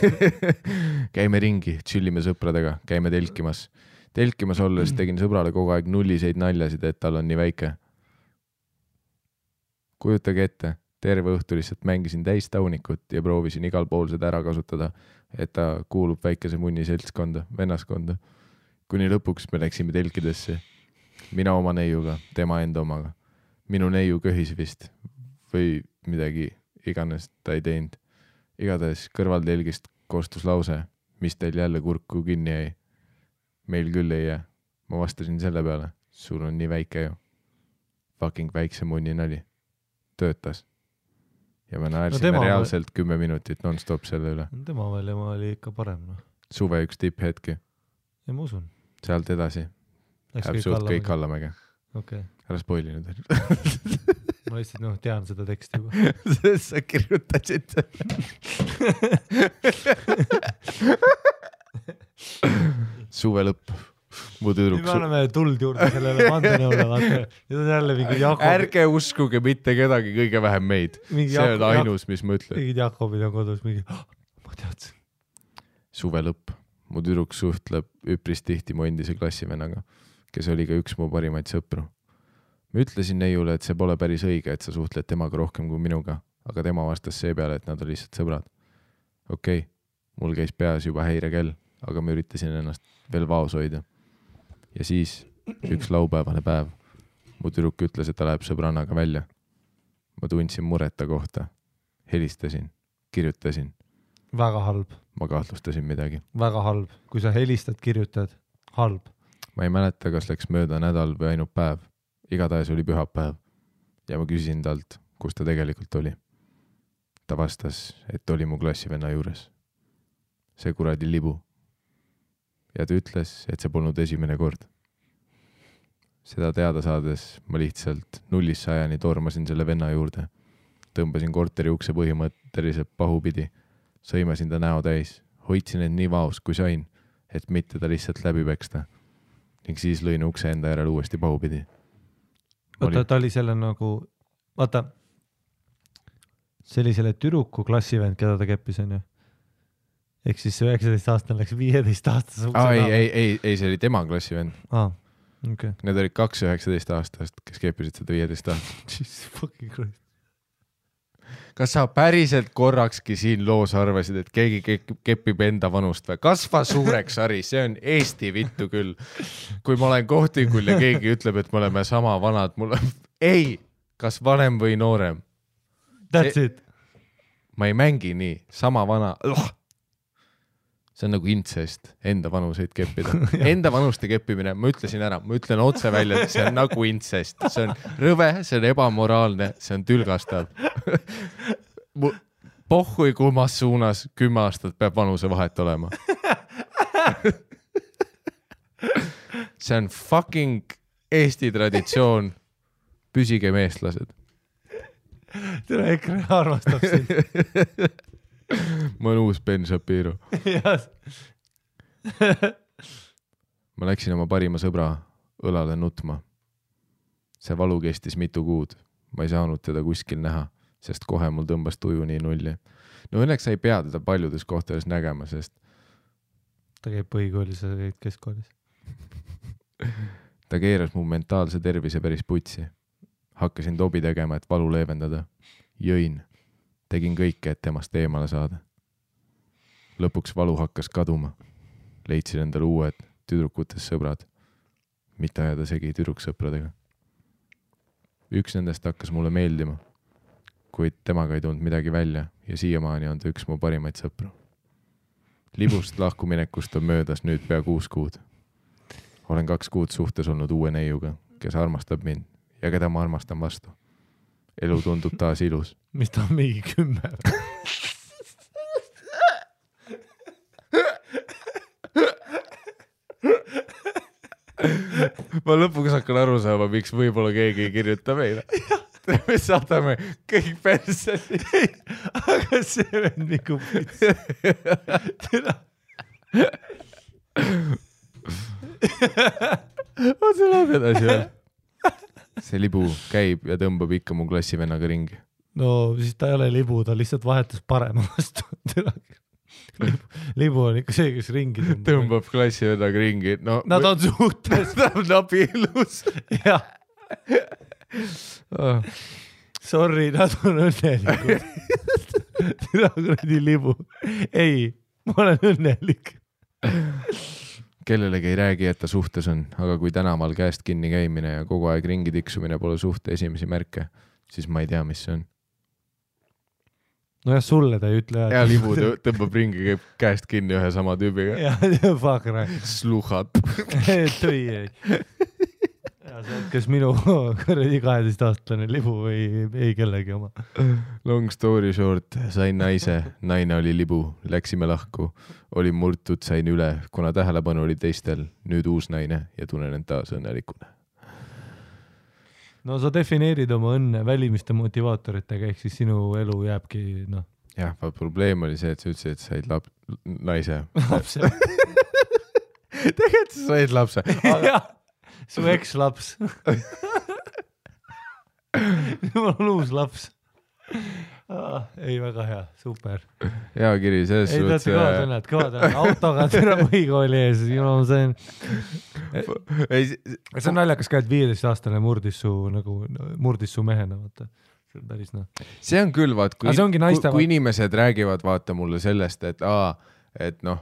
Käime ringi, chillime sõpradega, käime telkimas. Telkimas olles tegin sõbrale kogu aeg nulliseid naljasid, et tal on nii väike. Kujutage ette, terve õhtu lihtsalt mängisin täis taunikut ja proovisin igal pool seda ära kasutada, et ta kuulub väikese munni seltskonda, vennaskonda. Kuni lõpuks me läksime telkidesse. Mina oma neiuga, tema enda omaga. Minu neiu köhis vist või midagi iganes ta ei teinud. Igatahes kõrvaltelgist koostus lause, mis teil jälle kurku kinni jäi. Meil küll ei jää. Ma vastasin selle peale. Sul on nii väike ju. Fucking väikse munni nali. Töötas. Ja me naersime reaalselt 10 minutit non-stop selle üle. Tema veel oli ikka parem. No. Suve üks tipphetki. Ja ma usun. Sealt edasi. Läheb suht kõik allamäge. Okay. Ära spoili nüüd. Ma lihtsalt tean seda teksti juba. Sa kirjutasid suve lõpp. Me oleme tuld juurde sellele vandenõule. Nüüd on jälle mingi Jakob. Ärge uskuge mitte kedagi, kõige vähem meid. See on ainus, mis ma ütlen. Mingid Jakobid on kodus mingi, ma teadsin. Suve lõpp. Mu tüdruk suhtleb üpris tihti mu endise klassivennaga, kes oli ka üks mu parimaid sõpru. Ma ütlesin neiule, et see pole päris õige, et sa suhtled temaga rohkem kui minuga, aga tema vastas see peale, et nad on lihtsalt sõbrad. Okei, mul käis peas juba häirekell, aga ma üritasin ennast veel vaos hoida. Ja siis üks laupäevane päev. Mu tüdruk ütles, et ta läheb sõbrannaga välja. Ma tundsin mureta kohta. Helistasin, kirjutasin. Väga halb. Ma kahtlustasin midagi. Väga halb. Kui sa helistad, kirjutad. Halb. Ma ei mäleta, kas läks mööda nädal või ainult päev. Igatahes oli pühapäev ja ma küsisin talt, kus ta tegelikult oli. Ta vastas, et oli mu klassivenna juures. See kuradi libu. Ja ta ütles, et see polnud esimene kord. Seda teada saades ma lihtsalt 0-100 tormasin selle venna juurde. Tõmbasin korteri ukse põhimõtteliselt pahupidi. Sõimasin ta näo täis. Hoidsin end nii vaos, kui sain, et mitte ta lihtsalt läbi peksta. Ning siis lõin ukse enda järel uuesti pahupidi. Vaata, ta oli selle nagu, vaata, see oli selle türuku klassivend, keda ta keppis, on ju. ehk siis see 19-aastane läks 15-aastase ukse ei, see oli tema klassivend. Okay. Need olid 2 19-aastast, kes kepisid seda 15 aastast. Jesus fucking Christ. Kas sa päriselt korrakski siin loos arvasid, et keegi kepib enda vanust või? Kasva suureks, Ari, see on Eesti vittu küll. Kui ma olen kohtingul ja keegi ütleb, et me oleme sama vanad, ei, kas vanem või noorem? That's it. Ma ei mängi nii, sama vana. See on nagu intsest, enda vanuseid keppida. Enda vanuste keppimine, ma ütlesin ära, ma ütlen otse välja, et see on nagu intsest. See on rõve, see on ebamoraalne, see on tülgastav. Pohhui kummas suunas 10 aastat peab vanuse vahet olema. See on fucking Eesti traditsioon. Püsige meestlased. Tere, EKRE armastab sind. Ma olen uus Ben Shapiro. Ma läksin oma parima sõbra õlale nutma. See valu kestis mitu kuud. Ma ei saanud teda kuskil näha, sest kohe mul tõmbas tuju nii nulli. No õnneks sa ei pea teda paljudes kohtades nägema, sest ta käib põhikoolis ja käib keskkoolis. Ta keeras mu mentaalse tervise päris putsi. Hakkasin tobi tegema, et valu leevendada. Jõin. Tegin kõike, et temast eemale saada. Lõpuks valu hakkas kaduma. Leidsin endale uued tüdrukutes sõbrad. Mitte ajada segi tüdruksõpradega. Üks nendest hakkas mulle meeldima, kuid temaga ei tulnud midagi välja ja siiamaani on ta üks mu parimaid sõpru. Libust lahkuminekust on möödas nüüd pea 6 kuud. Olen 2 kuud suhtes olnud uue neiuga, kes armastab mind ja keda ma armastan vastu. Elu tundub taas ilus. Mis ta on mingi 10? Ma lõpuks hakkan aru saama, miks võib-olla keegi ei kirjuta meile. Me saadame kõik perseli. Aga see on nagu pits. On see läheb edasi veel? See libu käib ja tõmbab ikka mu klassivennaga ringi. No siis ta ei ole libu, ta lihtsalt vahetus parema vastu. Libu on ikka see, kes ringi tõmbab klassivennaga ringi. No, nad on suhtes. Nad on abielus. Jah. Sorry, nad on õnnelikud. Tere kuradi libu. Ei, ma olen õnnelik. Kellelegi ei räägi, et ta suhtes on, aga kui tänaval käest kinni käimine ja kogu aeg ringi tiksumine pole suhte esimesi märke, siis ma ei tea, mis see on. No jah, sulle ta ei ütle. Ja libu tõmbab ringi, käib käest kinni ühe sama tüübiga. Ja, fuck right. Sluhad. Tõi ei. Ja see on kes minu 12-aastane libu või ei kellegi oma. Long story short, sain naise, naine oli libu, läksime lahku, olin murtud, sain üle, kuna tähelepanu oli teistel, nüüd uus naine ja tunnen end taas õnnelikuna. No sa defineerid oma õnne välimiste motivaatoritega, ehk siis sinu elu jääbki, noh. Jah, probleem oli see, et sa ütlesid, et said naise. Lapse. Tegelikult sa said lapse. Jah. Su eks-laps. Mul on uus laps. Ei, väga hea, super. Hea kiri, selles ei, suhtes... Ei, tead, kõvad, autoga türa põhikooli ees, see on naljakas ka, et 15-aastane murdis su mehena, vaata. See on päris noh. See on küll, vaat, kui inimesed räägivad, vaata mulle sellest, et noh,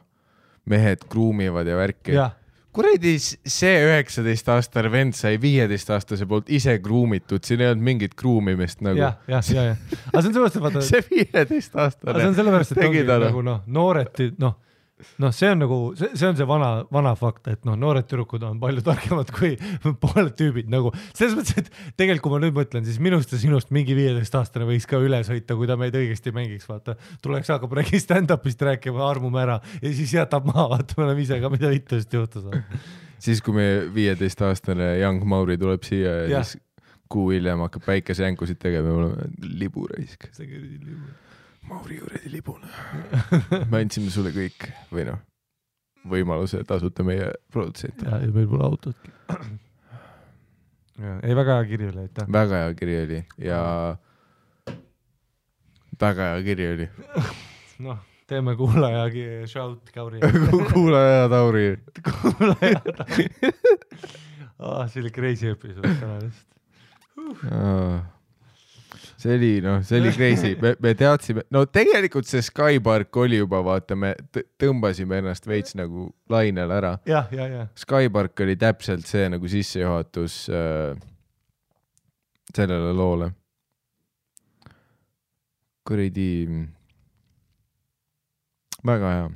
mehed kruumivad ja värki. Jah. Kuredi see 19-aastane vend sai 15-aastase poolt ise kruumitud, siin ei olnud mingit kruumimist nagu. Ja. Aga see on sellepärast, et vaata... See 15-aastane. See on sellepärast, et ongi nagu nooreti, see on nagu, see on see vana fakt, et noored tüdrukud on palju targemad kui pooled tüübid nagu. Selles mõttes, et tegelikult kui ma nüüd mõtlen, siis minust ja sinust mingi 15-aastane võiks ka üle sõita, kui ta meid õigesti mängiks, vaata. Tuleks hakkab räägi stand-upist rääkima, armume ära ja siis jätab maha, vaata, me oleme ise ka mida vitust juhtus. Siis kui me 15-aastane Young Mauri tuleb siia ja siis kuu hiljem hakkab päikesejänkusid tegema ja me oleme liburaisk. See küll libu. Mauri kuradi libuna. Me andsime sulle kõik või võimaluse tasuta meie produtsent. Ja meil pole autotki. Ei, väga hea kiri oli, aitäh. Väga hea kiri oli ja väga hea kiri oli. teeme kuulajagi shout Kauri. kuulaja Tauri. kuulaja Tauri. See oli crazy episood täna vist. See oli crazy. Me teadsime, no tegelikult see Skypark oli juba, vaata, me tõmbasime ennast veits nagu lainel ära. Ja. Skypark oli täpselt see nagu sissejuhatus sellele loole. Kuridi väga hea.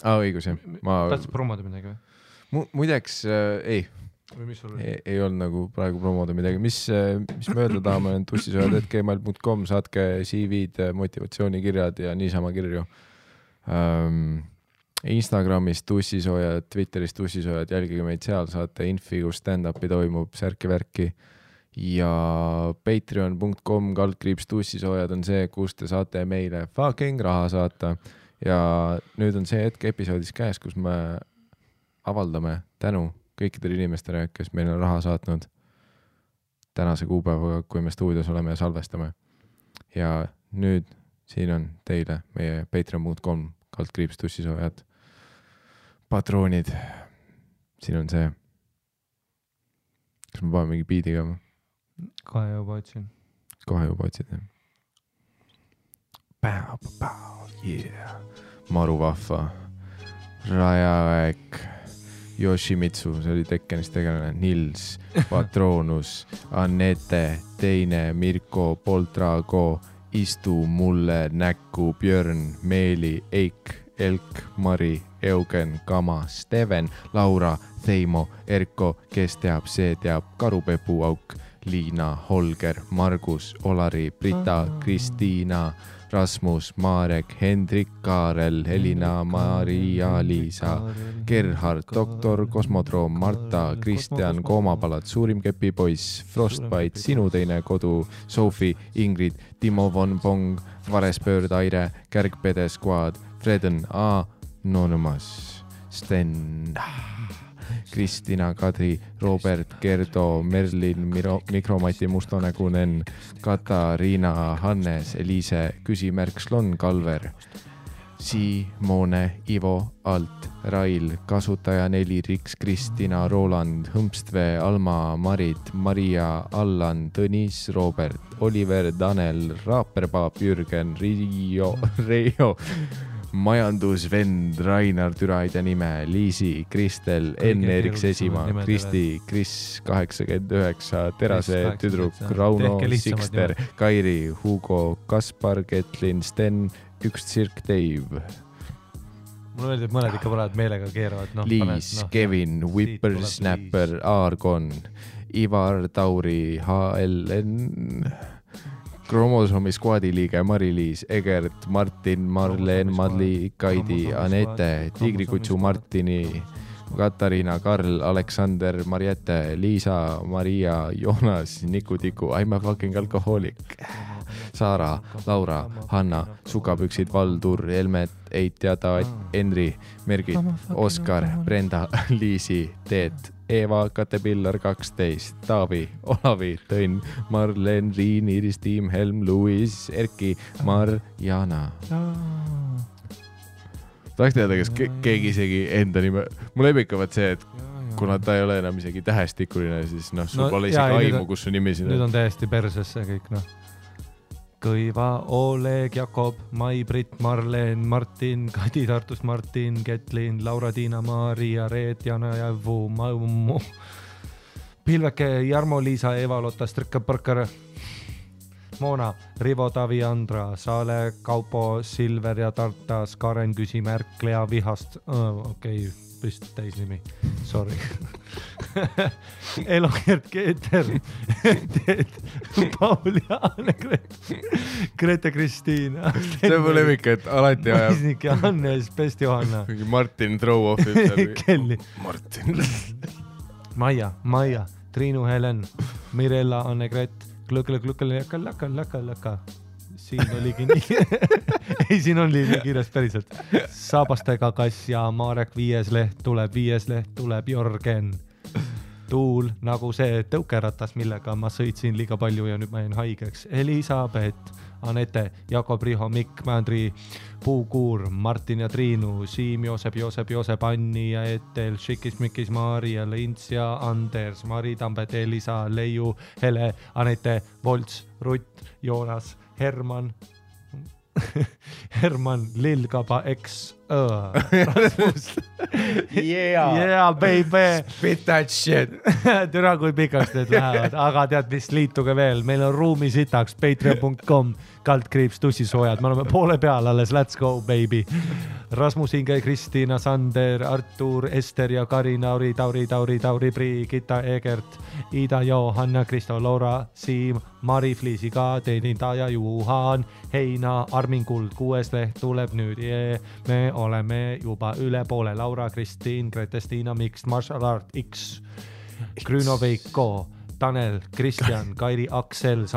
Õigus, jah. Tahtsid promoda midagi või? Muideks, ei olnud nagu praegu promoda midagi. Mis mööda tahame on tussisojad@gmail.com, saatke CV-d, motivatsioonikirjad ja niisama kirju. Instagramis tussisojad, Twitteris tussisojad, jälgige meid seal, saate infi, kus stand-upi toimub, särki-värki. Ja patreon.com/tussisojad on see, kus te saate meile fucking raha saata. Ja nüüd on see hetk episoodis käes, kus me avaldame tänu kõikidele inimestele, kes meile raha saatnud tänase kuupäevaga, kui me stuudios oleme ja salvestame. Ja nüüd siin on teile meie patreon.com/tussisojad patroonid. Siin on see. Kas me paame mingi biidiga? Kohe juba otsin. Kohe juba otsid, jah. Yeah. Maru vahva. Rajaväek. Yoshimitsu, see oli Tekkenist tegelane. Nils, Patronus, Annette, Teine, Mirko, Poltrago, Istu mulle näkku, Björn, Meeli, Eik, Elk, Mari, Eugen, Kama, Steven, Laura, Theimo, Erko, kes teab, see teab, Karupepu auk, Liina, Holger, Margus, Olari, Brita, Kristiina, Rasmus, Marek, Hendrik, Kaarel, Helina, Maria, Liisa, Gerhard, Doktor, Kosmodroom, Marta, Kristjan, Koomapalat, Suurim kepipoiss, Frostbite, Sinu teine kodu, Sophie, Ingrid, Timo von Pong, Varespöörd, Aire, Kärgpede Squad, Freden, Anonymous, Sten, Kristina, Kadri, Robert, Gerdo, Merlin, Mikromati, Mustonägunen, Katariina, Hannes, Eliise, Küsimärk, Slon, Kalver, Simone, Ivo, Alt, Rail, Kasutaja 4, Riks, Kristina, Roland, Hõmpstvee, Alma, Marit, Maria, Allan, Tõnis, Robert, Oliver, Tanel, Raaperpaap, Jürgen, Reijo, majandusvend, Rainar, Türaide nime, Liisi, Kristel, Enn-Eriks Esimaa, Kristi, Kris 89, Terase tüdruk, Rauno, Sikster, Kairi, Hugo, Kaspar, Ketlin, Sten, üks tsirk Dave. Mulle meeldib, et mõned ikka praegu meelega keeravad. Liis, Kevin, Whippersnapper, Aargon, Ivar, Tauri, HLN, Kromosoomi skuadi liige Mari-Liis, Egert, Martin, Marleen, Madli, Kaidi, Anette, Tigrikutsu Martini, Katariina, Karl, Aleksander, Mariette, Liisa, Maria, Joonas, Niku-Tiku, I'm a fucking alkohoolik, Saara, Laura, Hanna, Sukapüksid, Valdur, Helmet, Eit ja Taat, Henri, Mergit, Oskar, Brenda, Liisi, Teet, Eeva, Katepillar 12, Taavi, Olavi, Tõnn, Marlen, Riin, Iris, Tiim, Helm, Luis, Erki, Marjana. Tahaks teada, kas keegi isegi enda nime... Mul lepikavad see, et kuna ta ei ole enam isegi tähestikuline, siis sul pole isegi aimu, kus su nimi siin on. Nüüd on täiesti persesse kõik, Kõiva, Oleg, Jakob, Mai-Brit, Marleen, Martin, Kadi Tartust, Martin, Ketlin, Laura-Tiina, Maria, Reet, Jana ja Vu, Maumu, Pilveke, Jarmo-Liisa, Eva-Lotta, Strikka-Parkar, Moona, Rivo, Tavi, Andra, Saale, Kaupo, Silver ja Tartas, Karen, Küsimärk, Lea Vihast, okei, vist täisnimi, sorry. Elogert, Keeter, Paul ja Anne-Gret, Grete Kristiina. See on mu lemmik, et alati ajab. Mõisnik ja Hannes, Pest Johanna. Martin throw-off'ib. Kelly. Martin. Maia, Triinu, Helen, Mirella, Anne-Gret, Laka. Siin oligi nii. Ei, siin on nii kiires päriselt. Saabastega Kass ja Marek 5. leht tuleb, Jörgen. tuul nagu see tõukeratas, millega ma sõitsin liiga palju ja nüüd ma jäin haigeks. Elisabeth, Anette, Jakob, Riho, Mikk, Mändri, Puukuur, Martin ja Triinu, Siim, Joosep, Anni ja Etel, Šikis, Mikis, Maarja, Lints ja Anders, Mari, Tambet, Elisa, Leiu, Hele, Anette, Volts, Rutt, Joonas, Herman, Lillkaba, X, yeah, baby. Spit that shit. Türa, kui pikaks need lähevad, aga tead, mis, liituge veel, meil on ruumi sitaks, patreon.com, /tussisoojad, me oleme poole peal alles, let's go, baby. Rasmus, Inge, Kristiina, Sander, Artur, Ester ja Karina, Tauri, Brigitta, Egert, Ida, Johanna, Kristo, Laura, Siim, Mari, Fliisiga, teenindaja, Juhan, Heina, Armin Kuld, 6. leht tuleb nüüd, me oleme juba üle poole, Laura, Kristiin, Grete-Stiina, Mixed Martial Art, X, Grüno, Veiko, Tanel, Kristjan, Kairi, Aksels,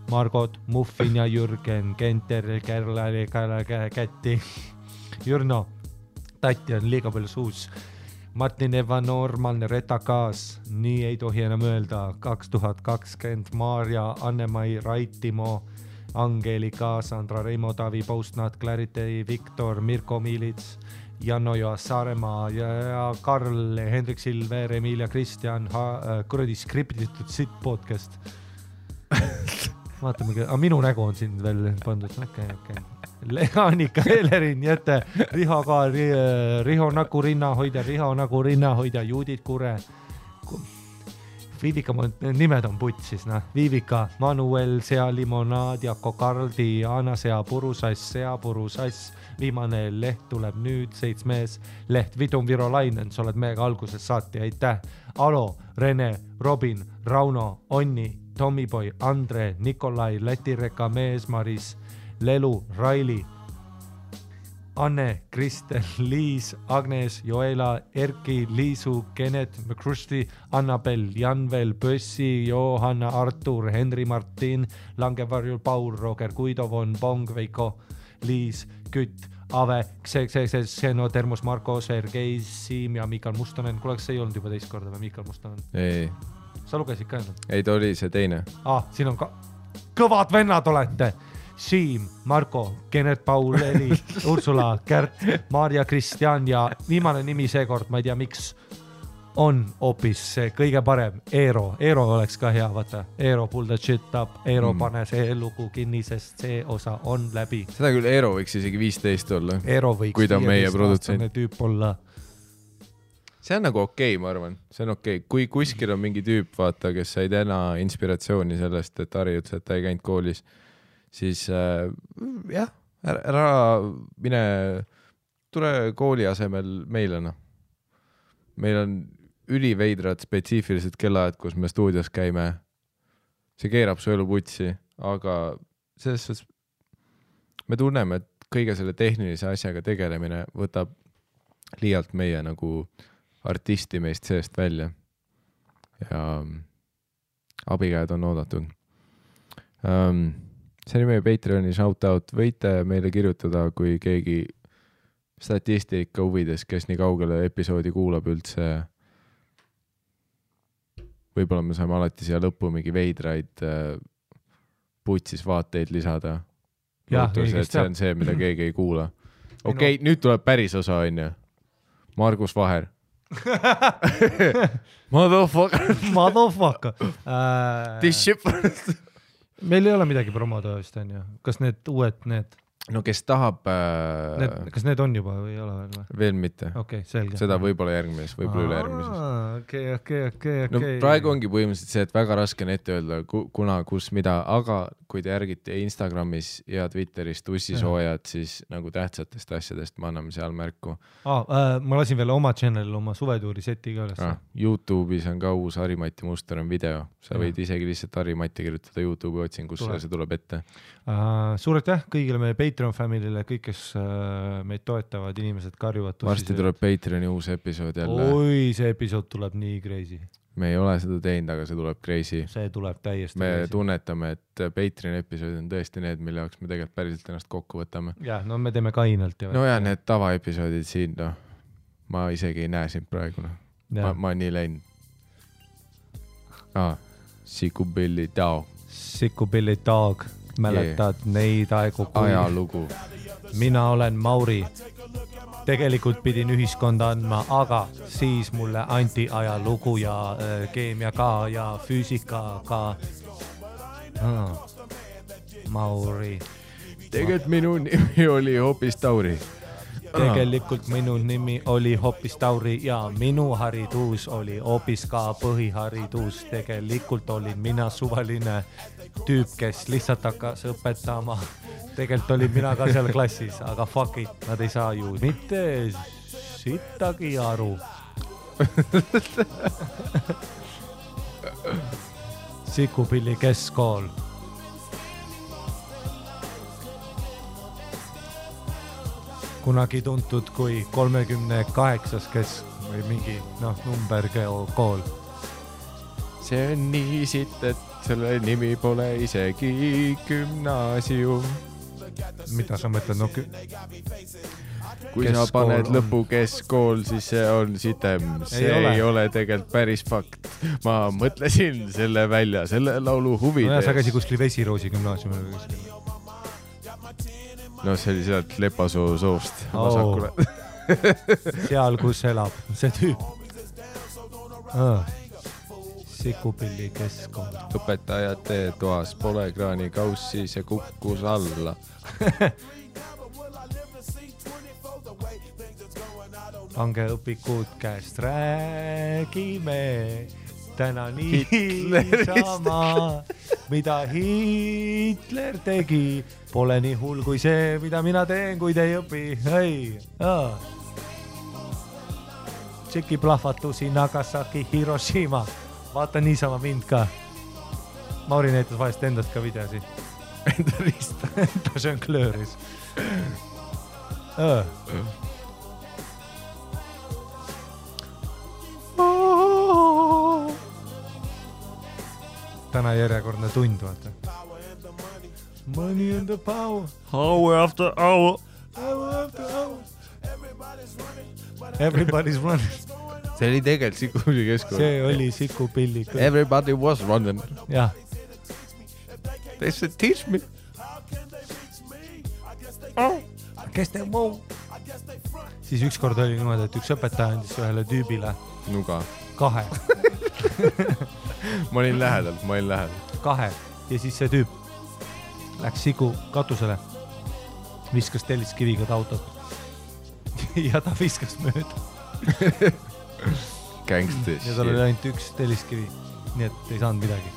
Margot, Muffin ja Jürgen, Kenter, Kätti, Jürno, Tati on liiga palju suus, Martin Eva, normaalne retakaas, nii ei tohi enam öelda, 2020, Maarja, Anne-Mai, Raitimo, Angelika, Sandra, Reimo, Tavi, Postnat, Clarity, Viktor, Mirko Miilits, Janno ja Saaremaa ja Karl, Hendrik Silver, Emilia, Kristjan, kuradi skriptitud sitt podcast. Vaatame, minu nägu on siin veel pandud, okei. Annika, Elerin, Jete, Riho ka, Riho nagu rinnahoidja, Judit Kure, Viivika, nimed on putsis, Viivika, Manuel, Sea Limonaad, Jako Kardi, Anna Seapuru-Sass, viimane leht tuleb nüüd, 7. leht, Vidum Virolainen, sa oled meiega alguses saati, aitäh. Alo, Rene, Robin, Rauno, Onni, Tommyboy, Andre, Nikolai, Lätireka, Mees, Maris, Lelu, Raili, Anne, Kristel, Liis, Agnes, Joela, Erki, Liisu, Kenet, McCrusti, Annabel, Janvel, Pössi, Johanna, Artur, Henri, Martin, Langevarjul, Paul, Roger, Guido, Von, Bong, Veiko, Liis, Kütt, Ave, Xeno, Termos, Marko, Sergei, Siim ja Mikal Mustonen. Kuule, kas see ei olnud juba teist korda või Mikal Mustonen? Ei. Sa lugesid ka ennast? Ei, ta oli see teine. Siin on ka kõvad vennad olete. Siim, Marko, Kennet, Paul, Eli, Ursula, Kärt, Maarja, Kristjan ja viimane nimi seekord, ma ei tea, miks on hoopis see kõige parem, Eero. Eero oleks ka hea, vaata. Eero, pull the shit up, Eero pane see lugu kinni, sest see osa on läbi. Seda küll Eero võiks isegi 15 olla. Eero võiks 15-aastane tüüp olla. See on nagu okei, ma arvan. See on okei. Kui kuskil on mingi tüüp, vaata, kes sai täna inspiratsiooni sellest, et Harri ütles, et ta ei käinud koolis, siis jah, ära mine, tule kooli asemel meile. Meil on üliveidrad spetsiifilised kellaajad, kus me stuudios käime. See keerab su elu putsi, aga selles suhtes me tunneme, et kõige selle tehnilise asjaga tegelemine võtab liialt meie nagu artisti meist seest välja. Ja abikäed on oodatud. See oli meie Patreoni shoutout. Võite meile kirjutada, kui keegi statistika huvides, kes nii kaugele episoodi kuulab üldse. Võib-olla me saame alati siia lõppu mingi veidraid putsis vaateid lisada. Lootus, et see on see, mida keegi ei kuula. Okei, nüüd tuleb päris osa, on ju. Margus Vaher. Motherfucker. This ship. Meil ei ole midagi promoda vist, on ju. Kas need uued, need? No kes tahab... Kas need on juba või ei ole veel või? Veel mitte. Okei, selge. Seda võib-olla järgmises, võib-olla üle järgmises. Okei. No praegu ongi põhimõtteliselt see, et väga raske on ette öelda, kuna, kus, mida, aga kui te järgite Instagramis ja Twitteris tussisoojad, siis nagu tähtsatest asjadest me anname seal märku. Ma lasin veel oma channelil oma suvetuuri seti ka üles. YouTube'is on ka uus Harri-Mati Mustonen video. Sa võid isegi lihtsalt Harri-Mati kirjutada YouTube'i otsingusse ja see tuleb ette. Suur aitäh kõigile meie Patreon familyle, kõik, kes meid toetavad, inimesed karjuvad. Varsti tuleb Patreoni uus episood jälle. Oi, see episood tuleb nii crazy. Me ei ole seda teinud, aga see tuleb crazy. See tuleb täiesti me crazy. Tunnetame, et Patreoni episood on tõesti need, mille jaoks me tegelikult päriselt ennast kokku võtame. Jah, no me teeme kainalt. No ja need tavaepisoodid siin, ma isegi ei näe sind praegu. Ma nii läinud. Sikupilli Tao Sikupilli Dog, mäletad neid aegu, kui ajalugu. mina olen Mauri. Tegelikult pidin ühiskonda andma, aga siis mulle anti ajalugu ja keemia ka ja füüsika ka. Mauri. Tegelikult minu nimi oli hoopis Tauri. Tegelikult minu nimi oli hoopis Tauri ja minu haridus oli hoopis ka põhiharidus. Tegelikult olin mina suvaline tüüp, kes lihtsalt hakkas õpetama. Tegelikult olin mina ka seal klassis, aga fuck it, nad ei saa ju mitte sittagi aru. Sikupilli keskkool. Kunagi tuntud kui 38 või mingi numberkool. See on nii sitt, et selle nimi pole isegi gümnaasium. Mida sa mõtled? Kui sa paned lõpu keskkool, siis see on sitem. See ei ole tegelikult päris fakt. Ma mõtlesin selle välja, selle laulu huvides. Sa käisid kuskil Vesiroosi gümnaasiumil või kuskil. No see oli sealt Lepasoo soost vasakule. Seal, kus elab see tüüp. Sikupilli keskkool. Õpetajate toas pole kraanikaussi, see kukkus alla. Pange õpikud käest, räägime täna niisama, mida Hitler tegi. Pole nii hull kui see, mida mina teen, kuid ei õpi. Tšeki plahvatusi Nagasaki, Hiroshima. Vaata niisama mind ka. Mauri näitas vahest endast ka videosi. Enda rista. Ta žonglööris. Täna järjekordne tund, vaata. Money and the power. Hour after hour. Hour after hour. Everybody's running. See oli tegelikult Sikupilli keskkool. See oli Sikupilli. Everybody was running. Jah. They said teach me. Kes te muu? Siis ükskord oli niimoodi, et üks õpetaja andis ühele tüübile Nuga. 2. Ma olin lähedal. 2. Ja siis see tüüp läks Siku katusele, viskas telliskiviga ta autot ja ta viskas mööda. Gangstis. Ja tal oli ainult üks telliskivi, nii et ei saanud midagi.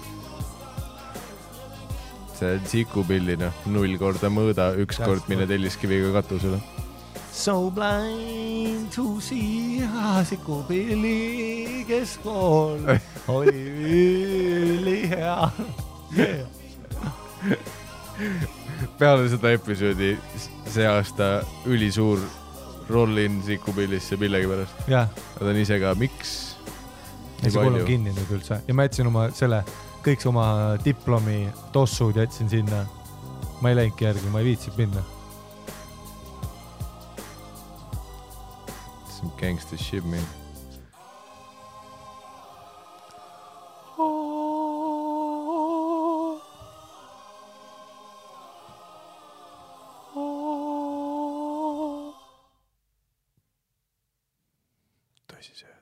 See on Sikupilli, 0 korda mõõda, 1 kord mine telliskiviga katusele. So blind to see, Sikupilli keskkool oli ülihea. Peale seda episoodi see aasta ülisuur roll-in Sikupillisse millegi pärast. Jah. Nad on ise ka, miks? Ja see kool on kinni nüüd üldse. Ja ma jätsin kõik oma diplomi tossud jätsin sinna. Ma ei läinudki järgi, ma ei viitsib minna. Some gangster shit, man. Tõsi see.